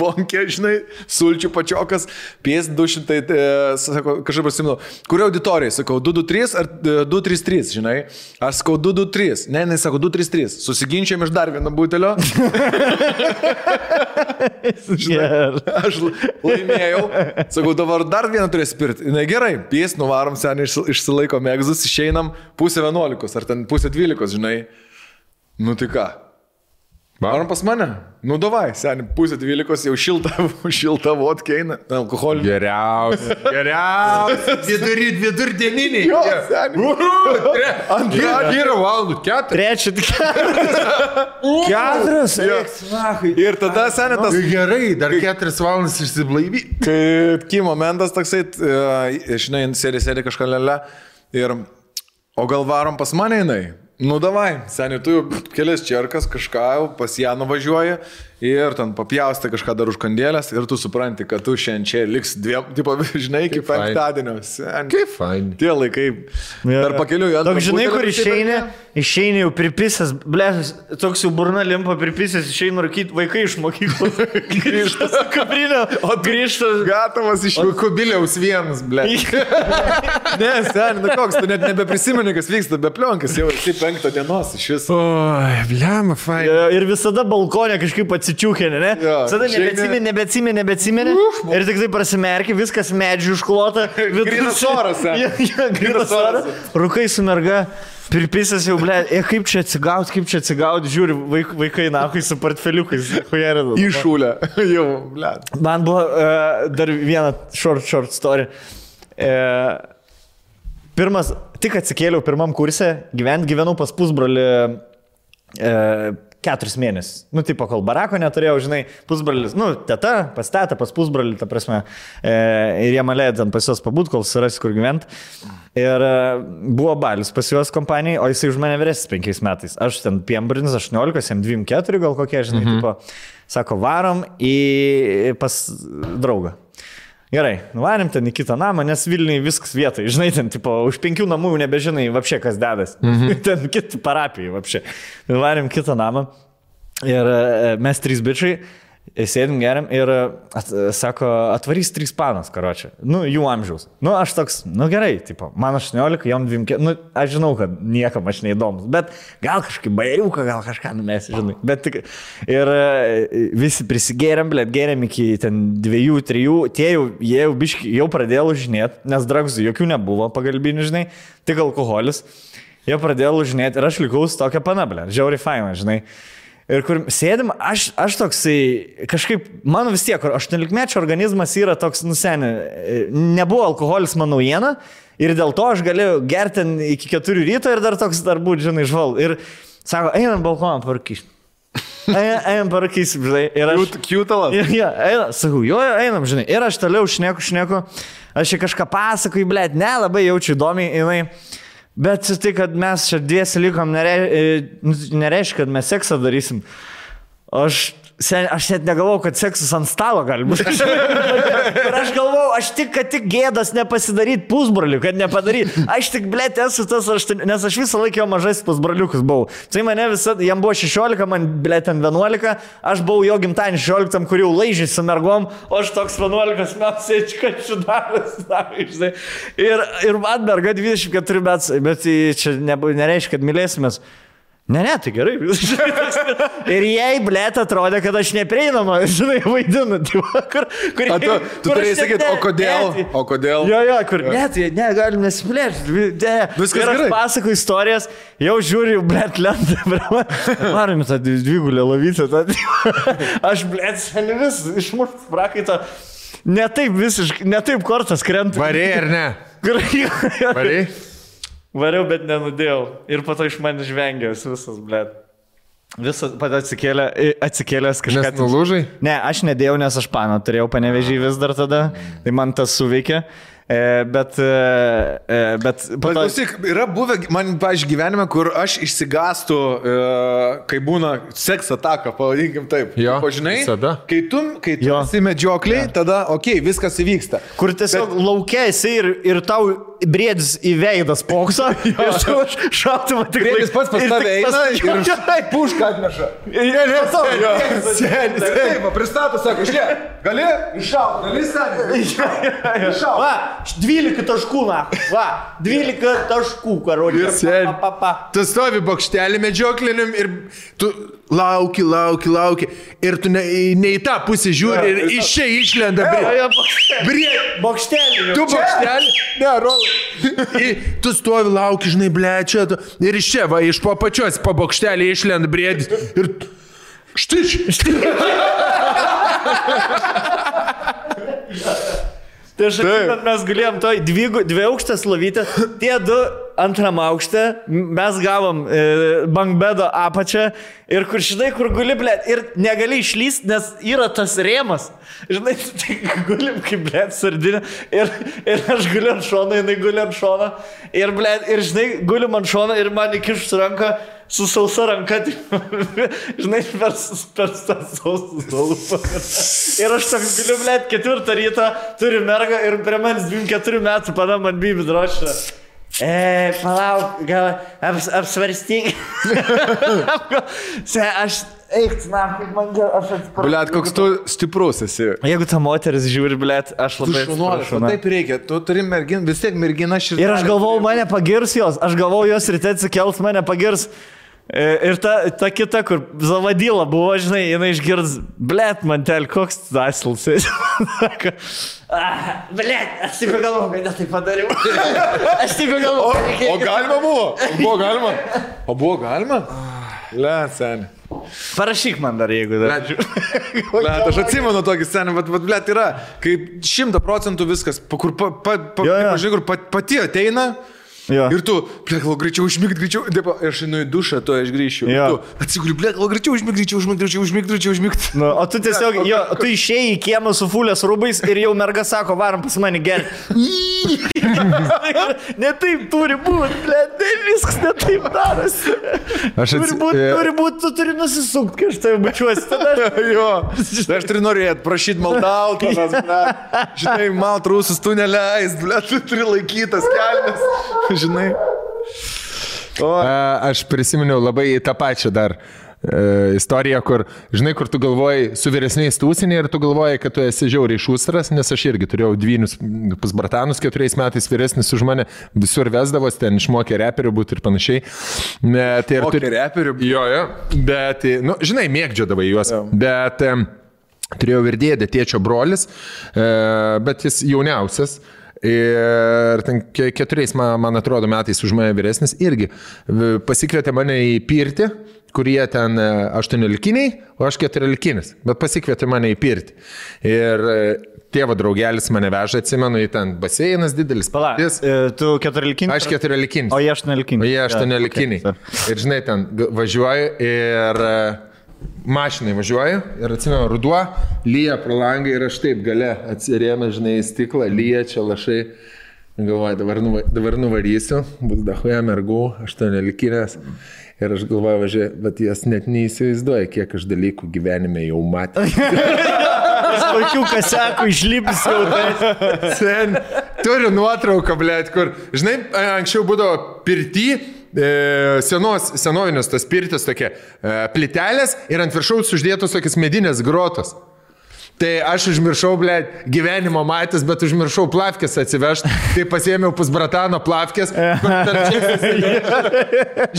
bonkė, žinai, sulčių pačiokas, pies 200, sako, kažkaip pasimenu, kurio auditorijai, sakau, 223 ar 233, žinai. Aš sakau, 223. Ne, sako, 233. Susiginčiam iš dar vieno butelio. Žinai, aš laimėjau. Sakau, dabar dar vieną turės pirti. Na gerai, pies, nuvarom, seniai, išsilaikom egzus, išeinam 10:11 ar ten 11:12, žinai. Nu tai ką? Varom pas mane? Nu davai, seniai, 11:12 jau šilta vodka eina, alkoholį. Geriausia. Vidurdieniniai. Jo, seniai. Yra valandų 4. 4. Ir tada, seniai, tas... Gerai, dar 4 valandas išsiblaivi. Kai momentas toksai, žinai, sėdi kažką lele ir... O gal varom pas mane jinai? Nu davai, seniai, tu jau kelias čerkas kažką jau pas ją nuvažiuoji ir ten papjaustai kažką dar už kandėlės ir tu supranti, kad tu šiandien čia liks dviem, tipo, žinai, iki penktadienio. Kaip fain. Tie laikai. Dar pakeliu į antrą. Toks, žinai, kur išeini jau pripisęs, blėsas, toks jau burna limpa pripisęs, išeini rūkyti vaikai iš mokyklos. Grįžta su kabrinė, o grįžta... Gatavas iš kubiliaus vienas, blė. Ne, seniai, nu koks, tu net nebeprisimeni, kas vyksta, be plionkas, jau esi 5 dienos iš viso. Oi, blėma, fain. Ir visada balkonė kažkaip atsičiūkė, ne? Visada nebeatsimeni. Ir tik tai prasimerki, viskas medžių užklota. Grynas oras, Grynas oras. Rūkai su merga. Pirpisas jau, blė, kaip čia atsigaut, žiūri, vaikai nahui su portfeliukais. Išūlė, jau, blė. Man buvo dar viena short story. Pirmas, tik atsikėliau pirmam kurse, gyvenau pas pusbrolį 4 mėnesius. Nu, tipo, kol barako neturėjau, žinai, pusbrolis, nu, teta, pas tetą, pas pusbrolį, ta prasme, ir jie malėjo ten pas juos pabūt, kol surasi, kur gyventi. Ir buvo balius pas juos kompanijai, o jisai už mane vyresnis 5 metais. Aš ten piembrinis 18, jam 24 gal kokie, žinai, tipo, sako, varom pas draugą. Gerai, nuvarėm ten į kitą namą, nes Vilniui viskas vietai, žinai, ten, tipo, už 5 namų jau nebežinai, vapšė, kas dedas. Ten kiti parapijai, vapšė. Nuvarėm kitą namą ir mes 3 bičiai sėdim geriam ir sako, atvarys 3 panas, karočią. Nu, jų amžiaus. Nu, aš toks, nu gerai, tipo, man 18, jom 24, nu, aš žinau, kad niekam aš neįdomus, bet gal kažkaip bairiuką, gal kažką numesi, žinai. Bet tik, ir visi prisigėrėm, blėt, gėrėm iki ten 2-3, tie jie jau biški, jau pradėjo lūžinėti, nes dragzų jokių nebuvo pagalbinių, žinai, tik alkoholis. Jie pradėjo lūžinėti ir aš likau su tokia pana, blėt, žiauriai faina, žinai. Ir kur sėdim, aš toksai, kažkaip, mano vis tiek, 18-mečio organizmas yra toks, nusenė, nebuvo alkoholis mano naujiena ir dėl to aš galėjau gerti iki 4 ryto ir dar toks dar būti, žinai, žval. Ir sako, einam balkoną parkyšti. Einam parkyšti, žinai. Ir aš... Kiutalas. Ja, sakau, jo, einam, žinai. Ir aš toliau šneku. Aš čia kažką pasakoju, blėt, labai jaučiu įdomiai, jinai. Bet tai, kad mes čia 2 likom, nereiškia, kad mes seksą darysim. Aš net negalvau, kad seksas ant stalo gali būti. Ir aš galvau, kad tik gėdas nepasidaryti pusbrolių, kad nepadaryt. Aš tik, blėt, esu tas, nes aš visą laiką jau mažais pusbroliukus buvau. Tai mane visą, jam buvo 16, man, blėt, 11, aš buvau jo gimtadienį 16, kur jau laižiai su mergom, o aš toks 11 metų sėdžiu, kad šidaras. Ir man merga 24 metų, bet čia nereiškia, kad mylėsimės. Ne, tai gerai. Ir jai, blėt, atrodė, kad aš neprieinama, žinai, vaidinu. Tu turėjai sakyti, o kodėl? Jo, kur, ne, galim nesiplėšti. Viskas gerai. Ir aš pasakoju istorijas, jau žiūriu, blėt, lentą. Varom tą dvigulę lovytę. Aš, blėt, seniai vis išmušt prakaitą. Ne taip kortas krenta. Varė ar ne? Variai? Variau, bet nenudėjau. Ir po to iš manęs žvengė visas, blėt. Visas pat atsikėlęs kažką. Nes nulūžai? Ne, aš nedėjau, nes aš paną turėjau Panevėžį vis dar tada. Tai man tas suveikė. Bet klausyk, yra buvę man, pavyzdžiui, gyvenime, kur aš išsigastu, kai būna seks ataka, pavadinkim taip. Jo, žinai, visada. Kai tu esi medžiokliai, tada, viskas įvyksta. Kur tiesiog laukia esi ir tau briedis į veidą spokso, ir tu šautuvą tik... Briedis pats pas tave eina ir pušką atneša. Seniai, pristato, sako, žiūrėk, gali iššaut, gali seniai. Va, 12 taškų, na. Va, 12 taškų, karodė. Tu stovi bokštelį medžiokliniam ir tu lauki. Ir tu ne į tą pusę žiūri ir iš čia išlenda bokštelį. Tu bokštelį? Ne, rolai. Tu stovi, lauki, žinai, blečia. Ir iš čia, va, iš po pačios po bokštelį išlenda briedis. Ir štai. Tai aš atsimenu, mes galėjom toj dvi aukštės lovytę, tie du antram aukšte, mes gavom bankbedo apačią ir kur, žinai, kur guli, blėt, ir negali išlyst, nes yra tas rėmas. Žinai, tai gulim kaip, blėt, sardinė ir aš guliu ant šono, jinai guli ant šono ir, blėt, ir, žinai, gulim ant šono ir man įkišus ranką su sausa ranka, žinai, per tą sausą lūpą. Ir aš toks galiu, blėt, 4 ryto, turiu mergą ir prie manęs 24 metų pana man bibi drošia. Palauk, gal apsvarstyk. Aš eik, na, kaip man gal, aš atsiprašau. Blėt, koks tu stiprus esi. Jeigu ta moteris žiūri, blėt, aš labai atsiprašau. Taip reikia, tu turi merginą, vis tiek mergina širdelė. Ir aš galvau, mane pagirs jos, jos ryte atsikels, mane pagirs. Ir ta kita, kur Zavadyla buvo, žinai, jinai išgirds, blėt, mantel, koks asils. Blėt, aš taip galvau, kad ne taip padariau. Aš taip galvau. O galima buvo? Buvo galima? Blėt, seniai. Parašyk man dar, jeigu dar. Blėt, aš atsimenu tokį scenį, bet blėt yra, kai 100% viskas, kur pati ateina. Jo. Ir tu, blėt, greičiau užmigt, aš einu į dušą, to aš grįšiu. Tu atsiguli, blėt, greičiau užmigt. Nu, o tu tiesiog, tu išėjai į kiemą su fulės rūbais ir jau merga sako, varom pas mane gerti. Ne taip turi būti, blėt, viskas ne taip darosi. Turi būti, tu turi nusisukt, kai aš tai bučiuosi. Jo, aš turiu norėti, prašyti maldaut, žinai, malt rūsus tu neleist, blėt, tu turi laikytas kelnes. Žinai. Aš prisiminiau labai tą pačią dar istoriją, kur, žinai, kur tu galvoji su vyresniais tūsinė ir tu galvoji, kad tu esi žiauriai šūstras, nes aš irgi turėjau dvynius pas bratanus 4 metais vyresnis už mane, visur vesdavos, ten išmokė reperių būti ir panašiai. Mokė reperių? Jo, bet, nu, žinai, mėgdžiodavai juos, bet turėjau ir dėdę, tėčio brolis, bet jis jauniausias. Ir ten 4, man atrodo, metais už mane vyresnis irgi pasikvietė mane į pirtį, kurie ten 18-kiniai, o aš 14-kinis, bet pasikvietė mane į pirtį. Ir tėvo draugelis mane veža, atsimenu, į ten baseinas didelis. Palauk, tu 14-kinis? Aš 14-kinis. O jie 18-kiniai. O jie 18-kiniai. Ir žinai, ten važiuoju ir... mašinai važiuoju ir atsimenu, ruduo, lyja pro langą ir aš taip gale atsirėmė, žinai, į stiklą, lyja čia lašai. Galvoju, dabar nuvarysiu, bus dahuja mergų, 18-kinės. Ir aš galvoju, važiuoju, bet jas net neįsivaizduoja, kiek aš dalykų gyvenime jau matė. Kokių kasekų išlipus jau tai. Turiu nuotrauką, blėt, kur, žinai, anksčiau būdavo pirty, senovinės tas pirtis tokie plitelės ir ant viršaus uždėtos tokias medinės grotos. Tai aš užmiršau, blėt, gyvenimo matęs, bet užmiršau plavkės atsivežti. Tai pasiėmiau pusbratano plavkės.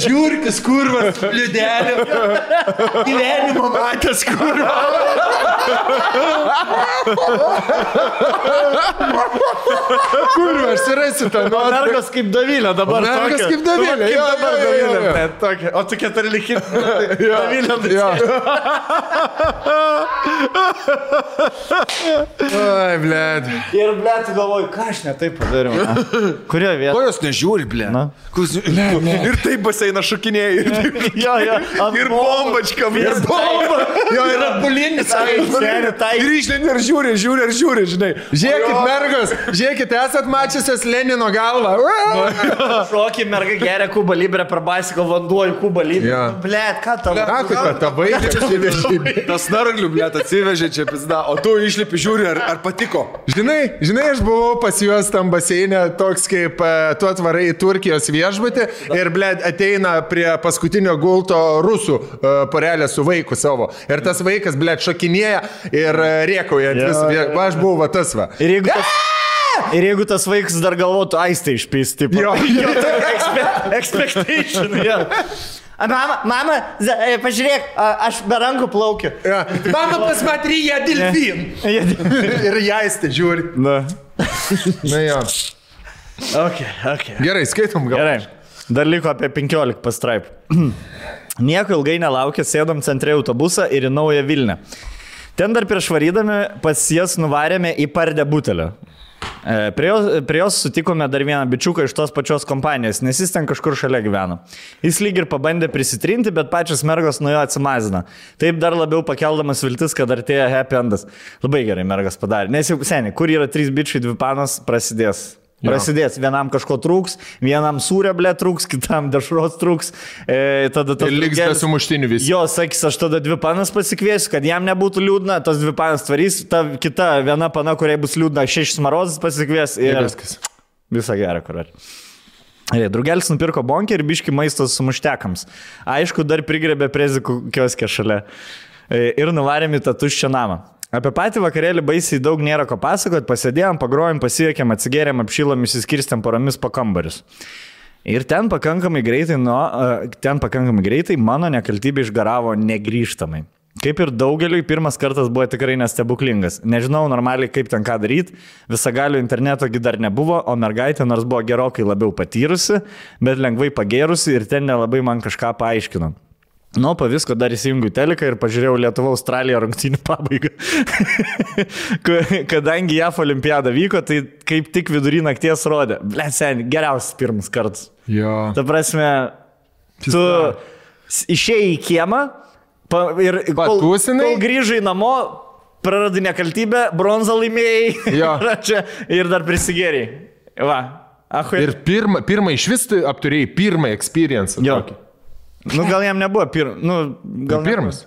Žiūrkis, kurvas, liudelė. Gyvenimo matęs, kurvas. Kur aš surasiu tą nuotrauką? Mergas kaip Davilė dabar. Mergas kaip Davilė. Kaip dabar Davilė. O tu 14 Davilė. Oi, blėd. Ir blėd, galvoju, ką aš ne taip padariau. Kurioje vietoje? Ko jos nežiūri, blėd? Ir taip baseiną šokinėjai. Jo. Ir bombačkam. Ir bomba. Jo, yra bulinis. Ir išlėni ir žiūri, žinai. Žiūrėkit, mergos, žiūrėkit, esat mačiusios Lenino galvą. Šokį merga geria Kuba Libre per Baisiko vanduo į Kuba Libre. Blėd, ką tau? Ką kaip tavai atsivežė? Tas narglių, blėd, atsivežė čia pizda, o tu išlipi žiūri, ar patiko. Žinai, aš buvau pas juos tam baseinė, toks kaip tu atvarai į Turkijos viešbutį ir, blėd, ateina prie paskutinio gulto rusų porelė su vaiku savo. Ir tas vaikas, blėd, šokinėja ir rėkauja. Aš buvau va tas va. Ir jeigu tas vaikas dar galvotų, aistą išpys, tipo. Jo, expectation, jo. Mama, pažiūrėk, aš be rankų plaukiu. Mama, pasmatry, jie delfin. Ir jaistė žiūri. Na jo. Okay. Gerai, skaitom gal. Gerai. Dar liko apie 15 pastraipų. Nieko ilgai nelaukė, sėdom centre autobusą ir į Naują Vilnią. Ten dar prieš varydami pas jas nuvarėme į Pardę butelio. Prie jos sutikome dar vieną bičiuką iš tos pačios kompanijos, nes jis ten kažkur šalia gyveno. Jis lyg ir pabandė prisitrinti, bet pačios mergos nuo jo atsimazino. Taip dar labiau pakeldamas viltis, kad artėja happy endas. Labai gerai mergas padarė. Nes jau seniai, kur yra 3 bičiai, 2 panos, prasidės. Vienam kažko trūks, vienam sūrio blė trūks, kitam dešros trūks. Tada ir liks be sumuštinių visi. Jo, sakys, aš tada 2 panas pasikviesiu, kad jam nebūtų liūdna, tas 2 panas tvarys, ta kita viena pana, kuriai bus liūdna, 6 smarozas pasikvies ir visą gerą, kur. Drugelis nupirko bonkę ir biški maistos sumuštekams. Aišku, dar prigrebė prezikų kioskę šalia. Ir nuvarėm į tą tuščią namą. Apie patį vakarėlį baisiai daug nėra ko pasakot, pasėdėjom, pagrojom, pasiekėm, atsigėrėm, apšilom, įsiskirstėm poromis po kambarius. Ir ten pakankamai greitai mano nekaltybė išgaravo negrįžtamai. Kaip ir daugeliui, pirmas kartas buvo tikrai nestebuklingas. Nežinau normaliai, kaip ten ką daryti, visagalių internetogi dar nebuvo, o mergaitė nors buvo gerokai labiau patyrusi, bet lengvai pagėrusi ir ten nelabai man kažką paaiškino. Nu, po visko dar įsijungiu teliką ir pažiūrėjau Lietuva-Australija rungtynių pabaigą. Kadangi JAF olimpiada vyko, tai kaip tik vidury nakties rodė. Blet, seniai, geriausias pirmas kartas. Jo. Ta prasme, tu išėjai į kiemą ir kol grįžai namo, praradai nekaltybę, bronzą laimėjai ir dar prisigėrėjai. Va. Ir pirmą iš vis apturėjai pirmą experience. Nu, gal jam nebuvo pirmas.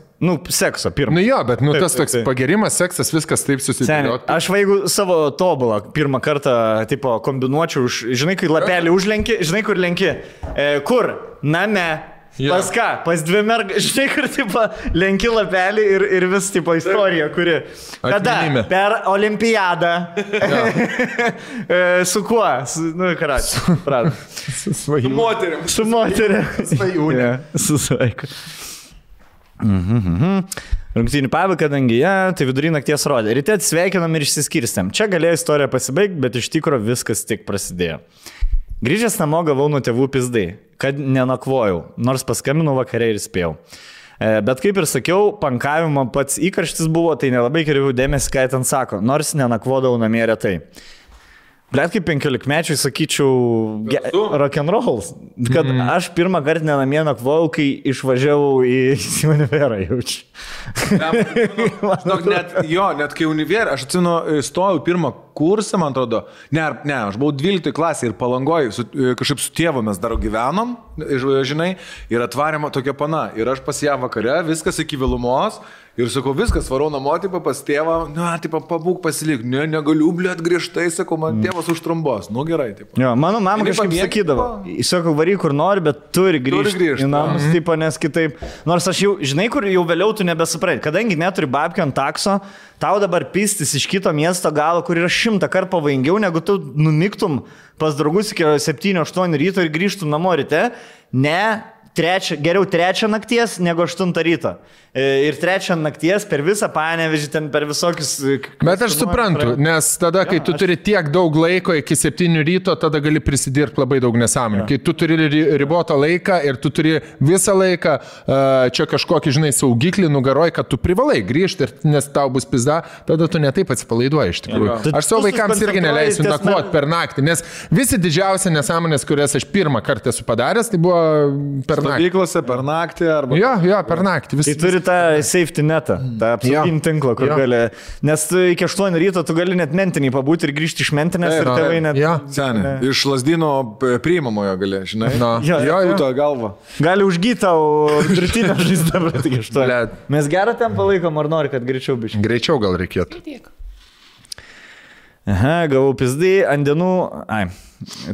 Sekso pirmas. Jo, bet tas toks pagerimas, seksas, viskas taip susidėlioti. Aš jeigu savo tobulą pirmą kartą tipo kombinuočiau, žinai, kai lapelį užlenki, žinai, kur lenki. Kur? Name. Pas ką? Pas 2 mergas, žinai, kur tipo lenki lapelį ir vis tipo istorija, kuri. Kada? Per olimpiadą. Su kuo? Su moterim. Su moterim. Svajūnė. Su svaiku. Rungtynių pabaigą, kadangi tai vidury nakties rodė. Ryte atsveikinam ir išsiskirstėm. Čia galėjo istorija pasibaigti, bet iš tikro viskas tik prasidėjo. Grįžęs namo gavau nuo tėvų pizdai, kad nenakvojau, nors paskambinau vakare ir spėjau. Bet kaip ir sakiau, pankavimo pats įkarštis buvo, tai nelabai kreipiau dėmesį, ką ten sako, nors nenakvodavau namie retai. Blet, kaip 15-mečiui sakyčiau, rock'n'rolls, kad aš pirmą kartą nenamie nakvojau, kai išvažiavau į univerą jaučiu. Net kai univerą, aš atsinu, stojau pirmą kursą, man atrodo, aš buvau 12 klasė ir Palangoj, kažkaip su tėvu mes dar gyvenom, žinai, ir atvarėm tokia pana, ir aš pas ją vakare, viskas iki vėlumos, ir sakau, viskas, varau namo, tipo, pas tėvą, pabūk pasilik, negaliu, blėt, griežtai, sakau, man tėvas užtrumbos, gerai, tipo. Jo, mano mama kažkaip sakydavo, sakau, varyk kur nori, bet turi grįžti į namus, tipo, nes kitaip, nors aš jau, žinai, kur jau vėliau tu nebesuprai, kadangi neturi babkių ant takso, tau dabar pistis iš kito miesto galo, kur yra 100 kartų pavojingiau, negu tu numiktum pas draugus iki 7-8 ryto ir grįžtum namo ryte, ne, geriau 3 nakties negu 8 ryto. Ir 3 nakties per visą Panevėžį, ten per visokius... Bet aš suprantu, nes tada, kai tu turi tiek daug laiko iki 7 ryto, tada gali prisidirbti labai daug nesąmonių. Kai tu turi ribotą laiką ir tu turi visą laiką čia kažkokį, žinai, saugiklį nugaroj, kad tu privalai grįžti, nes tau bus pizda, tada tu netaip atsipalaiduoji iš tikrųjų. Aš savo vaikams irgi neleisiu nakvoti per naktį, nes visi didžiausi nesąmonės, kurias aš pirmą kartą esu padaręs, tai buvo per naktį. Stovyklose per naktį arba... Jo, per naktį. Tai turi tą safety netą, tą apsauginį tinklą, kur gali... Nes iki 8 ryto tu gali net mentinį pabūti ir grįžti iš mentinės ir tėvai net... Senė, iš Lazdino priimamojo gali, žinai. Jo, galva. Gali užgyti tau drutinę žaizdą, bet iki 8. Mes gerą ten palaikom, ar nori, kad greičiau biškai? Greičiau gal reikėtų. Aha, gavau pizdai ant dienų...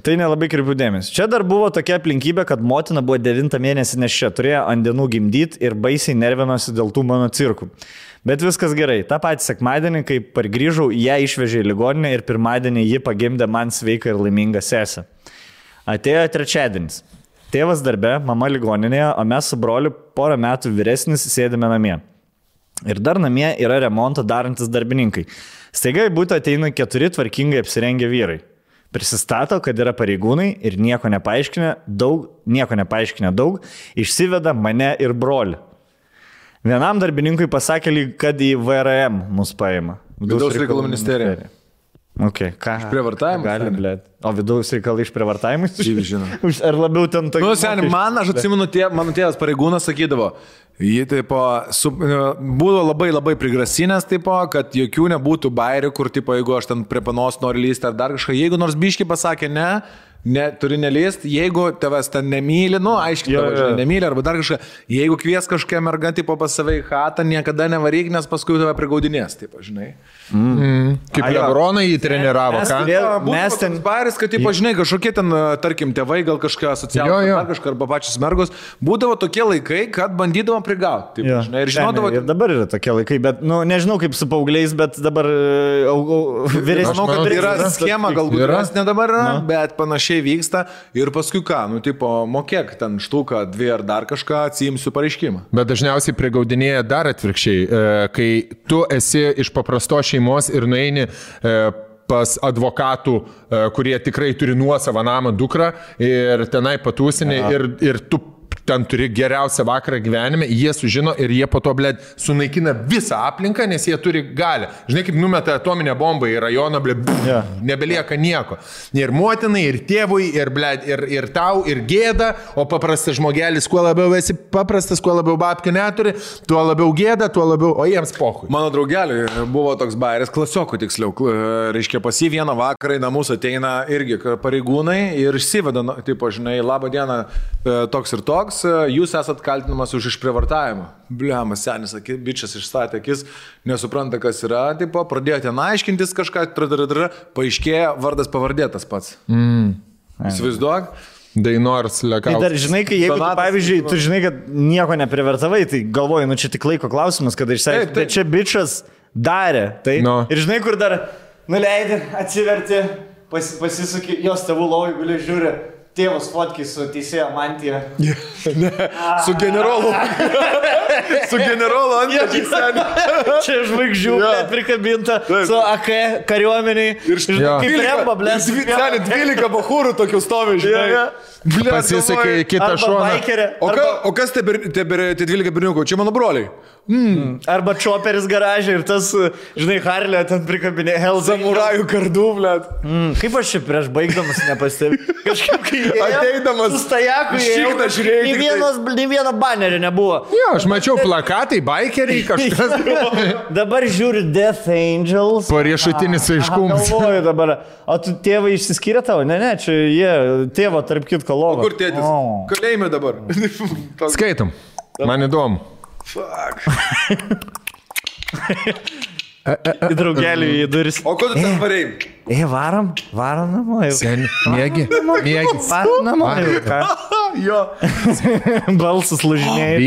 Tai nelabai kreipiu dėmesį. Čia dar buvo tokia aplinkybė, kad motina buvo 9 mėnesį neščia, turėjo ant dienų gimdyti ir baisiai nervinosi dėl tų mano cirkų. Bet viskas gerai. Ta pati sekmadienį, kai pargrįžau, ją išvežė į ligoninę ir pirmadienį ji pagimdė man sveiką ir laimingą sesę. Atėjo trečiadienis. Tėvas darbe, mama ligoninėje, o mes su broliu porą metų vyresnis sėdime namie. Ir dar namie yra remontą darantis darbininkai. Staiga į butą ateina 4 tvarkingai apsirengę vyrai. Prisistato, kad yra pareigūnai ir nieko nepaaiškinę daug, išsiveda mane ir brolį. Vienam darbininkui pasakė, kad į VRM mus paima. Vidaus reikalų ministerija. Okay, ką? Išprievartavimus? Gali, blėt. O vidaus reikalai išprievartavimus? Žinau. Ar labiau ten tokie? Nu, seniai, aš atsimenu, mano tėvas pareigūnas sakydavo, jį taip, buvo labai prigrasinęs, taip, kad jokių nebūtų bairių, kur, taip, jeigu aš ten prie panos noriu lysti ar dar kažką, jeigu nors biški pasakė ne, turi nelyst, jeigu tavęs ten nemyli, aiškiai tavęs nemyli, arba dar kažką, jeigu kvies kažkokią mergą, tipo pas save į chatą, niekada nevaryk, nes paskui tave prigaudinės, taip, žinai. Kaip Lebroną jį treniravo, ką? Mes ten bairis, kad, tipo, žinai, kažkokie ten, tarkim, tėvai, gal kažką asociacijos, ar kažką, arba pačios mergos, būdavo tokie laikai, kad bandydavom prigauti, taip, žinai, ir žinodavo... Ir dabar yra tokie laikai, bet, nežinau kaip su paaugliais, bet dabar vyresnis. Manau, kad yra schema, galbūt ne dabar yra, bet panašiai vyksta ir paskui ką, mokėk ten štuką, 2 ar dar kažką, atsiimsiu pareiškimą. Bet dažniausiai prigaudinėja dar atvirkščiai, kai tu esi iš paprastos šeimos ir nueini pas advokatų, kurie tikrai turi nuosavą namą dukrą ir tenai patūsinį ir tu ten turi geriausią vakarą gyvenime, jie sužino ir jie po to, blėd, sunaikina visą aplinką, nes jie turi galią. Žinai, kaip numeta atominę bombą į rajoną, blėd, nebelieka nieko. Ir motinai, ir tėvui, ir, blėd, ir tau, ir gėda, o paprastas žmogelis, kuo labiau esi paprastas, kuo labiau babkių neturi, tuo labiau gėda, tuo labiau, o jiems pohui. Mano draugeliui buvo toks bairis, klasiokų tiksliau, reiškia, pas jį vieną vakarą į namus ateina irgi pareigūnai ir išsiveda, tipo, žinai, labą dieną, toks ir toks. Jūs esat kaltinamas už išprievartavimą. Bliamas senis, bičias išstatė akis, nesupranta, kas yra, tipo, pradėjo ten aiškintis kažką, paaiškėjo, vardas pavardė tas pats. Įsivaizduok. Dainors Lekauskas. Tai dar žinai, kai jeigu, pavyzdžiui, tu žinai, kad nieko neprivertavai, tai galvoju, čia tik laiko klausimas, kada išsiaiškinti, bet čia bičas darė. Tai, ir žinai, kur dar nuleidė, atsiverti, pasisuki, jos tėvų lovai guli žiūri. Tėvas fotkiai su teisėjo mantija. Su generolu. Su generolu antpečiais seniai. Čia žvaigždžių prikabinta su AK kariuomeniai. Kaip remba, blės. Seniai 12 bachūrų tokių stovi, žinai. Pasisakai kitą šoną. O kas tie 12 berniukų? Čia mano broliai. Arba čoperis garažė ir tas, žinai, Harlė ten prikabinė samurajų kardų, blėt. Kaip aš čia prieš baigdamas nepastebiu. Kažkaip kai ateidamas su stajaku nei vieno banerio nebuvo. Jo, aš mačiau plakatai, bikeriai, kažkas. Dabar žiūri Death Angels. Pariešutinis aiškumas. Galvoju dabar, o tu tėvai išsiskyrė tavo? Ne, čia jie tėvo tarp kitko logo. O kur tėtis? Kalėjime dabar. Skaitom. Man įdomu. Fuck. Į draugelį į duris. O ko tu ten varėjai? Varom namo jau. Seni, mėgi. Varom namo jau. Jo. Balsas lūžinėja.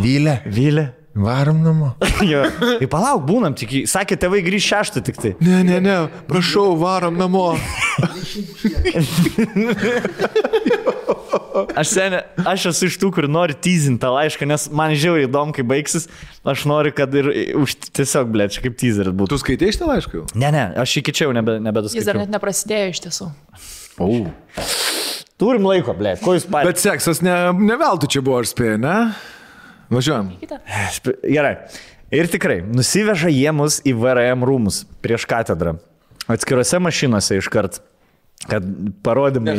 Vylė. Varom namo. Jo. Tai palauk, būnam tik. Sakė, tėvai grįž 6 tik tai. Ne. Prašau, varom namo. Aš esu iš tų, kur nori teasinti tą laišką, nes man žiauriai įdomu, kai baigsis. Aš noriu, kad ir tiesiog, blė, čia kaip teaseris būtų. Tu skaitai šitą laišką jau? Ne, aš iki čia jau nebedaskaičiau. Jis dar net neprasidėjo iš tiesų. Turim laiko, blė, ko jūs patys. Bet seksas ne veltui čia buvo, aš spėjau, ne? Važiuojam. Gerai. Ir tikrai, nusiveža jie mus į VRM rūmus prieš katedrą. Atskirose mašinose iškart, kad parodymai...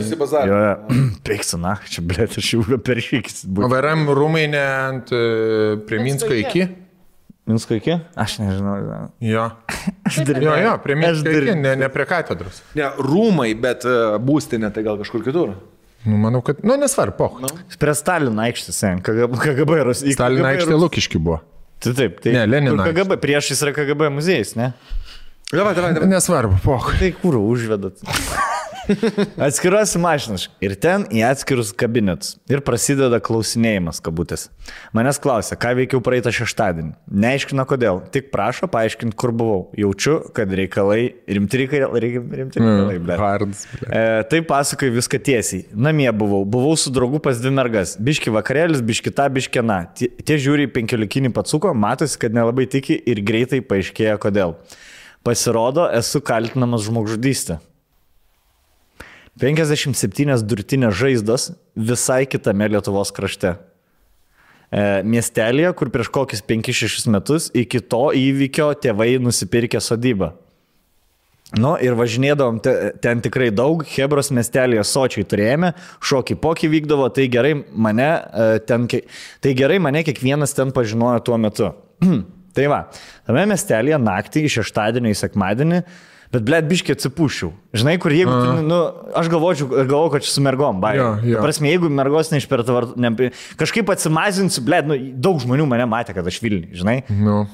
Peiksiu, na, čia, blė, aš jau per šykis. O VRM rūmai ne ant prie Minsko iki? Minsko iki? Aš nežinau. Jo. Jo, prie Minsko iki, ne prie katedros. Ne, rūmai, bet būstinė tai gal kažkur kitur. Manau, kad, nesvarbu, poch. Prie Stalino aikštės, KGB Rusija. Stalino aikštė Lukiški buvo. Taip, tai ne, Lenino. KGB, priešais yra KGB muziejus, ne? Davai. Nesvarbu, poch. Tai kur užvedat? Atskiruosi mašinas ir ten į atskirus kabinetus. Ir prasideda klausinėjimas, kabutės. Manęs klausia, ką veikiau praeitą šeštadienį. Neaiškina kodėl, tik prašo paaiškinti, kur buvau. Jaučiu, kad rimti reikalai, Hards. Tai pasakoju viską tiesiai. Namie buvau su draugu pas 2 mergas. Biški vakarėlis, biški ta, biški na. Tie žiūri 15 patsuko, matosi, kad nelabai tiki ir greitai paaiškėja kodėl. Pasirodo, esu kaltinamas žmogžudystė. 57 durtinės žaizdos visai kitame Lietuvos krašte. Miestelėje, kur prieš kokius 5-6 metus iki to įvykio tėvai nusipirkė sodybą. Ir važinėdavom ten tikrai daug, Hebros miestelėje sočiai turėjome, šokį pokį vykdavo, tai gerai mane kiekvienas ten pažinojo tuo metu. Tai va, tame miestelėje naktį iš šeštadienio į sekmadienį, bet, blėt, biškį atsipūšiau. Žinai, kur jeigu, aš galvoju, kad čia su mergom, bai. Prasme, jeigu mergos neišpertavart, kažkaip atsimazinsiu, blėt, daug žmonių mane matė, kad aš Vilniui, žinai?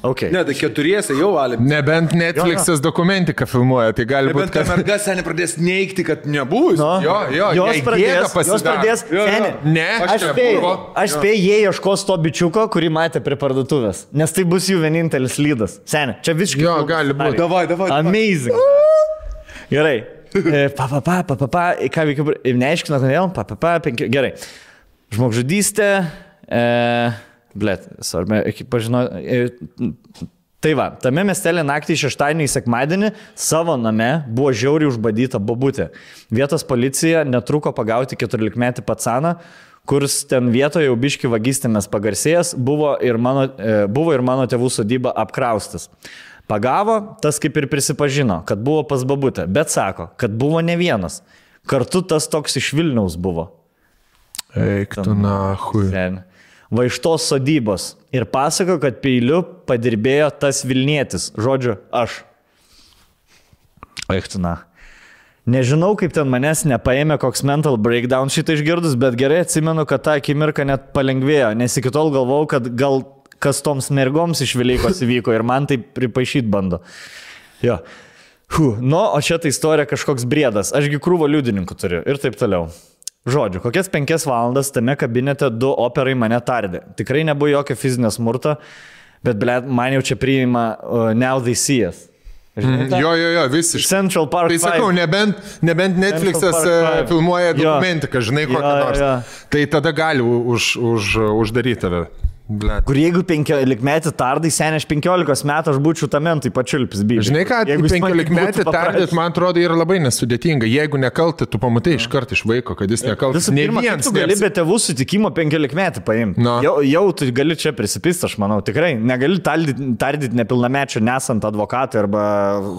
Okay. Ne, tai 4 jau valėm. Nebent Netflix'as dokumentiką filmuoja, tai gali būti, kad... Nebent mergas seniai pradės neigti, kad nebus. Jos pradės, ne, aš spėjau, jie ieškos to bičiuko, kurį matė prie parduotuvės, nes tai bus jų vienintelis lydas. Seniai, čia visiškai... Jo, gali būti. Davai. Amazing. Gerai. Ką veikiu, neaiškina, kodėl, gerai. Žmogžudystė, svarbi, pažinau, tai va, tame miestelė naktį šeštadienį į sekmadienį savo name buvo žiauriai užbadyta bobutė. Vietos policija netruko pagauti 14-metį pacaną, kuris ten vietoje jau biški vagystėmis pagarsėjęs, buvo ir mano tėvų sodyba apkraustas. Pagavo, tas kaip ir prisipažino, kad buvo pas babutę, bet sako, kad buvo ne vienas. Kartu tas toks iš Vilniaus buvo. Eik tu nahui. Va iš tos sodybos. Ir pasako, kad peiliu padirbėjo tas Vilnietis. Žodžiu, aš. Eik tu nahui. Nežinau, kaip ten manęs nepaėmė koks mental breakdown šitą išgirdus, bet gerai atsimenu, kad tą akimirką net palengvėjo, nes iki tol galvojau, kad gal kas toms mergoms iš Velykos įvyko ir man tai pripaišyti bando. Jo. O čia ta istorija kažkoks briedas. Ašgi krūvo liudininkų turiu ir taip toliau. Žodžiu, kokias 5 valandas tame kabinete 2 operai mane tardė. Tikrai nebuvo jokio fizinio smurto, bet man jau čia priima Now They See Us. Jo, visiškai. Central Park 5. Tai sakau, nebent Netflix'as filmuoja dokumentiką, žinai, kokią nors. Tai tada gali uždaryti tave. Blet. Kur jeigu 15 metį tardai, seniai aš 15 metų aš būčiau tame, tai pačiulpis bybė. Žinai ką, 15 metį tardyt, man atrodo, yra labai nesudėtinga. Jeigu nekalti, tu pamatai iš karto iš vaiko, kad jis nekaltas. Visų pirma, tu gali be tėvų sutikimo 15 metį paimti. Jau tu gali čia prisipist, aš manau, tikrai. Negali tardyti nepilnamečio nesant advokatui arba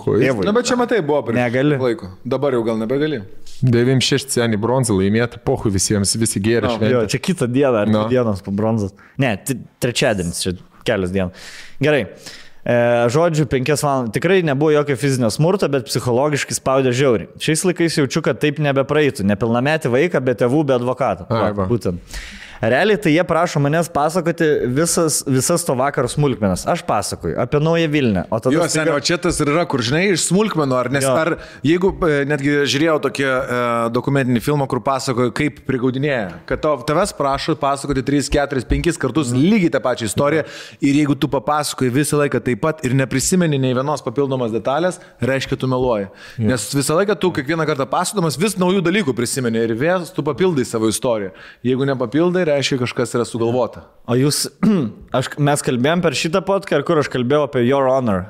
tėvui. Na, bet čia matai buvo prieš laiko. Dabar jau gal nebegali. 96 seniai bronzą laimėta, pohu visiems, visi gėrė šventė. Čia kitą dieną, ar dienos po bronzos. Ne, trečiadienis, čia kelias dienų. Gerai. Žodžiu, 5 valandas. Tikrai nebuvo jokio fizinio smurto, bet psichologiškai spaudė žiauriai. Šiais laikais jaučiu, kad taip nebepraeitų. Nepilnametį vaiką, be tėvų, be advokato. Būtent. Realiai tai jie prašo manęs pasakoti visas to vakaro smulkmenas. Aš pasakoju apie Naują Vilnią. Jo, seniai, o čia tas ir yra, kur žinai, iš smulkmenų, ar jeigu netgi žiūrėjau tokį dokumentinį filmą, kur pasakoju, kaip prigaudinėja, kad tavęs prašo pasakoti 3, 4, 5 kartus lygiai tą pačią istoriją ir jeigu tu papasakoji visą laiką taip pat ir neprisimeni nei vienos papildomos detalės, reiškia tu meluoji. Nes visą laiką tu kiekvieną kartą pasakodamas vis naujų dalykų prisimeni ir vėl tu papildai savo istoriją. Jeigu nepapildai, reiškia kažkas yra sugalvota. O jūs, mes kalbėjom per šitą podcast, kur aš kalbėjau apie Your Honor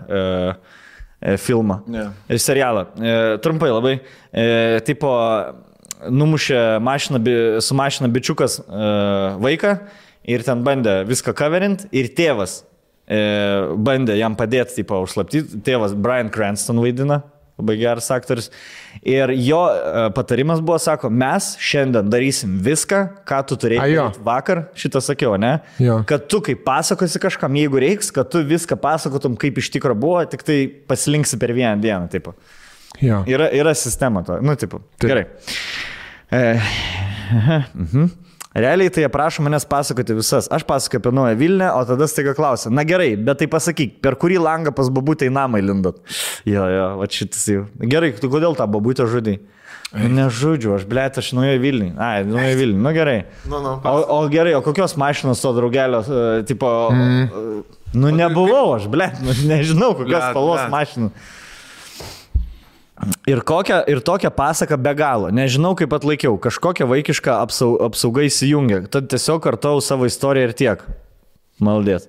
filmą ir serialą. Trumpai labai. Tipo, numušė su mašina bičiukas vaiką ir ten bandė viską coverint ir tėvas bandė jam padėti, tipo, užslaptyti. Tėvas Bryan Cranston vaidina. Labai geras aktorius. Ir jo patarimas buvo, sako, mes šiandien darysim viską, ką tu turėjai vakar, šitą sakiau, ne? Jo. Kad tu kaip pasakosi kažkam, jeigu reiks, kad tu viską pasakotum, kaip iš tikro buvo, tik tai pasilinksi per vieną dieną, taip. Yra sistema to, nu, taip. Gerai. Realiai tai jie prašo manęs pasakoti visas. Aš pasakoju apie Naują Vilnią, o tada staiga klausia, na gerai, bet tai pasakyk, per kurį langą pas babutę į namą įlindot? Jo, va šitas jau. Gerai, tu kodėl tą babutę žudai? Nežudžiu, aš blėt, aš Naują Vilnių. Ai, Naują Vilnių, nu gerai. O gerai, o kokios mašinos to draugelio, tipo, nu nebuvau aš, blėt, nežinau, kokios spalvos mašinų. Ir tokią pasaką be galo. Nežinau, kaip atlaikiau. Kažkokią vaikišką apsaugą įsijungia. Tad tiesiog kartau savo istoriją ir tiek. Maldėt.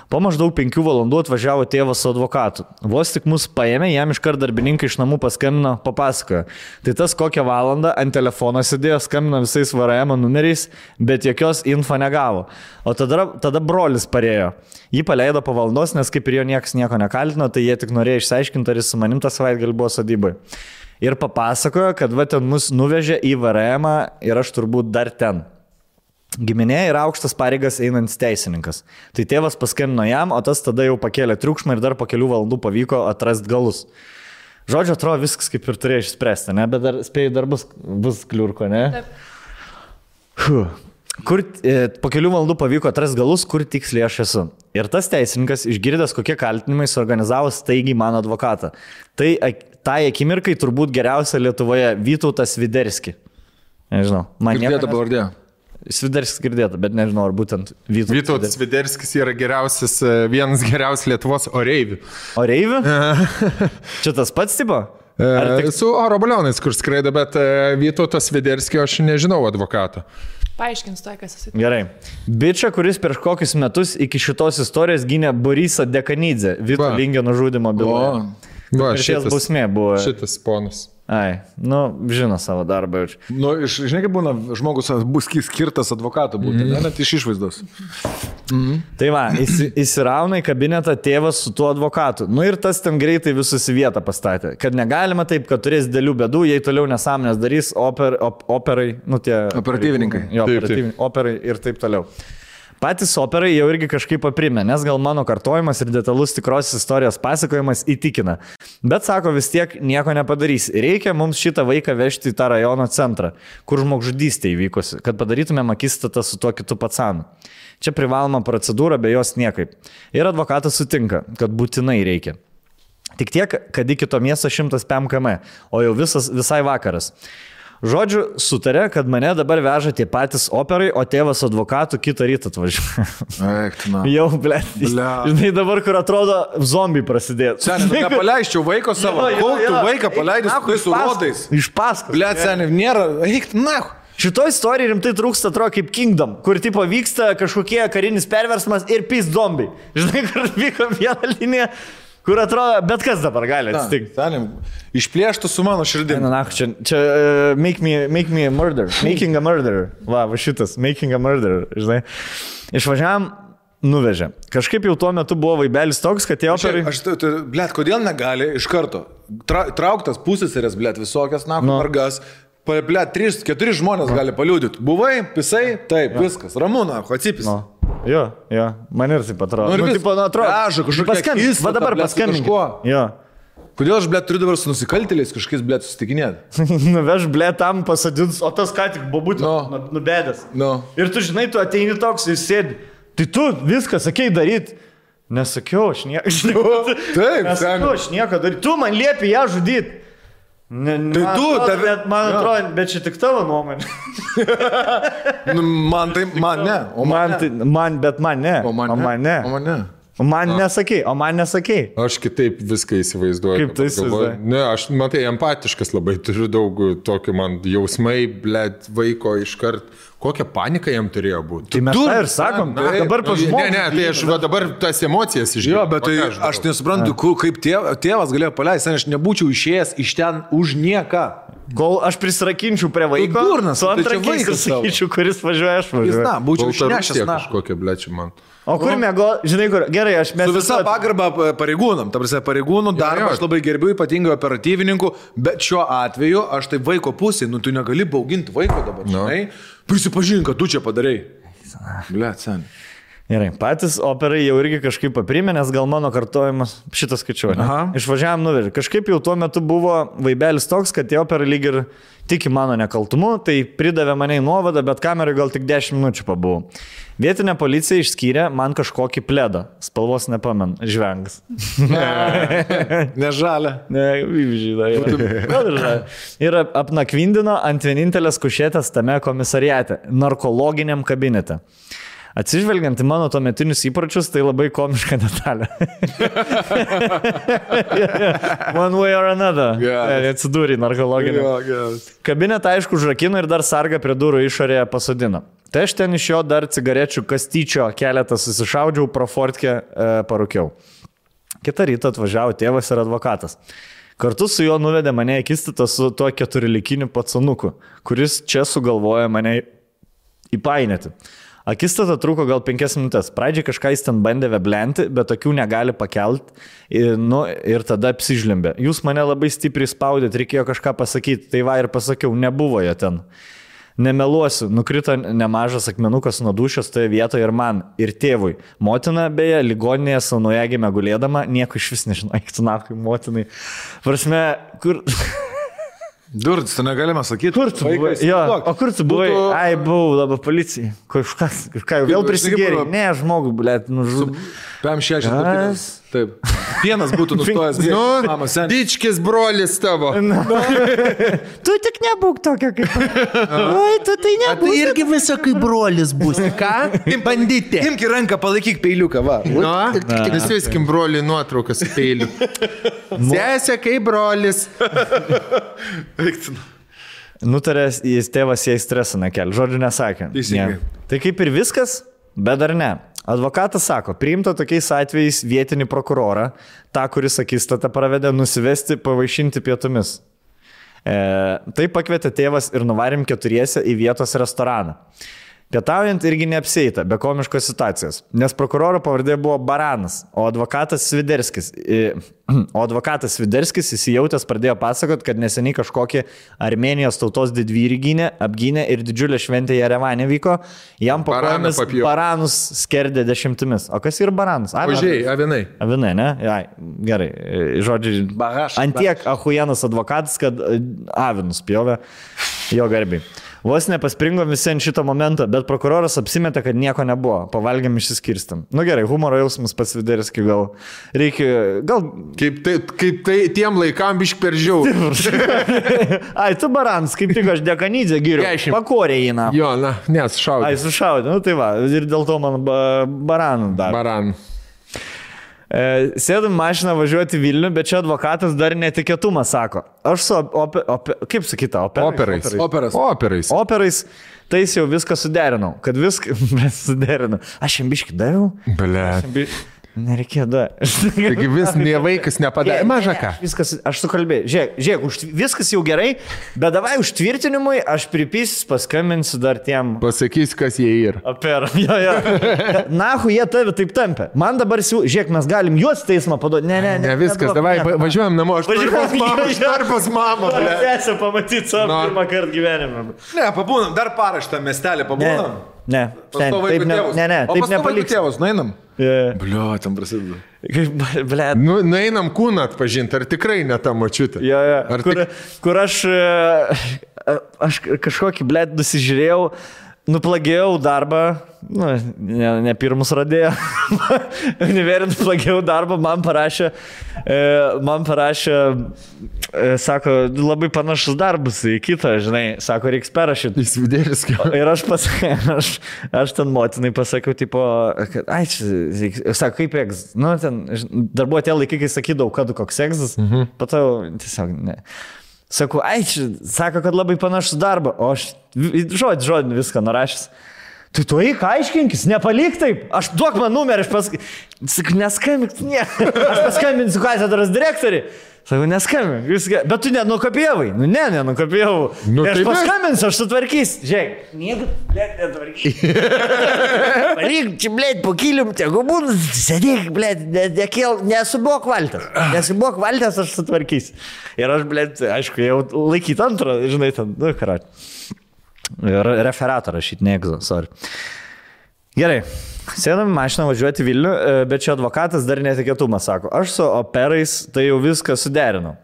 Po maždaug 5 valandų atvažiavo tėvas su advokatu. Vos tik mus paėmė, jam iškart darbininkai iš namų paskambino, papasakojo. Tai tas kokią valandą ant telefono sėdėjo, skambino visais VRM numeriais, bet jokios info negavo. O tada brolis parėjo. Jį paleido po valandos, nes kaip ir jo niekas nieko nekaltino, tai jie tik norėjo išsiaiškinti, ar jis su manim tą savaitgalį buvo sodybai. Ir papasakojo, kad va ten mus nuvežė į VRM ir aš turbūt dar ten. Giminė yra aukštas pareigas einantis teisininkas. Tai tėvas paskambino jam, o tas tada jau pakėlė triukšmą ir dar po kelių valandų pavyko atrasti galus. Žodžiu, atrodo viskas kaip ir turėjo išspręsti, ne? Bet dar spėjai, dar bus kliurko, ne? Taip. Po kelių valandų pavyko atrasti galus, kur tiksliai aš esu. Ir tas teisininkas, išgirdęs kokie kaltinimai, suorganizavo staigiai mano advokatą. Tai akimirkai turbūt geriausia Lietuvoje Vytautas Sviderski. Nežinau. Girdėta pavardė. Sviderskis girdėta, bet nežinau, ar būtent Vytautas Sviderskis yra vienas geriausias Lietuvos oreivių. Oreivių? Čia tas pats tipo? Su oro balionais, kur skraido, bet Vytautas Sviderskio aš nežinau advokato. Paaiškins tai, kas esi. Gerai. Bičia, kuris prieš kokius metus iki šitos istorijos gynė Borisą Dekanidzę, Vito Lingio nužudimo byloje. Šitas bausmė buvo. Šitas ponas. Ai, nu, žino savo darbą jau. Nu, žinai, kaip būna, žmogus bus skirtas advokatu būti, net iš išvaizdos. Tai va, įsirauna į kabinetą tėvas su tuo advokatu. Nu ir tas ten greitai visus į vietą pastatė. Kad negalima taip, kad turės dėlių bėdų, jei toliau nesąmonės darys operai, nu tie... Operatyvininkai. Jo, operai ir taip toliau. Patys operai jau irgi kažkaip paprimė, nes gal mano kartojimas ir detalus tikros istorijos pasakojimas įtikina. Bet sako, vis tiek nieko nepadarys. Reikia mums šitą vaiką vežti į tą rajono centrą, kur žmogžudystė įvykusi, kad padarytumėm akistatą su tuo kitu pacanu. Čia privaloma procedūra, be jos niekaip. Ir advokatas sutinka, kad būtinai reikia. Tik tiek, kad iki to miesto 105 km, o jau visai vakaras. Žodžiu, sutarė, kad mane dabar veža tie patys operai, o tėvas advokatų kitą rytą atvažiuoja. Jau, blėt. Žinai, dabar, kur atrodo, zombiai prasidėtų. Seniai, nepaleisčiau vaiko savo. Kol tu vaiką paleidai su rodais. Iš paskos. Blėt, seniai, nėra. Eik, na. Šitoj istorijai rimtai trūksta, atrodo, kaip Kingdom, kur tipo vyksta kažkokie karinis perversmas ir pys zombiai. Žinai, kur vyko vieną liniją. Kur atrodo, bet kas dabar gali atsitikti. Išplėštų su mano širdimi. Na, čia make me a murderer. Making a murderer. Va šitas, making a murderer, žinai. Išvažiavam, nuvežė. Kažkaip jau tuo metu buvo vaibelis toks, kad tie operai... Blet, kodėl negali iš karto? Trauktas pusėserės, blet, visokias, margas. Blet, 3-4 žmonės gali paliūdyti. Buvai, pisai, taip, viskas. Ramūna, atsipis. Jo, man ir taip atrodo. Nu, tipo, atrodo. Va dabar paskambink. Jo. Kodėl aš, turiu dabar su nusikaltėliais kažkokiais, susitikinėti? Nuveš, tam pasadins, o tas ką tik bobutė nubedęs. Ir tu žinai, tu ateini toks ir sėdi. Tai tu viską sakei daryti. Nesakiau, aš nieko. Taip, nesakiau, aš nieko daryti. Tu man liepi ją žudyti. Man atrodo, bet čia tik tavo nuomonė. Man ne. Man ne. Man nesakei. Aš kitaip viską įsivaizduoju. Kaip tai įsivaizduoju? Ne, aš, matai, empatiškas labai, turiu daug tokių man jausmai, vaiko iškart. Kokią paniką jam turėjo būti? Tai mes tą ir sakom, dabar pažymėjau. Ne, tai aš dabar tas emocijas išgirdau. Jo, bet tai aš nesuprantu, kaip tėvas galėjo paleisti, aš nebūčiau išėjęs iš ten už nieką. Kol aš prisirakinčiau prie vaiko, su antrankiais ir sakyčiau, kuris važiuoja, aš važiuoju. Na, būčiau išnešęs. Kažkokia blečiu man. O kur mėgo, žinai kur, gerai, aš mes... Su visa pagarba pareigūnam, ta prasme, pareigūnų darbą aš labai gerbiu, ypatingai operatyvininkų, bet šiuo atveju aš tai vaiko pusėje, tu negali bauginti vaiko dabar, žinai, prisipažink, kad tu čia padarai. Blet, sen. Gerai, patys operai jau irgi kažkaip paprimė, nes gal mano kartojimas šitas skaičiuoja. Išvažiavam nuvežė. Kažkaip jau tuo metu buvo vaibelis toks, kad tie operai lyg ir tiki mano nekaltumu, tai pridavė mane į nuovadą, bet kamerai gal tik 10 minučių pabuvau. Vietinė policija išskyrė man kažkokį pledą. Spalvos nepamenu. Žvengas. Nežalia. Ne, žyda. Gal ir žalia. Ir apnakvindino ant vienintelės kušėtės tame komisariate. Narkologiniam kabinete. Atsižvelgiant į mano tuometinius įpročius, tai labai komiška detalė. One way or another. Atsidūrė narkologinį. Kabinetą aišku užrakino ir dar sargą prie durų išorėje pasodino. Tai aš ten iš jo dar cigarečių kastyčio keletą susišaudžiau, pro fortkę parūkiau. Kitą rytą atvažiavo tėvas ir advokatas. Kartu su juo nuvedė mane į akistatą su tuo 4-likiniu pacanuku, kuris čia sugalvojo mane įpainėti. Akistata truko gal 5 minutės. Pradžiai kažką jis ten bandė veblenti, bet tokių negali pakelti. Ir tada apsižlimbė. Jūs mane labai stipriai spaudėt, reikėjo kažką pasakyti. Tai va ir pasakiau, nebuvo jo ten. Nemeluosiu, nukrito nemažas akmenukas nuo dušios toje vietoje ir man, ir tėvui. Motina, beje, ligoninėje su naujagime gulėdama, nieko iš vis nežinau, eiktinakui motinai. Prasme, kur... Durds, tu negalime sakyti. Kur tu buvai? Jo, o kur tu buvai? Ai, buvau dabar policijai. Kažką jau vėl prisigėrė. Ne, žmogų, blėt, nužudė. PM6. Taip. Pienas būtų nustojęs. Dičkis brolis tavo. Tu tik nebūk tokia kaip... Oi, tu tai nebūk. Tu irgi visą kaip brolis bus. Ką? Bandyti. Imk į ranką, palaikyk peiliuką, va. Nusiviskim broliui nuotraukas su peiliu. Sesė kaip brolis. Nutarė, jis tėvas jai stresą nekel. Žodžiu nesakė. Tai kaip ir viskas, bet dar ne. Advokatas sako, priimta tokiais atvejais vietinį prokurorą, tą, kuris akistatą pravedė, nusivesti pavaišinti pietumis. Tai pakvietė tėvas ir nuvarėm 4 į vietos restoraną. Pietaujant irgi neapsieita, be komiškos situacijos, nes prokuroro pavardė buvo Baranas, o advokatas Sviderskis įsijautęs pradėjo pasakot, kad neseniai kažkokie Armėnijos tautos didvyrį apgynė ir didžiulė šventė Jerevane vyko, jam po kojomis baranus skerdė 10. O kas yra baranas? Ožiai, avinai. Avinai, ne? Jai, gerai, žodžiai, antiek ahujenas advokatas, kad avinus pjovė jo garbiai. Vos nepaspringo visi ant šito momento, bet prokuroras apsimetė, kad nieko nebuvo. Pavalgėm išsiskirstam. Nu gerai, humoro jausmas pas Sviderskį gal reikia... Kaip tai tiem laikam bišk per žiaurų. Ai, tu Baranas, kaip tik aš Dekanydze giriu. Pakorė įna. Jo, na, nes šaudė. Ai, sušaudė. Nu tai va, ir dėl to man Baranų dar. Baranų. Sėdam mašiną važiuoti Vilnių, bet čia advokatas dar netikėtumą sako. Aš su kaip sakyta, operais. Tai jau viską suderinau, kad viską suderinau. Aš jam biškį daviau. Ble. Nereikėjo da. Taigi vis vaikas nepadarė. Maža ką. Viskas, aš sukalbėjau. Žiūrėk, viskas jau gerai, bet davai užtvirtinimui, aš pripysis, paskambinsiu dar tiem. Pasakys, kas jie yra. Operam, jo. Nahu, jie tave taip tampė. Man dabar žiūrėk, mes galim juos teismą paduoti. Ne, viskas, davai, važiuojam namo. Aš noriu pas mamą. Sesę pamatyti savo pirmą kartą gyvenime. Ne, pabūnam, dar parą šitą miestelį pabūnam. Ne, taip nepaliks. Tėvus, nueinam. Bliu, ten prasideda. Ble. Nueinam kūną atpažinti, ar tikrai ne ta močiutė. Kur aš kažkokį, ble, nusižiūrėjau, nuplagėjau darbą, ne pirmus radėjo, univerį nuplagėjau darbą, man parašė, sako, labai panašus darbus į kitą, žinai, sako, reiks perrašyti. Įsvidėlis kaip. Ir aš ten motinai pasakiau, tipo, kad, sako, kaip egzas, ten, dar buvo tie laikai, kai sakydavau, kad koks egzas, patau, tiesiog, ne. Sakau, sako, kad labai panašus darbą, o aš žodį viską nurašęs. Tai tu eik, aiškinkis, nepalik taip, aš duok man numerį, aš paskambinsiu, neskambink, ne, aš paskambinsiu katedros direktoriui. Sakau, neskambink, bet tu nenukopijavai. Nenukopijavau. Aš paskambinsiu, aš sutvarkysiu. Žiūrėk, nieko, blėt, netvarkysiu. Palik, čia, blėt, po kilium, tegu būtų, sėdėk, blėt, nesubok valtės, aš sutvarkysiu. Ir aš, blėt, aišku, jau laikyti antrą, žinai, ten, karat. Referatą rašyti, ne egzo, sorry. Gerai. Sėdam mašiną važiuoti Vilnių, bet čia advokatas dar netikėtumą sako. Aš su operais tai jau viską suderinau.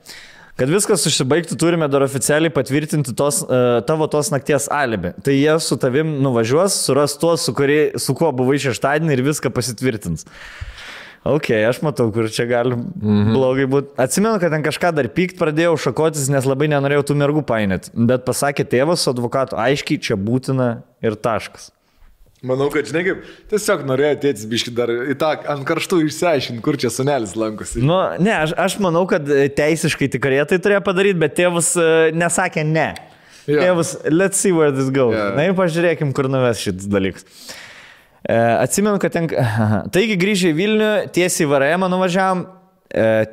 Kad viskas užsibaigtų, turime dar oficialiai patvirtinti tavo tos nakties alibi. Tai jie su tavim nuvažiuos, suras tuos, su kuo buvai šeštadienį ir viską pasitvirtins. Ok, aš matau, kur čia gali blogai būti. Atsimenu, kad ten kažką dar pykt pradėjau šakotis, nes labai nenorėjau tų mergų painėti. Bet pasakė tėvas su advokatu, aiškiai čia būtina ir taškas. Manau, kad, žinai, kaip tiesiog norėjo tėtis biški dar į tą ant karštų išsiaiškinti, kur čia sunelis lankosi. Ne, aš manau, kad teisiškai tikrai tai turėjo padaryti, bet tėvas nesakė ne. Tėvas, let's see where this goes. Na ir pažiūrėkim, kur nuves šitas dalykas. Atsimenu, kad taigi grįžę į Vilnių, tiesiai į VRM nuvažiavam,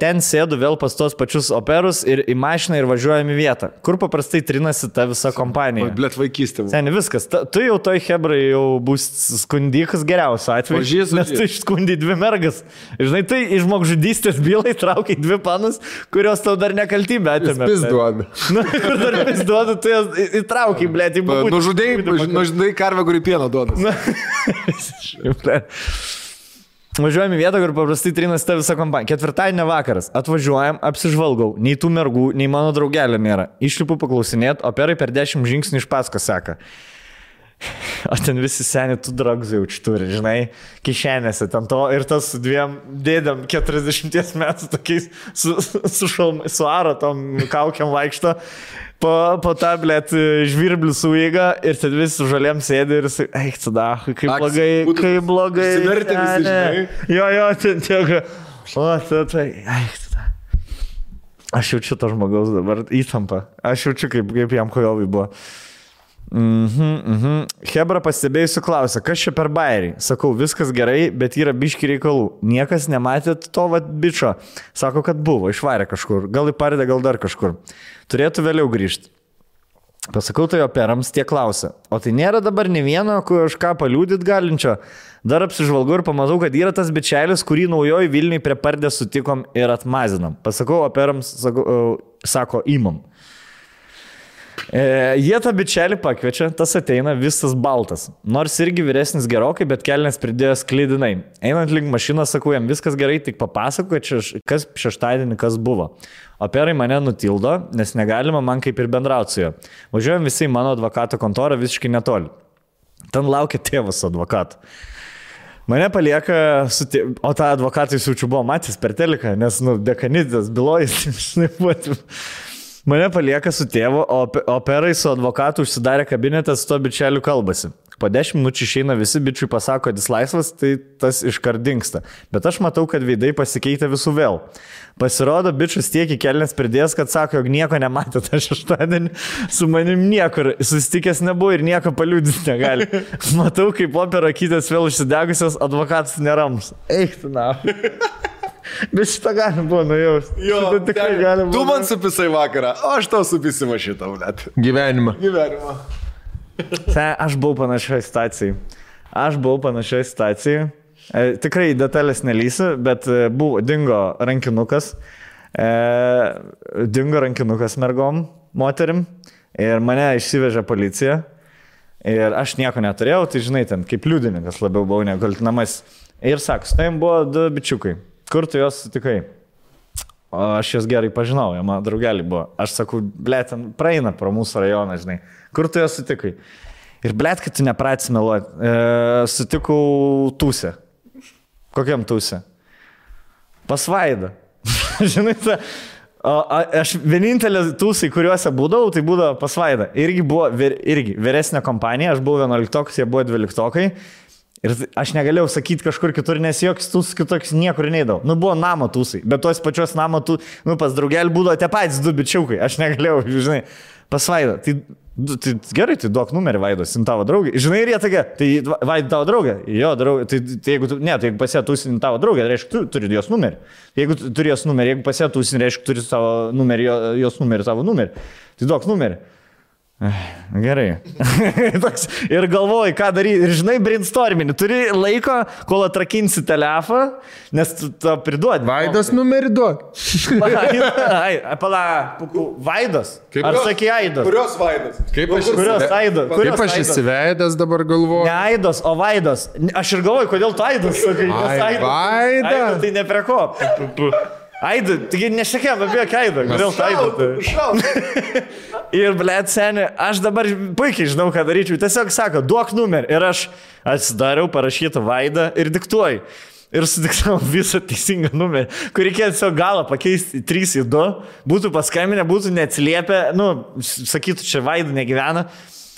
ten sėdu vėl pas tos pačius operus ir į mašiną ir važiuojam į vietą, kur paprastai trinasi ta visa kompanija. Blet vaikystė. Seniai, viskas. Tu jau toj hebrai jau bus skundikas geriausiu atveju, nes tu išskundai 2 mergas. Žinai, tai iš žmogžudystės bylai traukai 2 panus, kurios tau dar nekaltybę atėmė. Pis duoda. Ir dar pis duoda, tu jas įtraukai, blėt, į būtį. Nužudai karvę, kuri pieno duoda. Važiuojam į vietą, kur paprastai trinasi ta visa kompanija. Ketvirtadienio vakaras. Atvažiuojam, apsižvalgau. Nei tų mergų, nei mano draugelio nėra. Išlipu paklausinėt, operai per 10 žingsnių iš paskos seka. O ten visi seni tų dragzų jaučiu turi, žinai, kišenėse. Ten to ir tas su 2 dėdėm 40 metų tokiais su aro tom kaukiam vaikšto. Po tą, blėt, žvirblių suėga ir ten visi žalėm sėdi ir sakai, eik, tada, kaip blogai. Sivertė visi, žinai. Jo, ten tiek. O, tai, eik, tada. Aš jaučiu to žmogaus dabar įtampą. Aš jaučiu, kaip jam kojovai buvo. Hebra pastebėjusiu klausia, kas čia per bairį? Sakau, viskas gerai, bet yra biški reikalų. Niekas nematėt to bičo. Sako, kad buvo, išvarė kažkur. Gal į paredą, gal dar kažkur. Turėtų vėliau grįžti. Pasakau tai operams, tie klausia. O tai nėra dabar ne vieno, kur aš ką paliūdit galinčio. Dar apsižvalgau ir pamatau, kad yra tas bičelis, kurį naujoji Vilniui prie pardės sutikom ir atmazinam. Pasakau operams, sako, imam. Jie tą bičelį pakviečia, tas ateina visas baltas. Nors irgi vyresnis gerokai, bet kelnes pridėjo sklydinai. Einant link mašiną, sakau, jam viskas gerai, tik papasako, kas šeštadienį kas buvo. Operai mane nutildo, nes negalima man kaip ir bendrauti su juo. Važiuojam visi į mano advokato kontorą visiškai netoli. Ten laukia tėvas advokato. Mane palieka, o tą advokatą jis jaučiu buvo matęs per teliką, nes, dekanidės bylojas, žinai, buvo. Mane palieka su tėvu, o operai su advokatu užsidarė kabinetą, su to bičeliu kalbasi. Po 10 minučių išeina visi bičiui pasako, kad jis laisvas, tai tas iškart dingsta. Bet aš matau, kad veidai pasikeitė visų vėl. Pasirodo, bičius tiek į kelnes pridės, kad sako, jog nieko nematė tą šeštadienį, su manim niekur susitikęs nebuvo ir nieko paliūdyti negali. Matau, kaip opera kytės vėl užsidegusios, advokatas nerams. Eik, tu na. Bet šitą galim buvo nujausti. Jo, tikrai galim. Tu man supisai vakarą, o aš tau supisimu šitą, blėt. Gyvenimą. Aš buvau panašioj situacijai. Tikrai detalės nelysiu, bet dingo rankinukas. Dingo rankinukas mergom, moterim. Ir mane išsivežė policija. Ir aš nieko neturėjau, tai žinai, ten kaip liudininkas labiau buvau negu kaltinamas. Ir sako, su tavim buvo 2 bičiukai. Kur tu juos sutikai? O aš juos gerai pažinau, jie mano draugeliai buvo. Aš sakau, blėt, ten praeina pro mūsų rajoną, žinai. Kur tu juos sutikai? Ir blėt, kad tu nepratys meluoti. Sutikau Tūsę. Kokiam Tūsę? Pas Vaidą. Žinai, aš vienintelė Tūsai, kuriuose būdavau, tai būdavo pas Vaidą. Irgi buvo vyresnė kompanija, aš buvau 11-okas, jie buvo 12-okai. Ir aš negalėjau sakyti kažkur kitur, nes joks Tūsas kitoks niekur neidavo. Nu, buvo namo Tūsai, bet tos pačios namo pas draugelį būdavo tie patys 2 bičiukai. Aš negalėjau, žinai, pas Vaidą. Tai gerai, tai duok numerį Vaidos, tavo draugė. Žinai, ir jie tokia, tai Vaida tavo draugė. Jo, draugė. Tai jeigu pasė Tūsin tavo draugė, tai reiškia, tu turi jos numerį. Jeigu turi jos numerį, jeigu pasė Tūsin, reiškia, turi savo numerį, jos numerį, tavo numerį. Tai duok numerį. Gerai. Ir galvoji, ką daryti. Ir žinai, brainstorminį. Turi laiko, kol atrakinsi telefoną, nes tu to priduodi. Vaidos numerį duok. Vaidos? Ar sakai Aidos? Kurios Vaidos? Kaip aš įsiveidęs dabar galvoju? Ne Aidos, o Vaidos. Aš ir galvoju, kodėl tu Aidos sakai. Vaida. Tai ne prie ko. Aidą, taigi nešakėm apie Aidą, kodėl tu Aidą? Ir, blėt, seni, aš dabar puikiai žinau, ką daryčiau. Tiesiog sako, duok numerį. Ir aš atsidariau, parašytą Vaidą ir diktuoju. Ir sudiktavau visą teisingą numerį, kur reikėjo tiesiog galą pakeisti 3 į 2, būtų paskambinę, būtų neatsiliepę, sakytų, čia Vaida negyvena,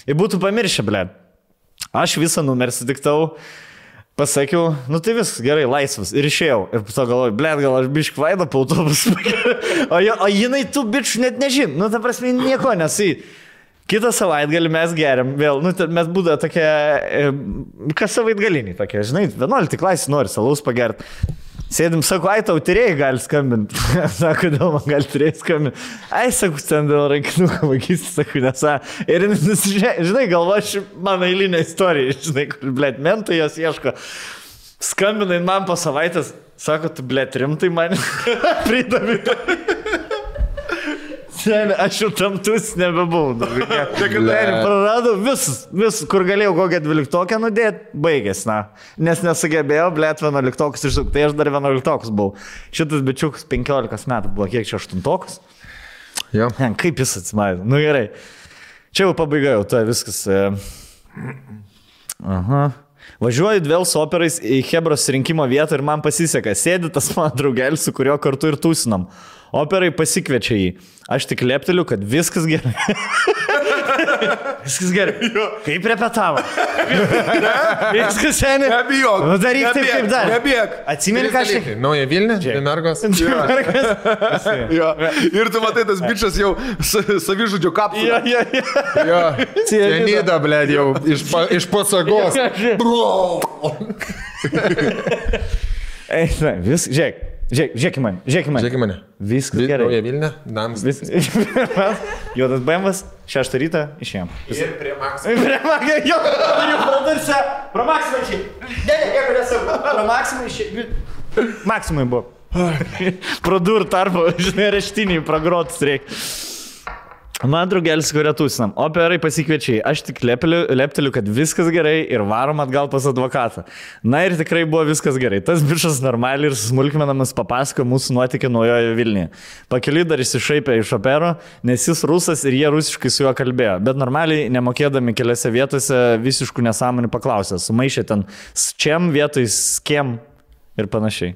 ir būtų pamiršę, blėt. Aš visą numerį sudiktavau. Pasakiau, tai viskas gerai, laisvas. Ir išėjau. Ir po to galvoju, blėt, gal aš bišk Vaidą po autobusą. O jinai tų bičių net nežin. Ta prasme, nieko nesai. Kitą savaitgalį mes geriam vėl. Mes būdavo tokie, kas savaitgaliniai tokie, žinai, 11 klasį nori salaus pagerti. Sėdim, sako, tau tyrėjai gali skambinti. Sako, dėl man gali tyrėjai skambinti. Sako, ten dėl rankinuką vagysti, sako, nesą. Ir, žinai, galvoju, mano eilinė istorija, žinai, kur, blėt, mentai jos ieško. Skambinai man po savaitės, sako, tu, blėt, rimtai man pridami. Aš jau tam Tūs nebebuvau. Praradau vis, kur galėjau kokią 12-okę nudėti, baigės, Nes nesugebėjau, blėt, 11-okus išsuk, tai aš dar 11-okus buvau. Šitas bičiukas 15 metų buvo, kiek čia 8-okus? Jo. Kaip jis atsimaidė? Gerai. Čia jau pabaiga, jau tai viskas. Važiuoju vėl su operais į Hebros rinkimo vietą ir man pasiseka. Sėdi tas mano draugelis, su kuriuo kartu ir tūsinam. Operai pasikviečia jį. Aš tik lepteliu, kad viskas gerai. Viskas gerai. Kaip repetavo? Viskas seniai. Nebijok. Daryk taip, kaip dar. Nebijok. Atsimeni kažkaip. Nauja Vilnių, Mergos. Ir tu matai, tas bičas jau savižudžio kapsulė. Jo. Cianidą, blėd, jau iš pasagos. Žiūrėk į mane. Viskas gerai. Nauja Vilnių, Nams. Juodas BMW'as, 6 rytą išėjom. Ir prie Maksimai. Jo, turiu prodursę. Pro Maksimai išėjom. Nieko nesakau. Pro Maksimai išėjom. Maksimai buvo. Pro dur tarpo, žinai, reštiniai pragrotus reikia. Man draugelis, kurie tūsinam. Operai pasikviečiai. Aš tik lepteliu, kad viskas gerai ir varom atgal pas advokatą. Ir tikrai buvo viskas gerai. Tas bičas normaliai ir smulkmenamas papasako mūsų nuotykį Naujoje Vilniuje. Pakeliui dar išsišaipė iš opero, nes jis rusas ir jie rusiškai su juo kalbėjo. Bet normaliai, nemokėdami keliose vietose, visiškų nesąmonių paklausė. Sumaišė ten sčiam vietoj skiem. Ir panašiai.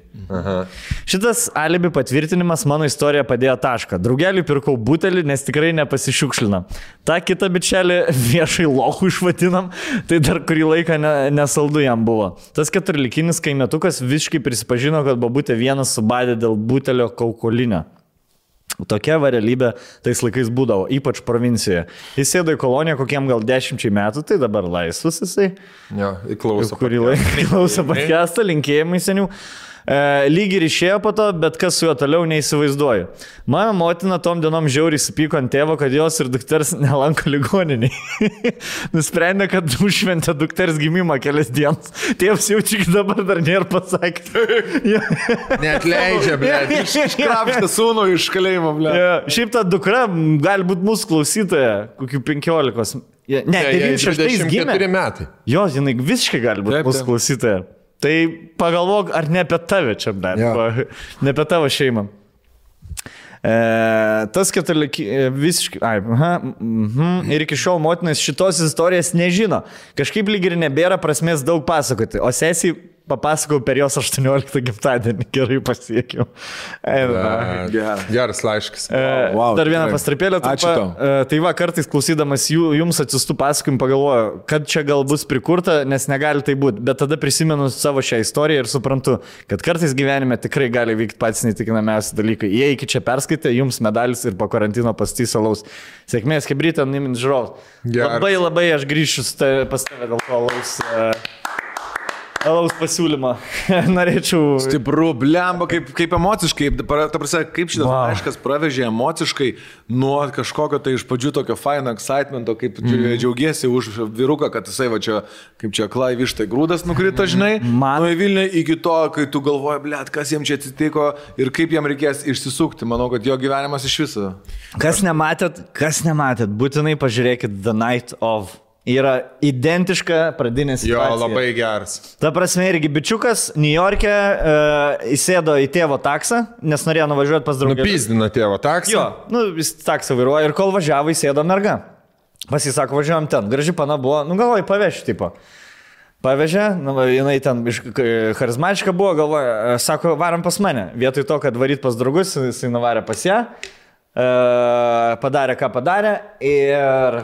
Šitas alibi patvirtinimas mano istoriją padėjo tašką. Draugeliui pirkau butelį, nes tikrai nepasišiukšlinam. Ta kitą bičelį viešai lochų išvadinam, tai dar kurį laiką nesaldu jam buvo. Tas 14-likinis kaimietukas visiškai prisipažino, kad bobutė vienas subadė dėl butelio kaukolinio. Tokia realybė tais laikais būdavo, ypač provincijoje. Jis sėdo į koloniją kokiem gal 10 metų, tai dabar laisvas jisai. Jo, įklauso. Kurį laiką klauso podcastą, linkėjimai senių. Lyg ir išėjo po to, bet kas su juo toliau neįsivaizduoju. Mano motina tom dienom žiauriai supyko ant tėvo, kad jos ir dukters nelanko ligoniniai. Nusprendė, kad užšventė dukters gimimą kelias dienas. Tėvas jau tik dabar dar nėra pasakė. Neatleidžia, blėt. Iškrapštė sūnų iš kalėjimo, blėt. Šiaip ta dukra gali būti mūsų klausytoja, kokių 15. Ne, 96 gimė. 24 metai. Jo, jinai visiškai gali būti mūsų klausytoja. Tai pagalvok, ar ne apie tave čia, bet ne apie tavo šeimą. Tas visiškai... Ir iki šiol motinas šitos istorijos nežino. Kažkaip lyg ir nebėra prasmės daug pasakoti, o sesiai papasakau per jos 18 gimtadienį, gerai pasiekiau. Geras laiškas. Dar vieną pastraipėlę. Ačiū tau. Tai va, kartais klausydamas jums atsistų pasakojimų pagalvoju, kad čia gal bus prikurta, nes negali tai būti. Bet tada prisimenu savo šią istoriją ir suprantu, kad kartais gyvenime tikrai gali vykti patys neįtikinamiausi dalykai. Jei iki čia perskaitė, jums medalis ir po karantino pastys alaus. Sėkmės, Hebrytė, Nimin žiūrovas. Labai aš grįšiu pas tave dėl to alaus pasiūlymą. Norėčiau... Stipru, blemba, kaip emociškai, ta prasme, kaip šitas laiškas pravežė emociškai nuo kažkokio tai iš pradžių tokio faino excitemento, kaip džiaugiesi už vyruką, kad jisai va čia, kaip čia aklai vištai grūdas nukrito, žinai, nuo į Vilnių iki to, kai tu galvoji, blėt, kas jiems čia atsitiko ir kaip jam reikės išsisukti. Manau, kad jo gyvenimas iš viso. Kas nematėt, būtinai pažiūrėkit The Night of. Yra identiška pradinė situacija. Jo, labai geras. Ta prasme, irgi bičiukas New York'e įsėdo į tėvo taksą, nes norėjo nuvažiuoti pas draugą. Nupizdino tėvo taksą? Jo, jis taksą vairuoja ir kol važiavo įsėdo merga. Pasisako, važiuojam ten. Graži pana buvo, galvoju, pavežti, tipo. Pavežė, jinai ten charizmatiška buvo, galvoja, sako, varam pas mane. Vietoj to, kad varyt pas draugus, jisai nuvarė pas ją, padarė, ką padarė ir...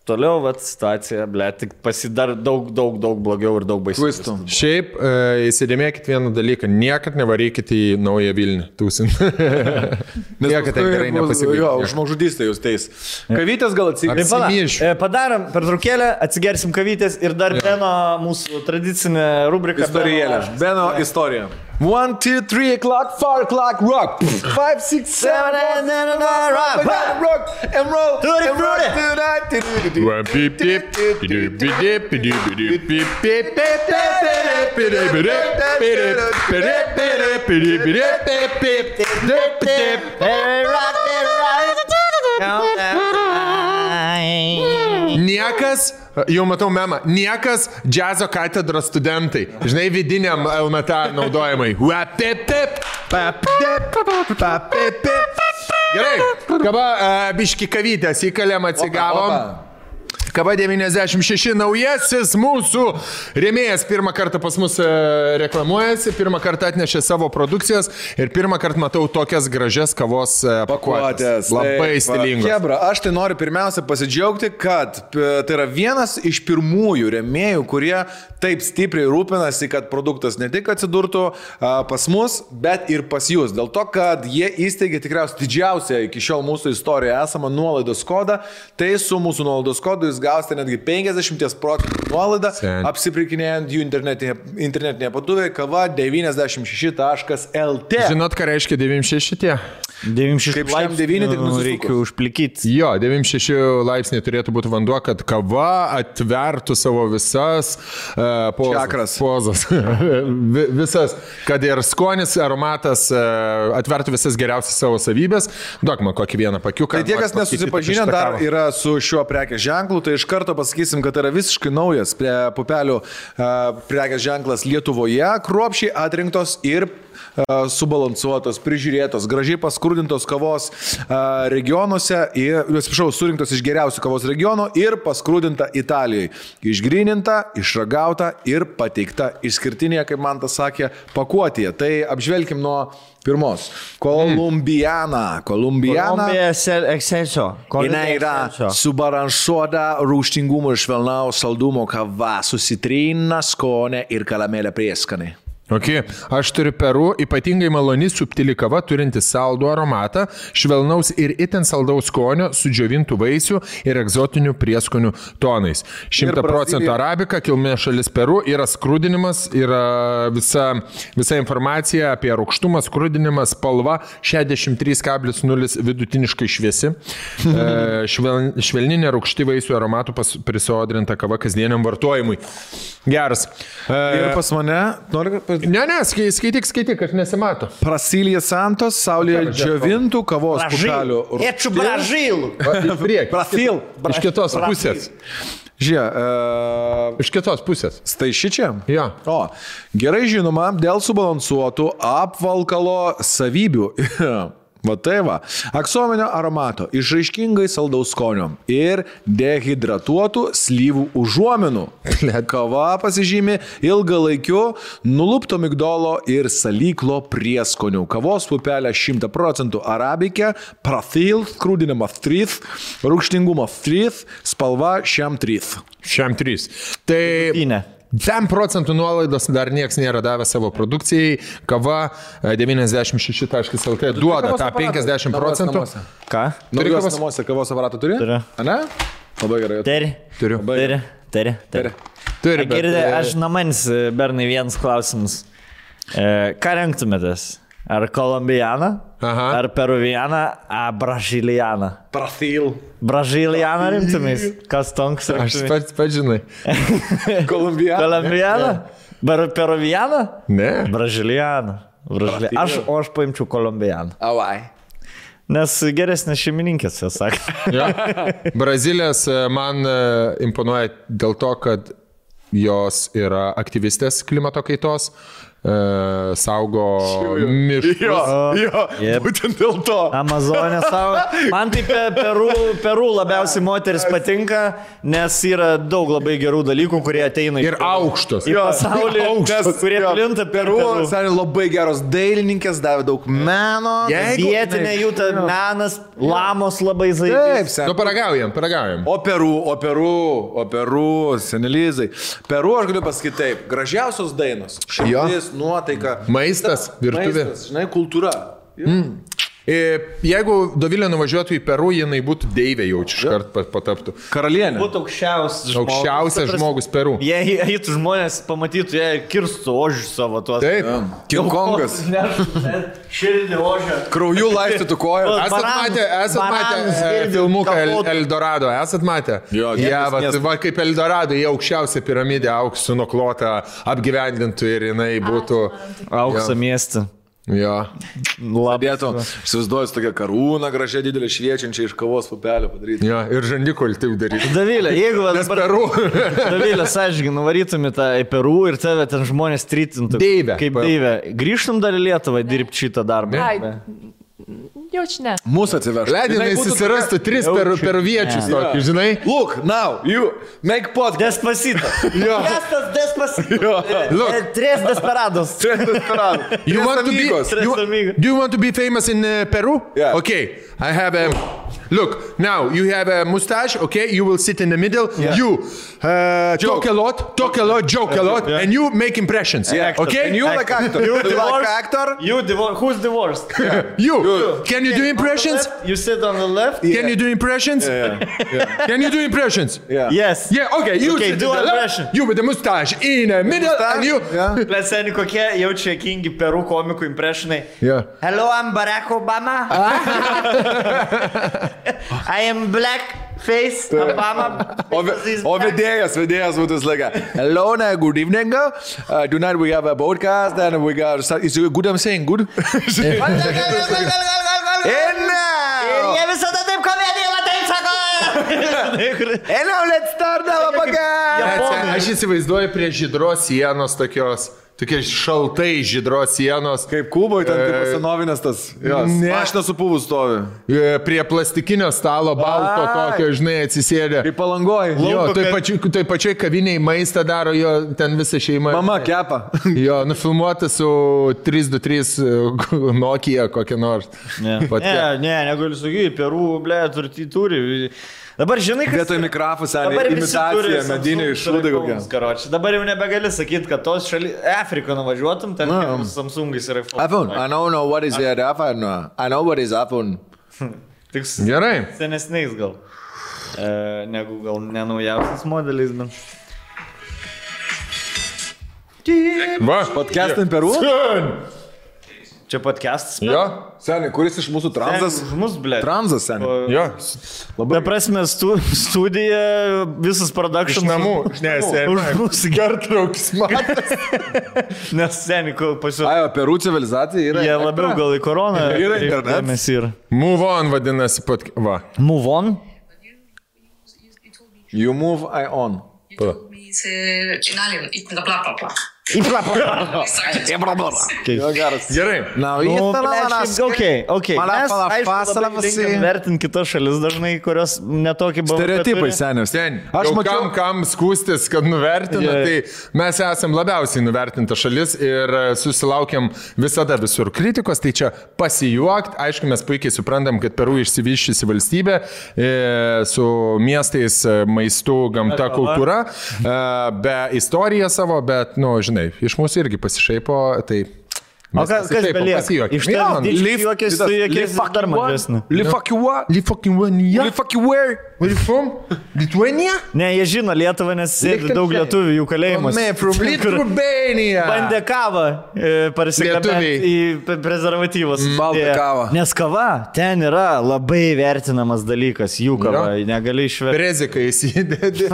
Toliau, situacija, tik pasidar daug blogiau ir daug baisiau. Šiaip, įsidėmėkit vieną dalyką, niekad nevarykit į Naują Vilnių, tūsin. Niekad ten gerai nepasibaigė. Jo, žmogžudystė jūs teis. Kavytės gal atsigersim. Padarom pertraukėlę, atsigersim kavytės ir dar Beno mūsų tradicinė rubrika. Istorijėlė. Beno istorija. 1, 2, 3 o'clock, 4 o'clock, rock. 5, 6, 7, 8, 9, rock, and roll, and rock tonight. Niekas, jau matau memą, niekas džiazo katedros studentai, žinai, vidiniam LMT naudojimai. Gerai, kaba biški kavytės įkalėm atsigavom. Kava 96 naujasis mūsų rėmėjas pirmą kartą pas mus reklamuojasi, pirmą kartą atnešė savo produkcijas ir pirmą kartą matau tokias gražias kavos pakuotės. Labai stilingos. Hebra, aš tai noriu pirmiausia pasidžiaugti, kad tai yra vienas iš pirmųjų rėmėjų, kurie taip stipriai rūpinasi, kad produktas ne tik atsidurtų pas mus, bet ir pas jūs. Dėl to, kad jie įsteigė tikriausiai didžiausią iki šiol mūsų istorijoje esamą nuolaidos kodą, tai su mūsų nuolaidos kodu jūs gausite netgi 50% nuolaidą, apsipirkinėjant jų internetinėje parduotuvėje kava 96.lt. Žinot, ką reiškia 96 tie? 96 laipsnių reikia užplikyti. Jo, 96 laipsniai turėtų būti vanduo, kad kava atvertų savo visas pozas. Visas, kad ir skonis, aromatas atvertų visas geriausias savo savybės. Duok man kokį vieną pakiuką. Tai tie, kas nesusipažinę dar yra su šiuo prekės ženklu, tai iš karto pasakysim, kad yra visiškai naujas pupelių prekės ženklas Lietuvoje, kruopščiai atrinktos ir subalansuotos, prižiūrėtos, gražiai paskrudintos kavos regionuose, surinktos iš geriausių kavos regionų ir paskrudinta Italijai. Išgryninta, išragauta ir pateikta išskirtinėje, kaip man tas sakė, pakuotėje. Tai apžvelkim nuo pirmos. Kolumbiana. Jinai yra subalansuota rūgštingumo ir švelnaus saldumo kava, susitrina skonė ir karamelė prieskanė. Okay. Aš turiu Peru, ypatingai maloni subtili kava, turinti saldų aromatą, švelnaus ir itin saldaus skonio, sudžiovintų vaisių ir egzotinių prieskonių tonais. 100% arabika, kilmės šalis Peru, yra skrudinimas, yra visa informacija apie rūgštumą, skrudinimą, spalva 63,0 vidutiniškai šviesi, švelninė rūgšti vaisių aromatų prisodrinta kava kasdieniam vartojimui. Geras. Ir pas mane, Ne, skaityk, aš nesimato. Brasilija Santos, saulėje džiovintų kavos pupelių. Ečiu Bražilų. Iš kitos pusės. Žiūrėk, Iš kitos pusės. Staišičia? Jo. O, gerai žinoma, dėl subalansuotų apvalkalo savybių. Va tai va. Aksominio aromato, išraiškingai saldaus skonio ir dehidratuotų slyvų užuominų. Kava pasižymi ilgalaikiu nulupto migdolo ir salyklo prieskonių. Kavos pupelė 100% arabikė, prathil, skrūdinimas 3, rūgštingumas 3, spalva šiam 3. Šiam 3. Tai 10% nuolaidos dar niekas nėra davęs savo produkcijai. Kava 96.lt duoda tą 50%. Ką? Turi kavos namuose, kavos aparatą turi? Turiu. Ane? Labai gerai. Turiu. Turi. Bet, Aš namanis, bernai, vienas klausimas. Ką renktumėtės? Ar kolumbianą? Aha. Ar peruvianą? Ar brazilianą? Prathil. Brazilianą rimtumės? Kas tonks aš rimtumės? pats žinai. Kolumbianą. Kolumbianą? Peruvianą? Ne. Brazilianą. Aš paimčiau kolumbianą. Avai. Nes geresnės šeimininkės, jie sakė. Ja. Brazilės man imponuoja dėl to, kad jos yra aktyvistės klimato kaitos, saugo miškus. Jo, Jep. būtent dėl to. Amazonė savo. Man tai Peru labiausiai moteris patinka, nes yra daug labai gerų dalykų, kurie ateina Ir aukštos. į pasaulį, kurie plinta Peru. Seniai labai geros dailininkės, davė daug meno. Vietinė jų ta menas, lamos labai Taip, zaibės. seniai. Nu, paragaujam. O Peru, senelizai. Peru, aš galiu pasakyti taip, gražiausios dainos. Širdis, nuotaika. Maistas, virtuvė. Maistas, žinai, kultūra. Jeigu Dovilė nuvažiuotų į Peru, jinai būtų deivė jau iškart pataptų. Karalienė. Būtų aukščiausias žmogus. Aukščiausias žmogus Peru. Jei eitų žmonės, pamatytų, jie kirstų ožius savo tuos. Taip. King Kongas. Širdį ožę. Krauju laistytų koją. Esat matę filmuką Eldorado, esat matę? Jo, Jie, miestas. va, kaip Eldorado, jie aukščiausia piramidė, auksu nuklota, apgyvendintų ir jinai būtų... Auksą miestą. Jo. Dėtų, įsivaizduoju, tokia karūna gražia, didelė, šviečiančia iš kavos pupelio padaryti. Jo, ir žandikol taip daryti. Davilė, jeigu Peru. Davilė, sąžininkai, nuvarytumė tą į Peru ir tave ten žmonės trytintų. Deivė. Kaip deivė. Grįžtum dar į Lietuvą dirbti šitą darbą. Jaučiu ne. Mūsų atsiveš. Leidinai susirastų 3 peruviečius tokį, žinai? Look, now, you make podcast. Despacito. Despacito. Look. Tres desperados. You want to be, do you want to be famous in Peru? Yeah. Okay, I have a... Look, now you have a mustache, okay? You will sit in the middle. Yeah. You talk a lot, joke a lot, and you make impressions. Yeah. Okay? And you like actor. You like divorced? actor? Who's divorced? You. Can you do impressions? You sit on the left? Can you do impressions? Can you do impressions? Yeah. Yes. Yeah, okay. You Okay, sit do in the left, impression. you with the mustache in the middle, and you... Yeah. Leseni, kokie jaučia kingi Peru komikų impressionai. Yeah. Hello, I'm Barack Obama. I am black face Obama. O vedėjas būtų slėga. Hello, good evening. Tonight we have a podcast and we got... Is it good I'm saying? Good? Jie visada taip komediją taip sako. And now let's start our podcast. Aš įsivaizduoju prie žydros sienos tokie šaltai žydros sienos. Kaip Kuboje, ten kaip senovinės tas. Ne. Mašina su pūvų stovi. Prie plastikinio stalo balto tokio, žinai, atsisėdė. Kaip Palangoj. Jo, tai pačiai kaviniai maistą daro, jo ten visa šeima. Mama kepa. Jo, nufilmuota su 323 Nokia kokia nors. Ne, negaliu sakyti, Peru, ble, turi. Dabar žinai, kad... Vietoj mikrofų, seniai, imitacija, mediniai šūdai kokie. Dabar jau nebegali sakyti, kad tos šaly... Afriką nuvažiuotum, ten Samsungais yra iPhone. I don't know what is the iPhone. I know what is iPhone. Gerai. Senesniais gal. Negu gal nenaujausias modelis, bet... Va. Podcastin Peru? Čia podcastas. Jo. Seniai, kuris iš mūsų transas? Už mus, ble. Transas, seniai. Jo. Ta prasme, studija, visas production. Iš namų. Ne, Už mūsų gertraukis matas. Nes seniai, pasiūlė. Ajo, Peru civilizacija yra. Jie labiau gal į koroną. Yra internetas. Mes ir. Move on vadinasi. Va. Move on? You move, I on. Me to Italian, bla bla bla bla. Gerai. Now, Okay. Mes, aišku, linkam vertinti kitas šalis dažnai, kurios netokį buvo. Stereotipai senius. Aš mačiau, kam skūstis, kad nuvertina, tai mes esam labiausiai nuvertinta šalis ir susilaukiam visada visur kritikos, tai čia pasijuokt. Aišku, mes puikiai suprantam, kad Peru išsivyščiusi valstybė su miestais, maistu, gamta, kultūra, be istorija savo, bet, žinai, iš mūsų irgi pasišaipo, tai... O kas belieka? Iš ten juokės su juokės dar mažesnė. Lithuania? Ne, jie žino Lietuvą, nes sėdi daug lietuvių jų kalėjimus. Lithuania. Bandė kavą parsiklabėti į prezervatyvus. Baltą kavą. Nes kava ten yra labai vertinamas dalykas, jų kava, negali išverti. Preziką įsidėdi,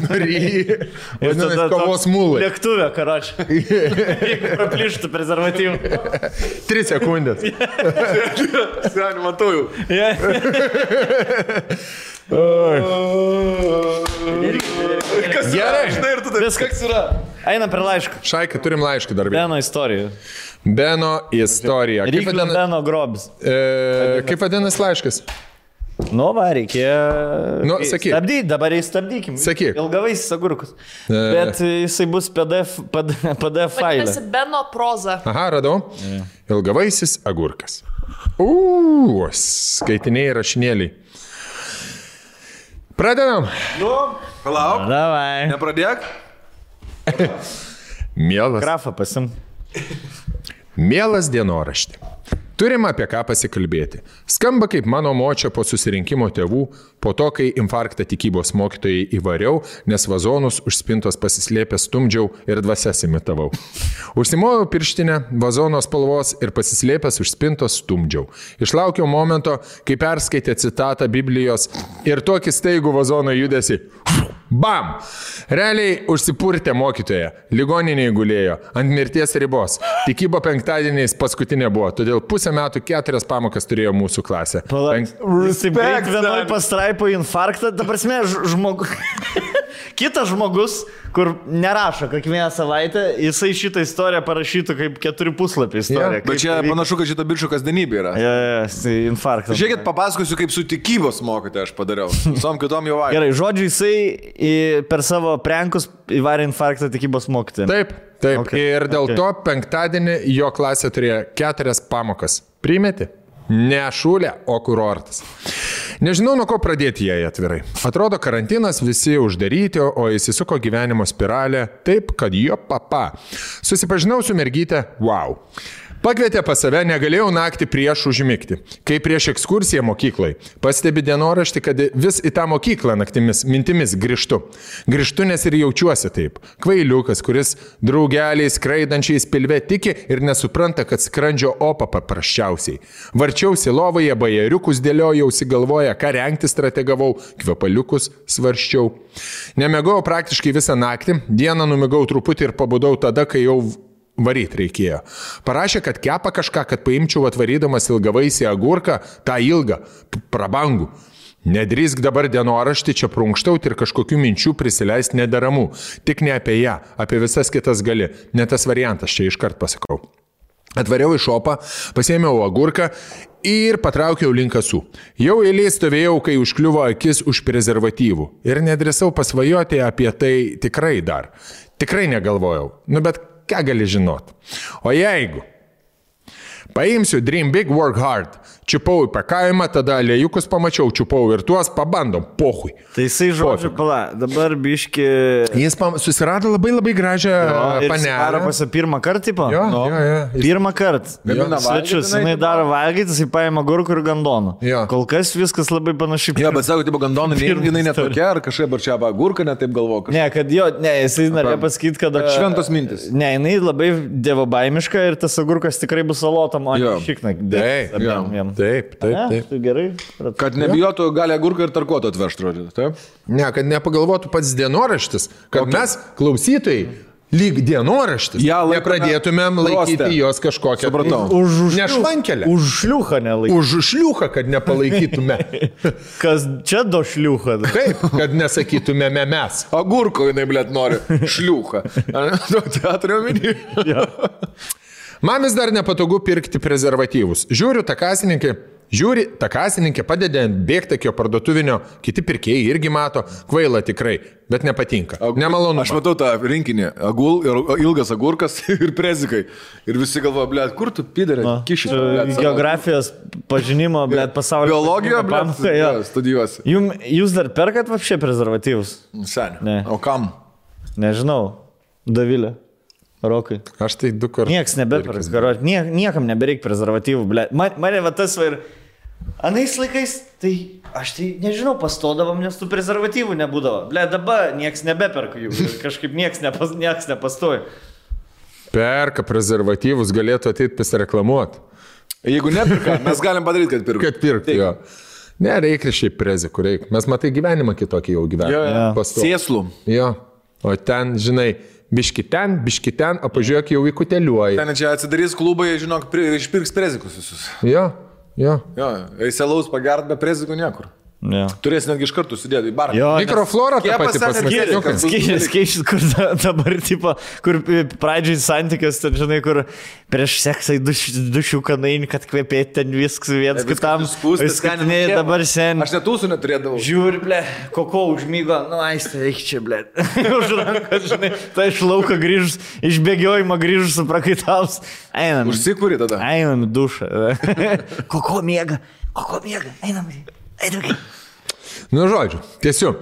nuryji. Ir tada kavos mūlai. Lėktuvė, karoč. Jeigu praplyštų prezervatyvų. 3 sekundės. Seniai, matau jau. Gerai. Žinai, ir tu taip. Viskas yra. Einam per laišką. Šaika, turim laišką dar. Beno istorija. Beno istorija. Ryklio Beno grobis. Kaip vadinasi laiškas? Va, reikėjo... Sakyk. Stabdyk, dabar įstabdykim. Sakyk. Ilgavaisis agurkus. Bet jisai bus PDF failė. Vadinasi Beno proza. Aha, radau. Ilgavaisis agurkas. Skaitiniai rašinėliai. Pradedam. Palauk. Davai. Nepradėk. Mielas. Grafą pasim. Mielas dienorašti. Turim apie ką pasikalbėti. Skamba kaip mano močia po susirinkimo tėvų, po to, kai infarktą tikybos mokytojai įvariau, nes vazonus už spintos pasislėpęs stumdžiau ir dvasias imitavau. Užsimojau pirštinę, vazono spalvos ir pasislėpęs už spintos stumdžiau. Išlaukiau momento, kai perskaitė citatą Biblijos ir tokį staigų vazono judesi. Bam! Realiai užsipurtė mokytoja, ligoninėje gulėjo, ant mirties ribos. Tikybo penktadieniais paskutinė buvo, todėl pusę metų 4 pamokas turėjo mūsų klasė. Respekt, vienoj pastraipo infarktą, ta prasme, kitas žmogus, kur nerašo kiekvieną savaitę, jisai šitą istoriją parašytų kaip 4 puslapį istoriją. Bet čia panašu, kad šito bičio kasdienybė yra. Tai infarktas. Žiūrėkit, papasakosiu, kaip su tikybos mokytoja aš padariau. Visom kitom jau vaikai. Gerai, žodžiu, jisai per savo prenkus įvarė infarktą tikybos mokytoją. Taip. Okay. Ir dėl to penktadienį jo klasė turėjo 4 pamokas. Primeti? Ne šūlė, o kurortas. Nežinau, nuo ko pradėti jai atvirai. Atrodo, karantinas, visi uždaryti, o įsisuko gyvenimo spiralė taip, kad jo papa. Susipažinau su mergyte, wow. Pakvietė pas save, negalėjau naktį prieš užmigti. Kai prieš ekskursiją mokyklai. Pastebi dienoraštį, kad vis į tą mokyklą naktimis, mintimis grįžtu. Grįžtu, nes ir jaučiuosi taip. Kvailiukas, kuris draugeliai skraidančiais pilve tiki ir nesupranta, kad skrandžio opa paprasčiausiai. Varčiausi lovoje, bajeriukus dėliojausi galvoje, ką rengti strategavau, kvepaliukus svarščiau. Nemegau praktiškai visą naktį, dieną numigau truputį ir pabudau tada, kai jau varyt reikėjo. Parašė, kad kepa kažką, kad paimčiau atvarydamas ilgavaisį agurką, tą ilgą, prabangų. Nedrįsk dabar dienoraštį čia prunkštauti ir kažkokių minčių prisileisti nedaramų. Tik ne apie ją, apie visas kitas gali. Ne tas variantas, čia iškart pasakau. Atvariau į šopą, pasėmiau agurką ir patraukiau link kasų. Jau eilėj stovėjau, kai užkliuvo akis už prezervatyvų. Ir nedrįsau pasvajoti apie tai tikrai dar. Tikrai negalvojau. Bet ką gali žinot? O jeigu paimsiu Dream Big, Work Hard, čiupau į pakavimą, tada lėjukus pamačiau, čiupau ir tuos pabandom, pohui. Tai jisai žodžiu, dabar biški... Jis susirado labai gražią panelę. Daro pasą pirmą kartą, tipo? Jo. Pirmą kartą. Svečius, jinai daro valgyti, jisai paima gurkų ir gandoną. Kol kas viskas labai panašiai. Jo, bet sako, tipo gandoną, jinai netokia, ar kažkaip ar čia gurką netaip galvoja. Ne, kad jo, jisai norėjo pasakyti, kad... Šventos mintis. Ne, jinai labai dievobaimiška ir tas agurkas tikrai bus salotam, o ne šikna. Taip. Tu gerai. Kad nebijotų, gali agurką ir tarkuotą atvežti, žodžiu. Taip? Ne, kad nepagalvotų pats dienoraštis, kad mes, klausytojai, lyg dienoraštis. Ja, nepradėtumėm laikyti prostę. jos kažkokią. Supratau. Nešvankelę. Už šliuchą nelaikyti. Už šliuchą, kad nepalaikytume. Kas čia do šliuchą? Taip, kad nesakytumėme mes. Agurko jinai, blėt, nori. Šliucha. Teatrio minį. Man vis dar nepatogu pirkti prezervatyvus. Žiūri, takasininkė padeda ant bėgtakio parduotuvinio, kiti pirkėjai irgi mato, kvaila tikrai, bet nepatinka. Nemalonu. Aš matau tą rinkinį. Ilgas agurkas ir prezikai. Ir visi galvoja, blėt, kur tu pidarė? Kišis. Geografijos pažinimo, blėt, pasaulio. Biologija, blėt, studijuosi. Jūs dar perkat vapšė prezervatyvus? Seniai. Ne. O kam? Nežinau. Davilė. Rokai. Aš tai 2 kartus. Niekas nebeperka. Niekam nebereik prezervatyvų, blėt. Mane va tas va ir... Anais laikais, tai aš tai nežinau, pastodavom, nes tų prezervatyvų nebūdavo. Blėt, dabar niekas nebeperka jų. Kažkaip niekas nepastoja. Perka prezervatyvus, galėtų ateiti pasireklamuoti. Jeigu nepirka, mes galim padaryti, kad pirka. Kad pirkti jo. Ne, reikia šiaip prezikų, reikia. Mes matai gyvenimą kitokį jau gyvenimą. Sėslų. Jo. O ten, žinai, biški ten, o pažiūrėk jau į kuteliuoji. Ten čia atsidarys klubai, žinok, išpirks prezikus visus. Jo. Eiselaus pagert be prezikų niekur. Ja. Turės netgi iš kartų sudėti į barą. Mikroflora tą patį pasakė. Skaičius, kur dabar, tipo, kur pradžiai santykios, ten, žinai, kur prieš seksą į dušių kanainį, kad kvepėti ten viskas viens kitam. Skaitinėjai dabar sen. Aš netūsų neturėdavau. Žiūri, ble, koko užmygo, aistė, eik čia, ble. Už rankas, žinai, tai iš lauko grįžus, iš bėgiojimo grįžus su prakaitaus. Einam. Užsikūri tada. Einam į dušą. Koko miega, einam. Nu, žodžiu, tiesiu.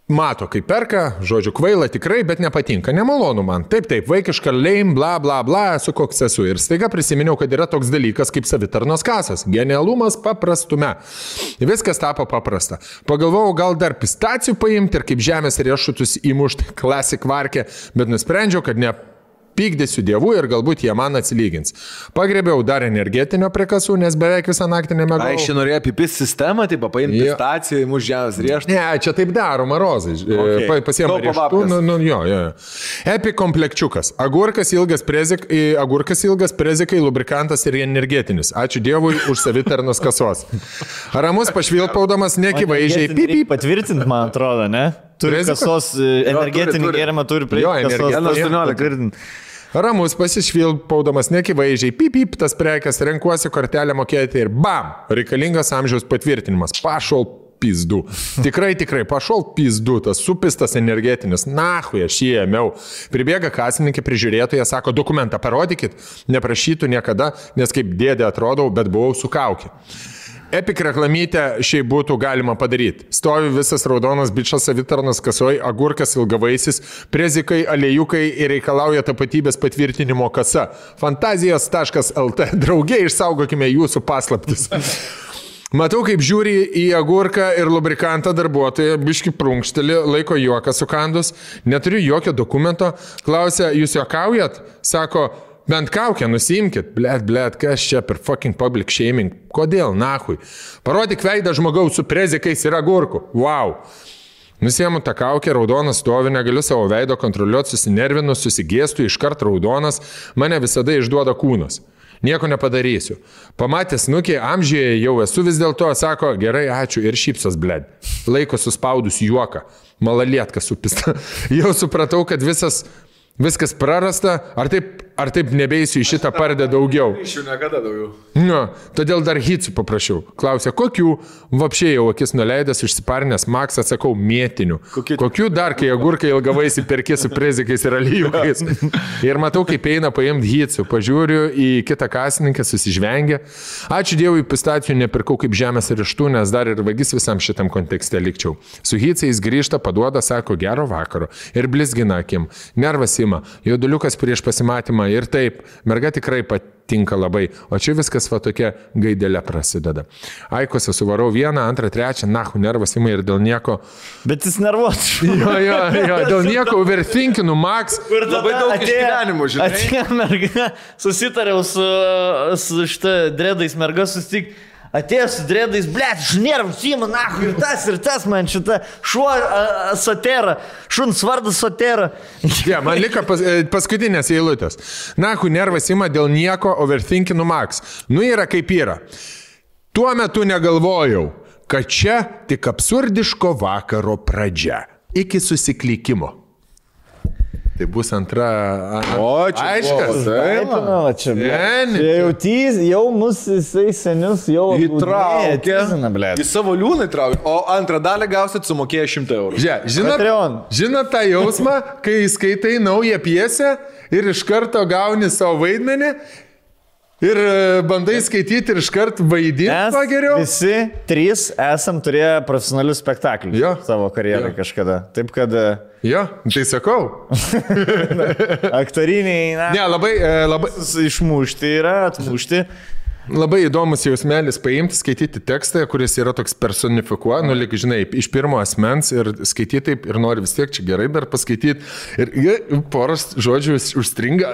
Mato, kaip perka, žodžiu, kvaila tikrai, bet nepatinka. Nemalonu man. Taip, vaikiška leim, bla, bla, bla, esu koks esu. Ir staiga prisiminiau, kad yra toks dalykas kaip savitarnos kasas. Genialumas paprastume. Viskas tapo paprasta. Pagalvojau, gal dar pistacijų paimti ir kaip žemės riešutus įmušti klasik varkę, bet nusprendžiau, kad ne pykdysiu dievų ir galbūt jie man atsilygins. Pagrėbiau dar energetinio prie kasų, nes beveik visą naktį nemegau. Ai, norėjo pipis sistemą, tai paimti pistaciją, įmuš žemės riešutą. Ne, čia taip daro marozai. Okay. Pasiema riešutų. Jo. Epi komplekčiukas. Agurkas ilgas prezikai, lubrikantas ir energetinis. Ačiū dievui už savitarnos kasos. Ramus pašvilpaudamas nekivaizdžiai. Patvirtint, man atrodo, ne? Turi kasos energetinį gėrimą, turi prie kasos. Ramus pasišvilpaudamas nekivaizdžiai, pip, tas prekes, renkuosi kortelę mokėti ir bam, reikalingas amžiaus patvirtinimas. Pašol pizdu. Tikrai, pašol pizdu, tas supistas energetinis. Nahui, aš jį ėmiau. Pribėga kasininkė prižiūrėtoja, sako, dokumentą parodykit, neprašytų niekada, nes kaip dėdė atrodau, bet buvau su kaukė. Epik reklamytę šiaip būtų galima padaryti. Stovi visas raudonas bičas savitarnos kasoj, agurkas ilgavaisis, prezikai, aliejukai ir reikalauja tapatybės patvirtinimo kasa. Fantazijos.lt. Drauge išsaugokime jūsų paslaptis. Matau, kaip žiūri į agurką ir lubrikantą darbuotoją, biški prunkštelį, laiko juoką sukandus, neturiu jokio dokumento, klausia, jūs juokaujat? Sako, bent kaukę nusimkit. Blet, kas čia per fucking public shaming? Kodėl, nahui? Parodyk veidą žmogaus su prezikais ir agurku. Wow. Nusiemu tą kaukę, raudonas stovi, negaliu savo veido kontroliuoti, susinervinu, susigėstu, iškart raudonas, mane visada išduoda kūnas. Nieko nepadarysiu. Pamatęs nukį, amžiuje jau esu vis dėlto, sako, gerai, ačiū ir šypsos, bled. Laiko suspaudus juoką. Malalietka supista. Jau supratau, kad viskas prarasta, ar taip nebeisiu į šitą pardę daugiau. Iš jų niekada daugiau. No, todėl dar hitsų paprašiau. Klausė, kokių? Vapšiai jau akis nuleidęs, išsiparnęs, Max, atsakau, mėtinių. Kokių dar, kai agurkai ilgavaisi perki su prezikais ir alyvukais. Ir matau, kaip eina paimti hitsų. Pažiūriu į kitą kasininkę, susižvengia. Ačiū Dievui, pistacijų nepirkau kaip žemės riešutų, nes dar ir vagis visam šitam kontekste likčiau. Su hitsais grįžta, paduoda, sako, gero vakaro. Ir blizgina akim. Nervas ima. Jauduliukas prieš pasimatymą. Ir taip, merga tikrai patinka labai, o čia viskas va tokia gaidelė prasideda. Aikose suvarau 1, 2, 3, nahu, nervas ima ir dėl nieko. Bet jis nervuotas. Jo, dėl nieko overthinkinu, Max. Kur labai daug išgyvenimų, žinai. Atėjo merga, susitariau su šitą dredais merga susitik. atėjo su dredais, blėt, žnėram, Sima, nahu, ir tas man šitą šuo Sotera, šuns vardas Sotera. Ja, man liko paskutinės eilutės. Nahu, nervas ima dėl nieko, overthinkinu Max. Nu yra kaip yra. Tuo metu negalvojau, kad čia tik absurdiško vakaro pradžia. Iki susiklikimo. Tai bus antra... O, čia aiškas. Čia jau mus jisai senius jau įtraukė. Į savo liūną įtraukė. O antrą dalį gausit sumokėję 100 eurų. Žinot tą jausmą, kai skaitai naują pjesę ir iš karto gauni savo vaidmenį ir bandai skaityti ir iš karto vaidinti geriau. Visi trys esam turėję profesionalius spektaklius savo karjerą kažkada. Taip kad... Jo, tai sakau. Aktoriniai, ne, labai išmušti yra, atmušti. Labai įdomus jausmelis paimti, skaityti tekstą, kuris yra toks personifikuoja, nu, lyg, žinai, iš pirmo asmens ir skaityti taip ir nori vis tiek čia gerai dar paskaityti ir poras žodžių užstringa,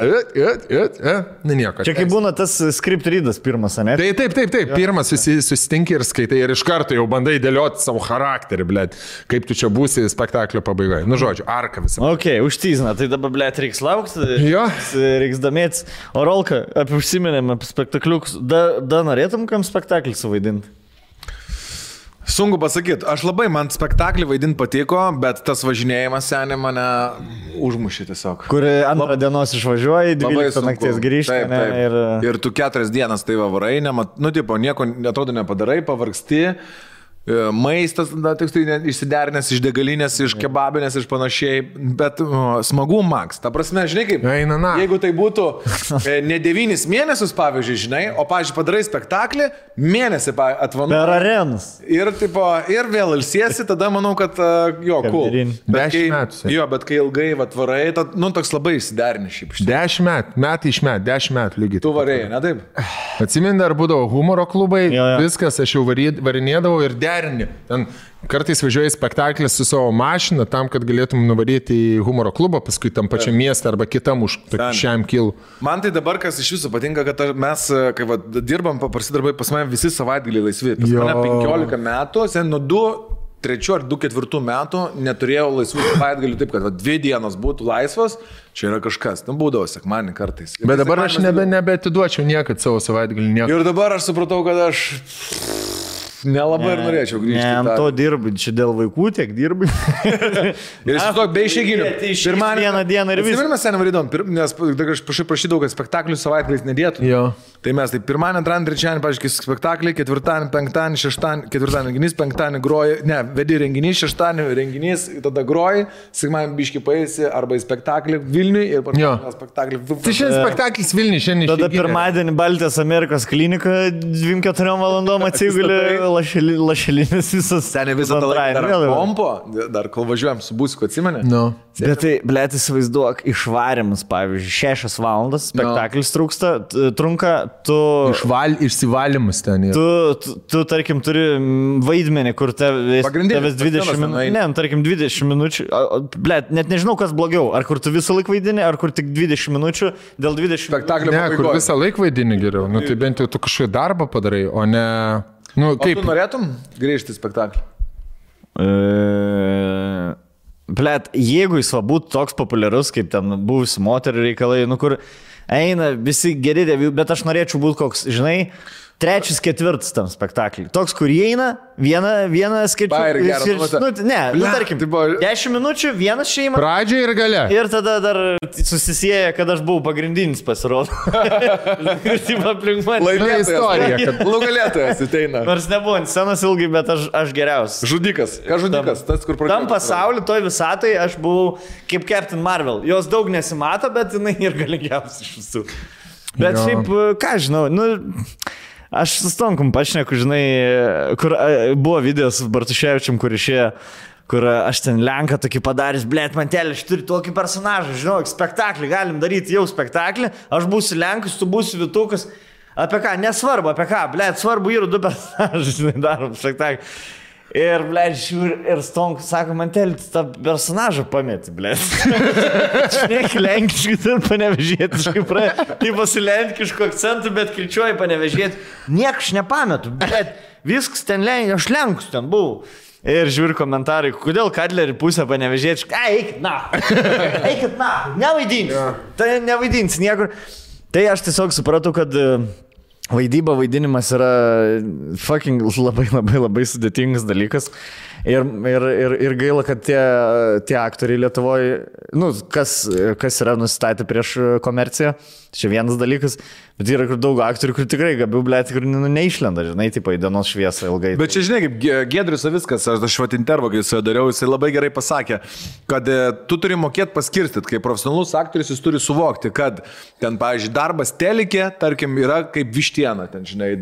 ne nieko. Čia kaip būna tas script readas pirmas, ne? Taip, pirmas susitinki ir skaitai ir iš karto jau bandai dėlioti savo charakterį, blėt, kaip tu čia būsi spektaklio pabaigoje. Nu, žodžiu, arka visą. Ok, užtyzina, tai dabar, blėt, reiks laukti, reiks domėtis. O Rolka, apie užsiminėm apie spektakliukus, da norėtum kam spektaklį suvaidinti? Sunku pasakyti. Man spektaklį vaidinti patiko, bet tas važinėjimas seniai mane užmušė tiesiog. Kur antrą dienos išvažiuoji, 12 nakties grįžti. Ir tu 4 dienas tai varai, nieko atrodo nepadarai, pavargsti. Maistas, išsiderinęs iš degalinės, iš kebabinės, iš panašiai, bet smagu Max. Ta prasme, žinai kaip, jeigu tai būtų ne 9 mėnesius, pavyzdžiui, žinai, o, pavyzdžiui, padarai spektaklį, mėnesį atvanuoji. Per arenas. Ir vėl ilsiesi, tada manau, kad cool. 10 metų. Jo, bet kai ilgai atvarai, toks labai išsiderini šiaip. 10 metų iš metų, 10 metų lygiai. Tu varėjai, ne taip? Atsimeni, dar būdavo humoro klubai, viskas, aš jau varinėdavau ir ten kartais važiuoji spektaklį su savo mašina tam, kad galėtum nuvaryti į humoro klubą, paskui tam pačiam miestą arba kitam už šiam kilų. Man tai dabar, kas iš viso patinka, kad mes, kai dirbam paprasti darbai, pas mane visi savaitgaliai laisvi. Pas mane 15 metų, nuo 3 ar 4 metų neturėjau laisvų savaitgalių, taip kad 2 dienos būtų laisvos, čia yra kažkas. Būdavo sekmanį kartais. Bet dabar aš nebeatiduočiau niekad savo savaitgalį. Ir dabar aš supratau, kad aš... Nelabai ir norėčiau grįžti. Ne, to dirbi, čia dėl vaikų tiek dirbi. Ir aš to be išėginių. Vieną dieną ir visą. Ir mes seniai varydom, nes aš prašydavau, kad spektaklių savaitgaliais nedėtų. Tai mes pirmadienį, antradienį, trečiadienį, pažiūrėk, spektaklį, ketvirtadienį, penktadienį, šeštadienį, ketvirtadienį renginys, penktadienį groji, vedi renginys, šeštadienį renginys, tada groji, sekmadienį biškį paėsi arba į spektaklį Vilniui ir pačią spektaklį. Tai šiandien spektaklis Vilniui, šiandien. Tada pirmadienį Baltijos Amerikos klinika 2-4 valandom atsigulė. Lašelinis visas. Seniai visą tą laiką dar pompo, dar kol važiuojam su busiku, atsimeni? Bet tai, blėt, įsivaizduok, išvarimas, pavyzdžiui, 6 valandas, spektaklis trunka, tu... Išsivalymas ten yra. Tu, tarkim, turi vaidmenį, kur tavęs 20 minučių. Ne, tarkim, 20 minučių. Blėt, net nežinau, kas blogiau. Ar kur tu visą laiką vaidini, ar kur tik 20 minučių dėl 20 spektaklio pabaigos. Ne, kur visą laiką vaidini geriau. Tai bent jau tu kažkokį darbą padarai, o ne... Kaip? O tu norėtum grįžti į spektaklį? Blet, jeigu jis būtų toks populiarus, kaip ten buvusi moterų reikalai, kur eina visi geri devių, bet aš norėčiau būti koks, žinai, 3, 4 tam spektaklį. Toks, kur įeina, vieną skaičių. Tarkim, 10 minučių, vienas šeima. Pradžia ir gale. Ir tada dar susisieja, kad aš buvau pagrindinis pasirodo. Laimėtojas istorija, kad nugalėtojas ateina. Nors nebuvo ant scenos ilgai, bet aš geriausias. Žudikas. Ką žudikas? Tas, kur pradėjo. Tam pasauliu, toj visatai aš buvau kaip Captain Marvel. Jos daug nesimato, bet jinai ir galingiausia iš visų. Bet šiaip, ką žinau, aš su Stonkum pašneku, žinai, kur buvo videos su Bartuševičium, kur išėjo, kur aš ten Lenką tokį padaręs, blėt, mantelį, aš turiu tokį personažą, žinau, spektaklį, galim daryti jau spektaklį, aš būsiu Lenkas, tu būsi Vytukas, apie ką, nesvarbu, apie ką, blėt, svarbu yra 2 personažai, žinai, darom spektaklį. Ir, blėt, žiūri, ir Stonkus sako, man telis tą personažą pamėti, blėt. Šneki lenkiškai, tai panevežėtiškai, tai pasilenkiško akcentų, bet kirčiuoji panevežėti. Niekas nepametu, blėt, viskas ten aš lenkus ten buvau. Ir žiūri komentarai, kodėl Kadlerį pusę panevežėti, eikit na, nevaidins niekur. Tai aš tiesiog supratau, kad vaidinimas yra fucking labai sudėtingas dalykas. Ir gaila, kad tie aktoriai Lietuvoje, kas yra nusistatę prieš komerciją, čia vienas dalykas, bet yra daug aktorių, kur tikrai gabių, blėt, kur neišlenda, žinai, tipo į dienos šviesą ilgai. Bet čia, žinai, kaip Giedrius Savickas, aš vat intervą, kai jis dariau, jisai labai gerai pasakė, kad tu turi mokėti paskirstyti, kaip profesionalus aktorius jis turi suvokti, kad ten, pavyzdžiui, darbas telikė, tarkim, yra kaip vištiena, ten, žinai,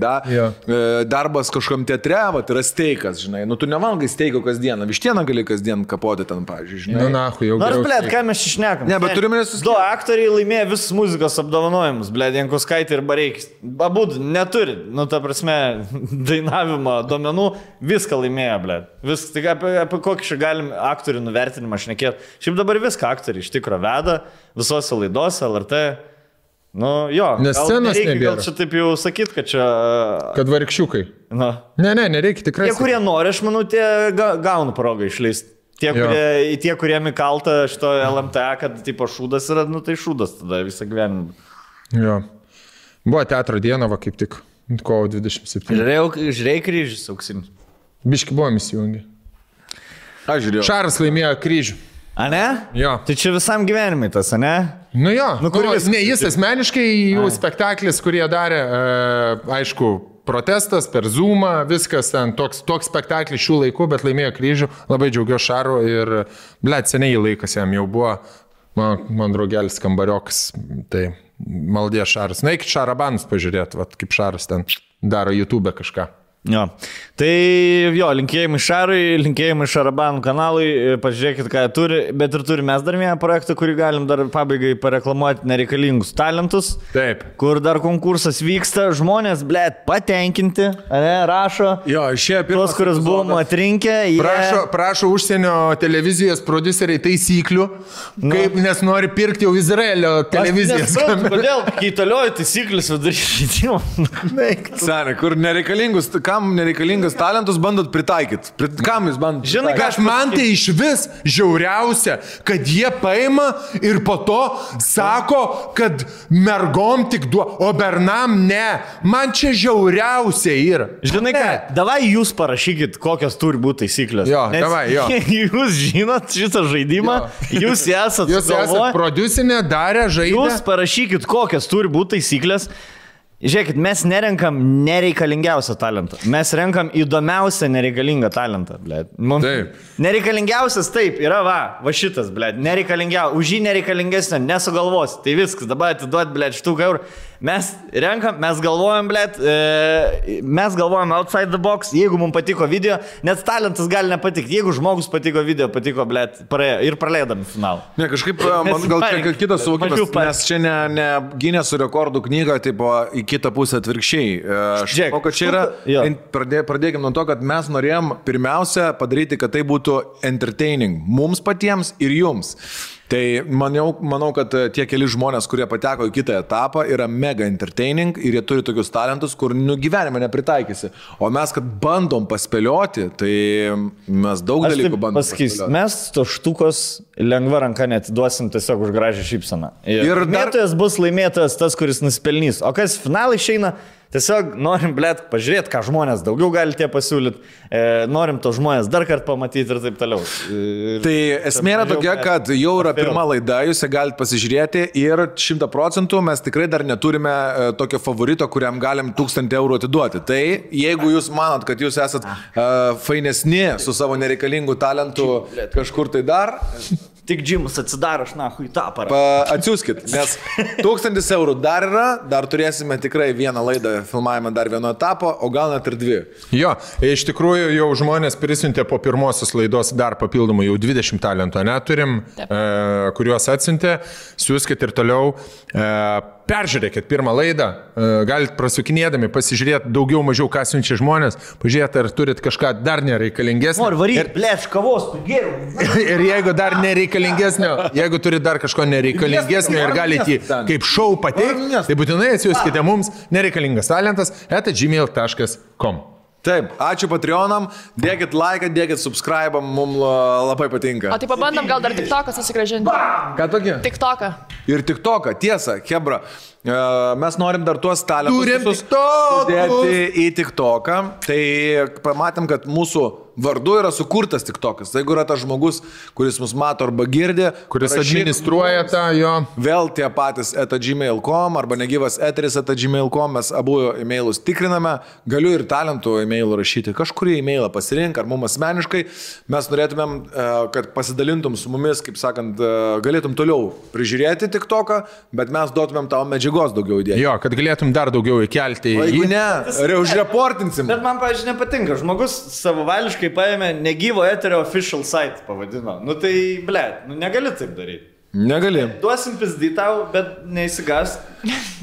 darbas kažkam teatre, vat, yra steikas, žinai, tu nevalgai steiko kasdieną, vištieną gali kasdien kapoti ten, pavyzdžiui, žinai. Nors, blėt, ką mes išnekam? Ne, bet turime nesuskirti. Du aktoriai laimėjo visus muzikos apdovanojimus, blėt, Jankuskaitė ir Bareikis. Abudu neturi, ta prasme, dainavimo duomenų, viską laimėjo, blėt. Viską, tik apie kokį čia galim aktorių nuvertinimą šnekėti. Šiaip dabar viską aktoriai iš tikro veda, visose laidose, LRT. Nes scenos nebėra. Gal čia taip jau sakyt, kad čia... Kad varikščiukai. Ne, nereikia tikrai. Tie, kurie nori, aš manau, tie gauna progą išleisti. Tie, kurie įkalta šito LMTA, kad tipo šūdas yra, tai šūdas tada visą gyvenimą. Jo. Buvo teatro diena, va kaip tik, kovo 27. Žiūrėjai kryžius auksinis. Biški buvom įsijungi. Aš žiūrėjau. Šaras laimėjo kryžių. A ne? Jo. Tai čia visam gyvenimui tas, a ne? Jo. Ne, jis asmeniškai, jų spektaklis, kurie darė, aišku, protestas per Zoomą, viskas ten, toks spektaklis šių laikų, bet laimėjo kryžių, labai džiaugiuosi Šaru ir, blėt, seniai laikas jam jau buvo, man draugelis kambariokas, tai maldė Šaras. Na, iki Šarabanus pažiūrėti, kaip Šaras ten daro YouTube kažką. Jo. Tai jo, linkėjimai Šarui, linkėjimai Šarabanų kanalui, pažiūrėkit, ką jie turi, bet ir turime mes dar vieną projektą, kurį galim dar pabaigai pareklamuoti, nereikalingus talentus. Taip. Kur dar konkursas vyksta, žmonės, blėt, patenkinti, rašo. Jo, išėjo pirmas. Tos, kurios buvom atrinkę. Prašo užsienio televizijos produceriai taisyklių, kaip, nes nori pirkti jau Izraelio televizijas. Kodėl kaitalioji taisyklės vidury žaidimo? Sene, kur nereikalingus, kam nereikalingas talentus bandot pritaikyti? Kam jūs bandot? Žinai, kad man tai iš vis žiauriausia, kad jie paima ir po to sako, kad mergom tik o bernam ne. Man čia žiauriausia yra. Žinai ką, davai jūs parašykit, kokios turi būti taisyklės. Jo, davai, jo. Jūs žinot šitą žaidimą, jūs esat prodiusinė, darė žaidimą. Jūs parašykit, kokios turi būti taisyklės. Žiūrėkit, mes nerenkam nereikalingiausią talentą. Mes renkam įdomiausią nereikalingą talentą, blėt. Taip. Nereikalingiausias taip, yra va šitas, blėt. Nereikalingiausias, už jį nereikalingesnio nesugalvos. Tai viskas, dabar atiduot, blėt, štuką eurų. Mes renkam, mes galvojam, blėt, mes galvojam outside the box, jeigu mums patiko video, net talentas gali nepatikti. Jeigu žmogus patiko video, patiko, blėt, ir praleidam finalą. Ne, kažkaip, man gal čia kitas suvokimas, nes čia ne Gineso rekordų knyga, tipo, į kitą pusę atvirkščiai. Aš manau, kad čia yra, pradėkime nuo to, kad mes norėjom pirmiausia padaryti, kad tai būtų entertaining mums patiems ir jums. Tai manau, kad tie keli žmonės, kurie pateko į kitą etapą, yra mega entertaining ir jie turi tokius talentus, kur gyvenime nepritaikysi. O mes, kad bandom paspėlioti, tai mes daug dalykų bandom paspėlioti. Mes to štukos lengva ranka netiduosim tiesiog už gražią šypseną. Ir laimėtojas bus laimėtojas tas, kuris nusipelnys. O kas finalai išeina? Tiesiog norim, blėt, pažiūrėti, ką žmonės daugiau gali tie pasiūlyti, norim to žmonės dar kartą pamatyti ir taip toliau. Tai esmė yra tokia, kad jau yra pirma laida, jūs ją galite pasižiūrėti ir 100% mes tikrai dar neturime tokio favorito, kuriam galim 1000 eurų atiduoti. Tai jeigu jūs manot, kad jūs esat fainesni su savo nereikalingu talentu kažkur tai dar... Tik džimus atsidaro, aš nahui tą aparatą. Atsiųskit, nes 1000 eurų dar yra, dar turėsime tikrai vieną laidą, filmavimą dar vieno etapo, o gal net ir 2. Jo, iš tikrųjų jau žmonės prisiuntė po pirmosios laidos dar papildomai jau 20 talentų, neturim, kuriuos atsiuntė, siūskit ir toliau. peržiūrėkit pirmą laidą, galite prasukinėdami pasižiūrėti daugiau mažiau, ką siunčia žmonės, pažiūrėti, ar turit kažką dar nereikalingesnio. Noriu varyti, blėč, kavos, geriau. Ir jeigu dar nereikalingesnio, jeigu turit dar kažko nereikalingesnio ir galite jį kaip šou pateikti, tai būtinai atsiųskite mums nereikalingas talentas @gmail.com. Taip, ačiū Patreonam, dėkit laiką, dėkit subscribe, mums labai patinka. O tai pabandom gal dar TikToką susigrąžinti. Ką tokia? TikToką. Ir TikToką, tiesa, Hebra, mes norim dar tuos talentus Turim visus TikTokus. sudėti į TikToką, tai pamatėm, kad mūsų vardu yra sukurtas TikTokas. Tai jeigu yra tas žmogus, kuris mus mato arba girdi, Kuris administruoja tą jo. vėl tie patys @gmail.com arba negyvas eteris @gmail.com, mes abu e-mailus tikriname, galiu ir talentų e-mailų rašyti, kažkurį e-mailą pasirink, ar mums asmeniškai, mes norėtumėm, kad pasidalintum su mumis, kaip sakant, galėtum toliau prižiūrėti TikToką, bet mes duotumėm tau medžiagos daugiau įdėti. Jo, kad galėtum dar daugiau įkelti O jeigu į... ne, užreportinsim. Bet man, pavyzdžiui, nepatinka. Žmogus savavališkai paėmė negyvo eterio official site, pavadino. Nu tai, blėt, nu negali taip daryti. Negali. Duosim pizdį tau, bet neįsigas.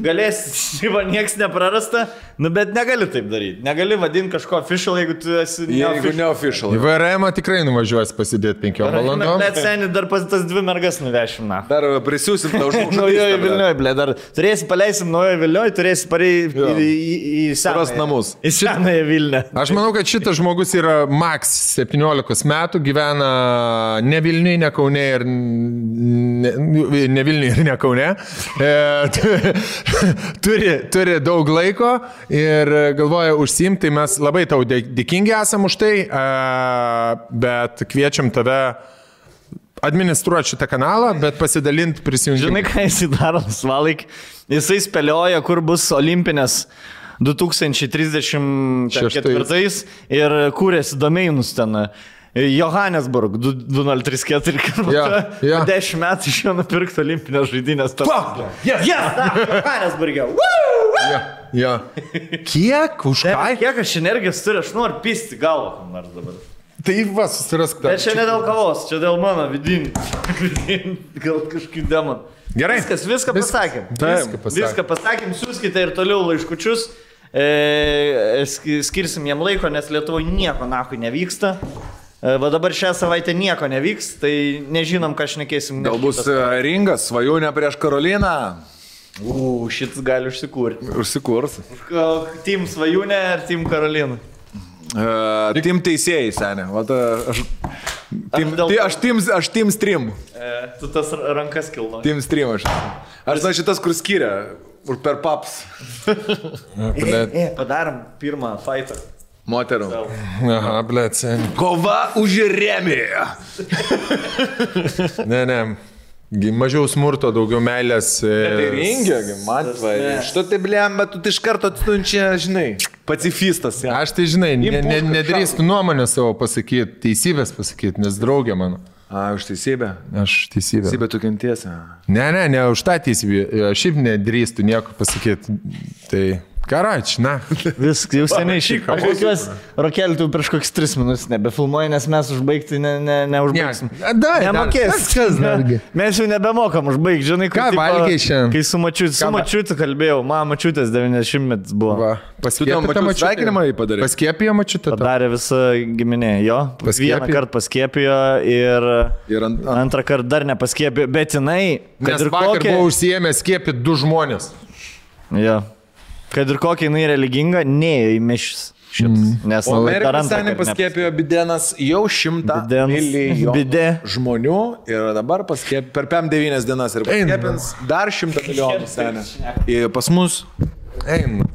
Galėsi, va, nieks neprarasta, nu bet negali taip daryti. Negali vadinti kažko official, jeigu tu esi Jeigu ne official. Į VRM tikrai nuvažiuosi pasidėti 5 valandom. Bet seniai dar pas tas 2 mergas nuvešim, na. Dar prisiūsim tau žmogų. Naujoji Vilniuje, blė, dar turėsi paleisim naujoji Vilniuje, turėsi pareiti į Surast senąją namus. Į senąją Vilnių. Aš manau, kad šitas žmogus yra maks 17 metų, gyvena ne Vilniuje, ne Kaune ir ne Vilniuje ir ne Kaune. Turi daug laiko ir galvoja užsiimti, tai mes labai tau dėkingi esam už tai, bet kviečiam tave administruoti šitą kanalą, bet pasidalinti prisijungimą. Žinai, ką jisai daro, Svalaik? Jisai spėlioja, kur bus olimpinės 2034 ir kūrėsi domeinus ten. Johannesburg 2034, Ja. 10 metų iš jo nupirkti olimpinės žaidynės. Johannesburgė. Ja. Kiek? Už ką? Kiek aš energijos turiu, aš noriu pisti galvą kam nors dabar. Tai va, susirask tą. Bet čia ne dėl kavos, čia dėl mano vidinį. Gal kažkaip demon. Gerai. Viską pasakėm. Viską pasakėm, siūskite ir toliau laiškučius. Skirsim jam laiko, nes Lietuvoje nieko nahui nevyksta. Va dabar šią savaitę nieko nevyks, tai nežinom, ką šnekėsim. Gal bus ringas, svajonė prieš Karoliną. Šitas gali užsikurti. Užsikurs. Team Svajūnė ar Team Karolina? Team teisėjai, senė. Aš team stream. Tu tas rankas kilno. Team stream aš. Aš žinau šitas, kur skiria. Per paps. Padarom pirmą fightą. Moterų. Aha, blėt, sen. Kova už remį. Ne. Mažiau smurto, daugiau meilės. Tai ringė, matvai. Što tai blėm, bet tu iš karto atstunčia, žinai, pacifistas. Ja. Aš tai, žinai, nedrįstu nuomonę savo pasakyti, teisybės pasakyti, nes draugė mano. Už teisybę? Aš teisybę. Teisybę tu kentiesi. Ne už tą teisybę. Šiaip nedrįstu nieko pasakyti. Tai... Karač, na. Viskas, jau seniai šį. Aš tikiuosi, Rokelį, tu prieš kokius 3 minutės nebefilmuoji, nes mes užbaigti neužbaigsim. Nemokės. Mes jau nebemokam užbaigti, žinai, ką valgiai šiandien. Kai su mačiutu kalbėjau, mačiutės 90 buvo. Sveikinimą jį padarė. Paskiepijo mačiutę. Padarė visą giminę, jo. Vieną kartą paskiepijo ir antrą kartą dar nepaskiepijo, bet jinai... Nes vakar buvo užsiėmę skiepyti 2 žmonės. Jo. Kad ir kokia jinai religinga, neėjo į mišis šitas. O Amerikos seniai paskėpėjo Bidenas jau 100 milijonų žmonių ir dabar paskėpė per 5-9 dienas ir paskėpins dar 100 milijonų seniai. Pas mus. Eina.